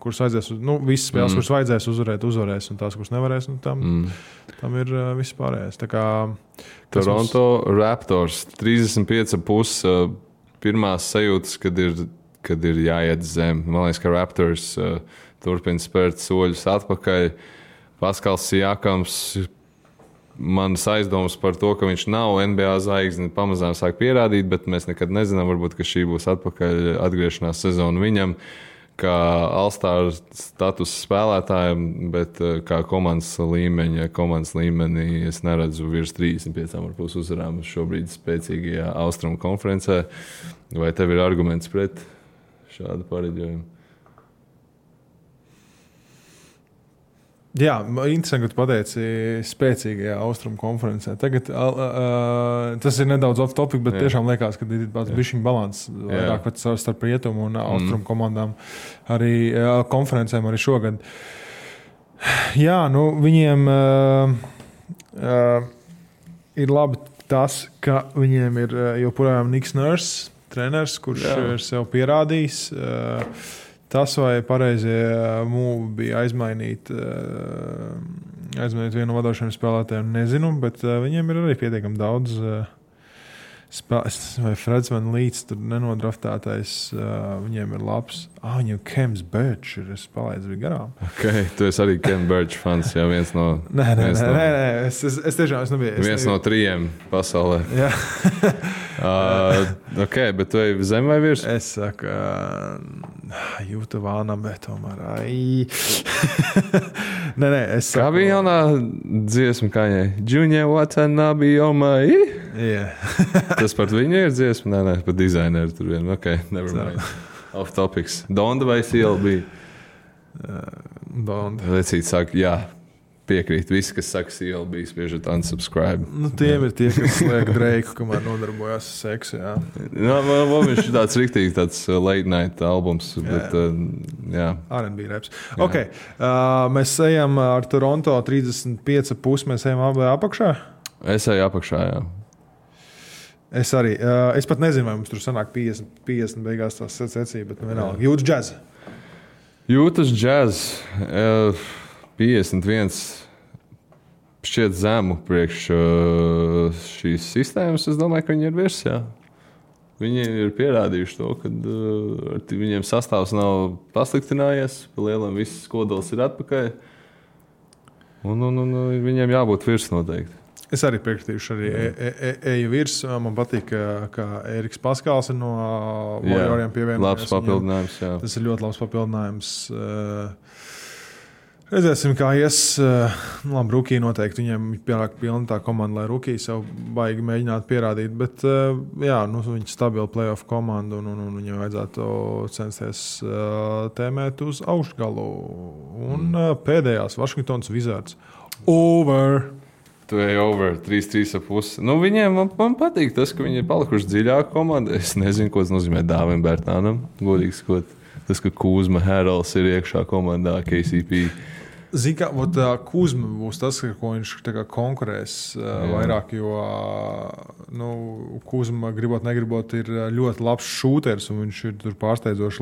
kuras vajadzēs, visas spēles, kuras vajadzēs uzvarēs un tās, kuras nevarēs, tam ir viss pārējais. Tā kā Toronto Raptors 35,5 pirmās sajūtas, kad ir jāiet zem. Man liekas, ka Raptors turpina spērt soļus atpakaļ. Paskals Siakams, manas aizdomas par to, ka viņš nav NBA zvaigzne, pamazām sāk pierādīt, bet mēs nekad nezinām, varbūt, ka šī būs atpakaļ atgriešanās sezona viņam, kā All-Star status spēlētājiem, bet kā komandas līmenī es neredzu virs 35,5 uzvarām šobrīd spēcīgajā Austrumu konferencē. Vai tev ir arguments pret šādu pareģojumu? Jā, interesanti, ka tu pateici spēcīgajā Austrumu konferencē. Tagad tas ir nedaudz off topic, bet tiešām liekas, ka ir tāds bišķiņ balans vairāk starp rietumu un Austrumu komandām arī konferencēm arī šogad. Jā, viņiem ir labi tas, ka viņiem ir joprojām Niks Nurse, treneris, kurš ir sev pierādījis. Tas, vai pareizie mūvi bija aizmainīt vienu no vadošiem spēlētājiem, nezinu, bet viņiem ir arī pietiekami daudz vai Freds Van Līts tur nenodraftētais, viņiem ir labs. Viņam Kems Birch ir, es palaidu bija garām. Okay, tu esi arī Kem Birch fans, jā, viens no... Nē, es tiešām nebiju. Viens no 3 pasaulē. Jā. Ok, bet tu ej zem vai virs? Es saku, jūtu vānam, bet tomēr, Nē, es saku... Kā bija jaunā dziesma kaņai? Junior Watanabe, oh my... Yeah. Tas par viņu ir dziesma? Nē, par dizaineru tur vien. Ok, never mind. Off topics. Donda vai CLB? Donda. Lecīt saka, jā. Piekrīt. Visi, kas saka CLB, spiežat unsubscribe. Nu, tiem ir tie, kas liek Dreiku, kamēr nodarbojās ar seksu, jā. Viņš ir tāds riktīgi tāds late night albums, bet jā. R&B raps. Ok, mēs ejam ar Toronto 35,5, mēs ejam abi apakšā? Es eju apakšā, jā. Es arī. Es pat nezinu, vai mums tur sanāk 50 beigās tās secība, bet vienalga. Jūtas džaz. Jūtas džaz. 51 šķiet zemu priekš šīs sistēmas. Es domāju, ka viņi ir virs, jā. Viņi ir pierādījuši to, ka viņiem sastāvs nav pasliktinājies, pa lielam viss kodols ir atpakaļ. Un viņiem jābūt virs noteikti. Es arī piekritīšu, eju virs. Man patīk, ka Eriks Paskals ir no Warrioriem pievienojies. Labs papildinājums, jā. Tas ir ļoti labs papildinājums. Redzēsim, kā ies. Labi, Rukī noteikti. Viņiem pienāk pilna tā komanda, lai Rukī sev baigi mēģinātu pierādīt. Bet, jā, viņi stabili playoff komandu un viņiem vajadzētu censties tēmēt uz augšgalu. Un pēdējās Washingtons Wizards. Over! Tu ej over 3,5. Viņiem man patīk tas, ka viņi ir palikuši dziļāka komanda. Es nezinu, ko tas nozīmē Dāvim Bērtānam. Godīgi sakot, tas, ka Kuzma Herals ir iekšā komandā KCP. Zini, ka Kuzma būs tas, ko viņš konkurēs vairāk, jo Kuzma, gribot, negribot, ir ļoti labs šūters, un viņš ir tur pārsteidzoši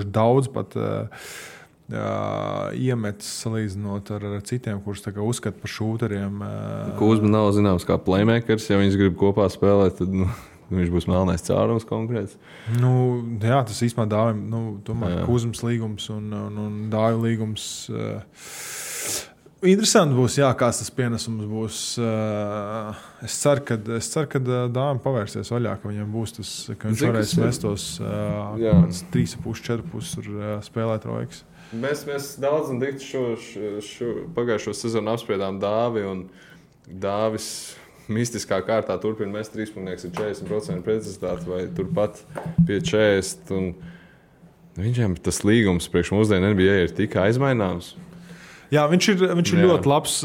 daudz pat iemetis salīdzinot ar citiem, kurus uzskata par šūteriem. Kuzma nav zināms kā playmakers, ja viņš grib kopā spēlēt, tad viņš būs melnais cārums konkrēts. Jā, tas īstenībā Dāvim, tomēr Kuzmas līgums un Dāvi līgums. Interesanti būs, jā, kāds tas pienesums būs. Es ceru, ka Dāvim pavērsies vaļā, ka viņam būs tas, ka viņš varēs mest tos 3,5-4,5 tur spēlēt roikas. Mēs daudz un dikti pagājušo sezonu apspriedām Dāvi, un Dāvis mistiskā kārtā turpina mest 3,nieks ar 40% precizitāti vai turpat pie 40%. Viņam tas līgums priekš mūsdienu NBA ir tik aizmaināms. Jā, viņš ir ļoti labs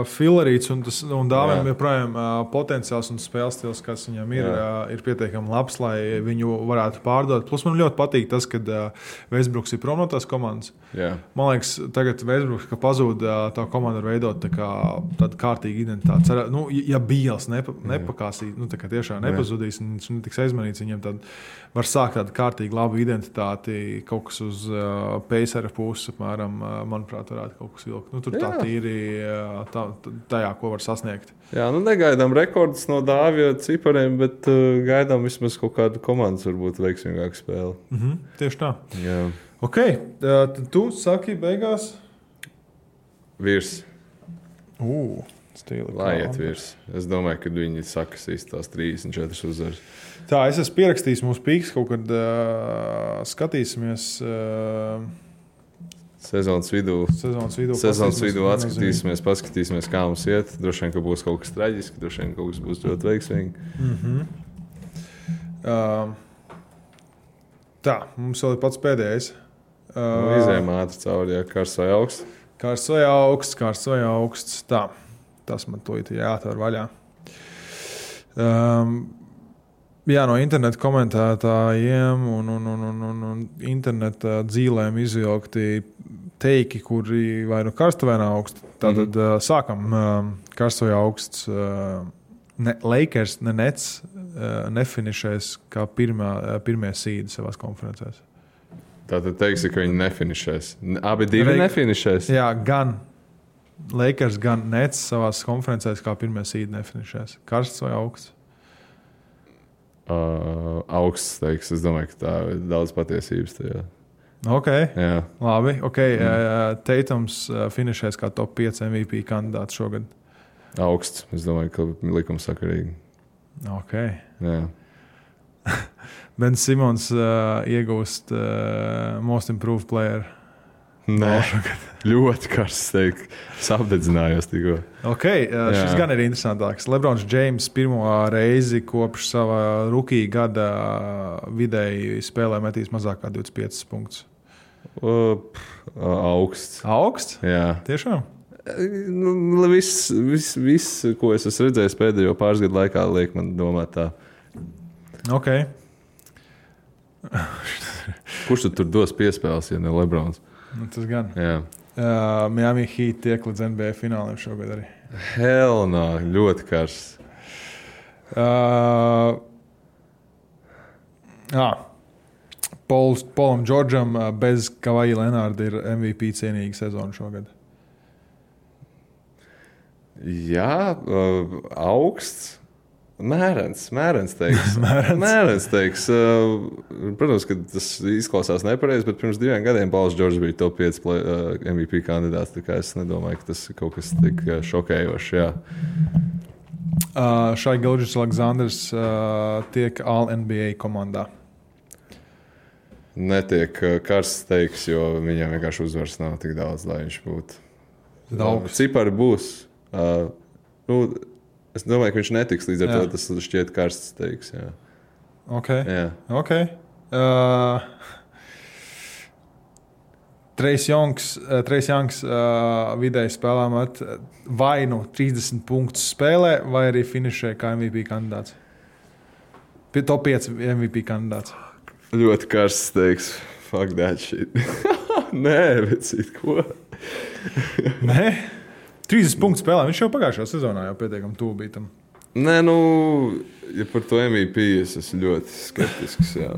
filerīts, un Dāvim joprojām potenciāls un spēles stils, kas viņam ir pietiekami labs, lai viņu varētu pārdot. Plus man ļoti patīk tas, ka Westbrooks ir prom no tās komandas. Jā. Man liekas, tagad Westbrooks, ka pazūd tā komanda var veidot tādu kārtīgu identitāti. Ja Bīls nepakāsīs, tiešām nepazudīs, un viņš netiks aizmanīts, viņiem tad var sākt tādu kārtīgu labu identitāti, kaut kas uz Pacera puses, apmēram, manuprāt, varētu kaut kas vilkt. Tur tā tīri tajā, ko var sasniegt. Jā, negaidām rekordus no Dāvija cipariem, bet gaidām vismaz kaut kādu komandas varbūt veiksmīgāku spēli. Tieši tā. Jā. Ok, tad tu saki beigās? Virs. Stila. Lai iet virs. Es domāju, ka viņi sakasīs tās 34 uzvaras. Tā, es esmu pierakstījis mūsu pīks, kaut kad skatīsimies... Sezonas vidū atskatīsimies, paskatīsimies, kā mums iet. Droši vien, ka būs kaut kas traģisks, droši vien, ka kaut kas būs ļoti veiksmīgi. Tā, mums vēl ir pats pēdējais. Izējām ātri cauri, karsts vai augsts. Karsts vai augsts. Tā, tas man to jāatver vaļā. Jā, no interneta komentētājiem un interneta dzīlēm izvilkti teiki, kuri vai nu karsta vai nav augsti. Tātad sākam karsts vai augsts. Lakers, ne Nets nefinišēs kā pirmie sīdi savās konferencēs. Tātad teiksi, ka viņi nefinišēs. Abi divi nefinišēs? Jā, gan Lakers, gan Nets savās konferencēs kā pirmie sīdi nefinišēs. Karsts vai augsts? Augsts teiks. Es domāju, ka tā ir daudz patiesības tajā. Ok, jā. Labi. Okay. Teitums finišēs kā top 5 MVP kandidāts šogad. Augsts. Es domāju, ka likumsakarīgi. Ok. Jā. Ben Simons iegūst Most Improved Player. Nē, ļoti karsts, teikt. Apdedzinājos tikko. Okay, šis gan ir interesantāks. Lebrons Džeims pirmo reizi kopš sava rookie gada vidēji spēlē metīs mazāk kā 25 punktus. Augsts. Augsts? Jā. Tiešām? Viss, ko es esmu redzējis pēdējo pāris gadu laikā, liek man domāt tā. Ok. Kurš tur dos piespēles, ja ne Lebrons? Tas gan. Jā. Miami Heat tiek līdz NBA fināliem šogad arī. Hell no, ļoti karsts. Polam Džordžam bez Kavaja Lenārda ir MVP cienīga sezona šogad. Jā, augsts. Mērens teiks. Mērens teiks. Protams, ka tas izklausās nepareizi, bet pirms 2 gadiem Pauls Džordžs bija top 5 MVP kandidāts. Tā kā es nedomāju, ka tas ir kaut kas tik šokējošs. Jā. Šai Gilgeous Aleksandrs tiek All-NBA komandā. Netiek karsts teiks, jo viņam vienkārši uzvaras nav tik daudz, lai viņš būtu. Daudz. Cipari būs. Es domāju, ka viņš netiks līdz ar to, tas šķiet karsts teiks. Jā. Ok. Jā. Okay. Trace Youngs vidēji spēlē met vai nu 30 punktus spēlē, vai arī finišē kā MVP kandidāts. Top 5 MVP kandidāts. Ļoti karsts teiks. Fuck that shit. Nē, vecīt, ko? Nē? 30 punktu spēlē. Viņš jau pagājušajā sezonā jau pietiekami tuvu bija tam. Nē, ja par to MVP es esmu ļoti skeptisks. Jā.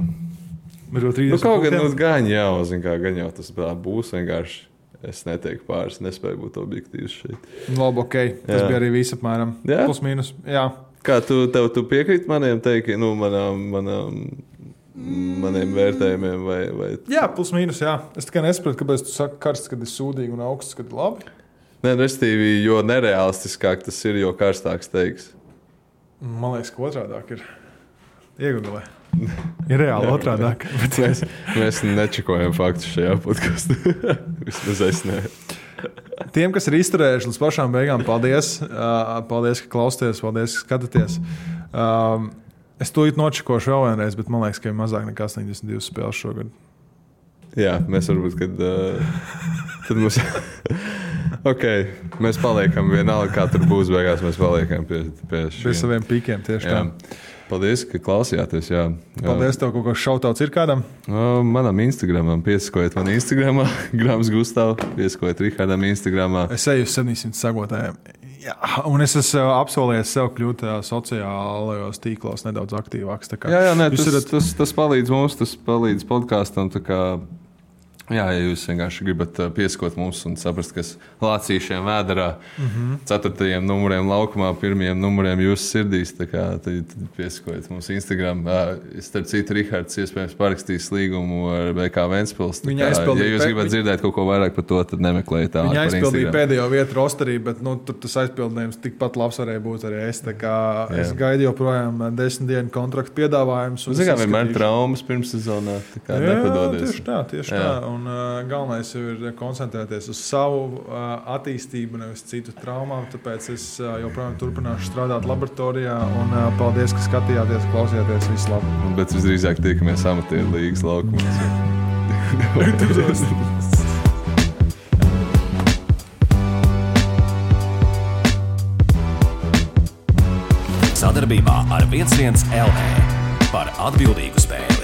Kaut gan gan jau tas būs vienkārši. Es neteiktu pāris, nespēju būt objektīvs šeit. Labi, ok. Tas bija arī viss apmēram. Plus mīnus. Jā. Kā tu piekrīt maniem teikiem, maniem vērtējumiem? Vai... Jā, plus mīnus, jā. Es tikai nesaprotu, kāpēc tu saki karsts, kad ir sūdīgi un augsts, kad ir labi. Nē, restīvi, jo nereālistiskāk tas ir, jo karstāks teiks. Man liekas, ka otrādāk ir. Iegūlē. Ir reāli otrādāk. Mēs nečekojam faktus šajā podkastā. Vismaz es ne. Tiem, kas ir izturējuši līdz pašām beigām, paldies. Paldies, ka klausāties, paldies, ka skatāties. Es to nočekošu vēl vienreiz, bet man liekas, ka ir mazāk nekā 82 spēles šogad. Jā, mēs varbūt, kad tad mums... Ok, mēs paliekam vienalga, kā tur būs beigās, mēs paliekam pie šiem. Pie saviem pīkiem tieši tā. Paldies, ka klausījāties. Jā. Paldies, tev kaut kāds šautauts ir kādam? Manam Instagramam, piesakojiet man Instagramā, Grams Gustav, piesakojiet Rihardam Instagramā. Es eju uz 700 sagotājiem. Jā, un es esmu apsolījies sev kļūt sociālajos tīklos nedaudz aktīvāks. Tas palīdz mums, tas palīdz podkāstam. Jā, ja jūs vienkārši gribat pieskot mums un saprast, kas lācīšiem vēderā, 4. numuriem laukumā, 1. numuriem jūsu sirdīs, tad pieskojiet mums Instagram. Starp citu, Rihards iespējams parakstīs līgumu ar BK Ventspils. Ja jūs gribat dzirdēt kaut ko vairāk par to, tad nemeklējiet tā. Viņa aizpildīja pēdējo vietu rosterī, bet tur tas aizpildījums tikpat labs varēja būt arī es. Es gaidu joprojām 10 dienu kontraktu piedāvājumus. Vienmēr traumas pirms sezonā, nepadodies. Tieši tā. Un galvenais ir koncentrēties uz savu attīstību, nevis citu traumām. Tāpēc es joprojām turpināšu strādāt laboratorijā. Un paldies, ka skatījāties, klausījāties. Visu labi. Bet visdrīzāk tiekamies amatieru līgas laukumos. Sadarbībā ar 11 LV par atbildīgu spēli.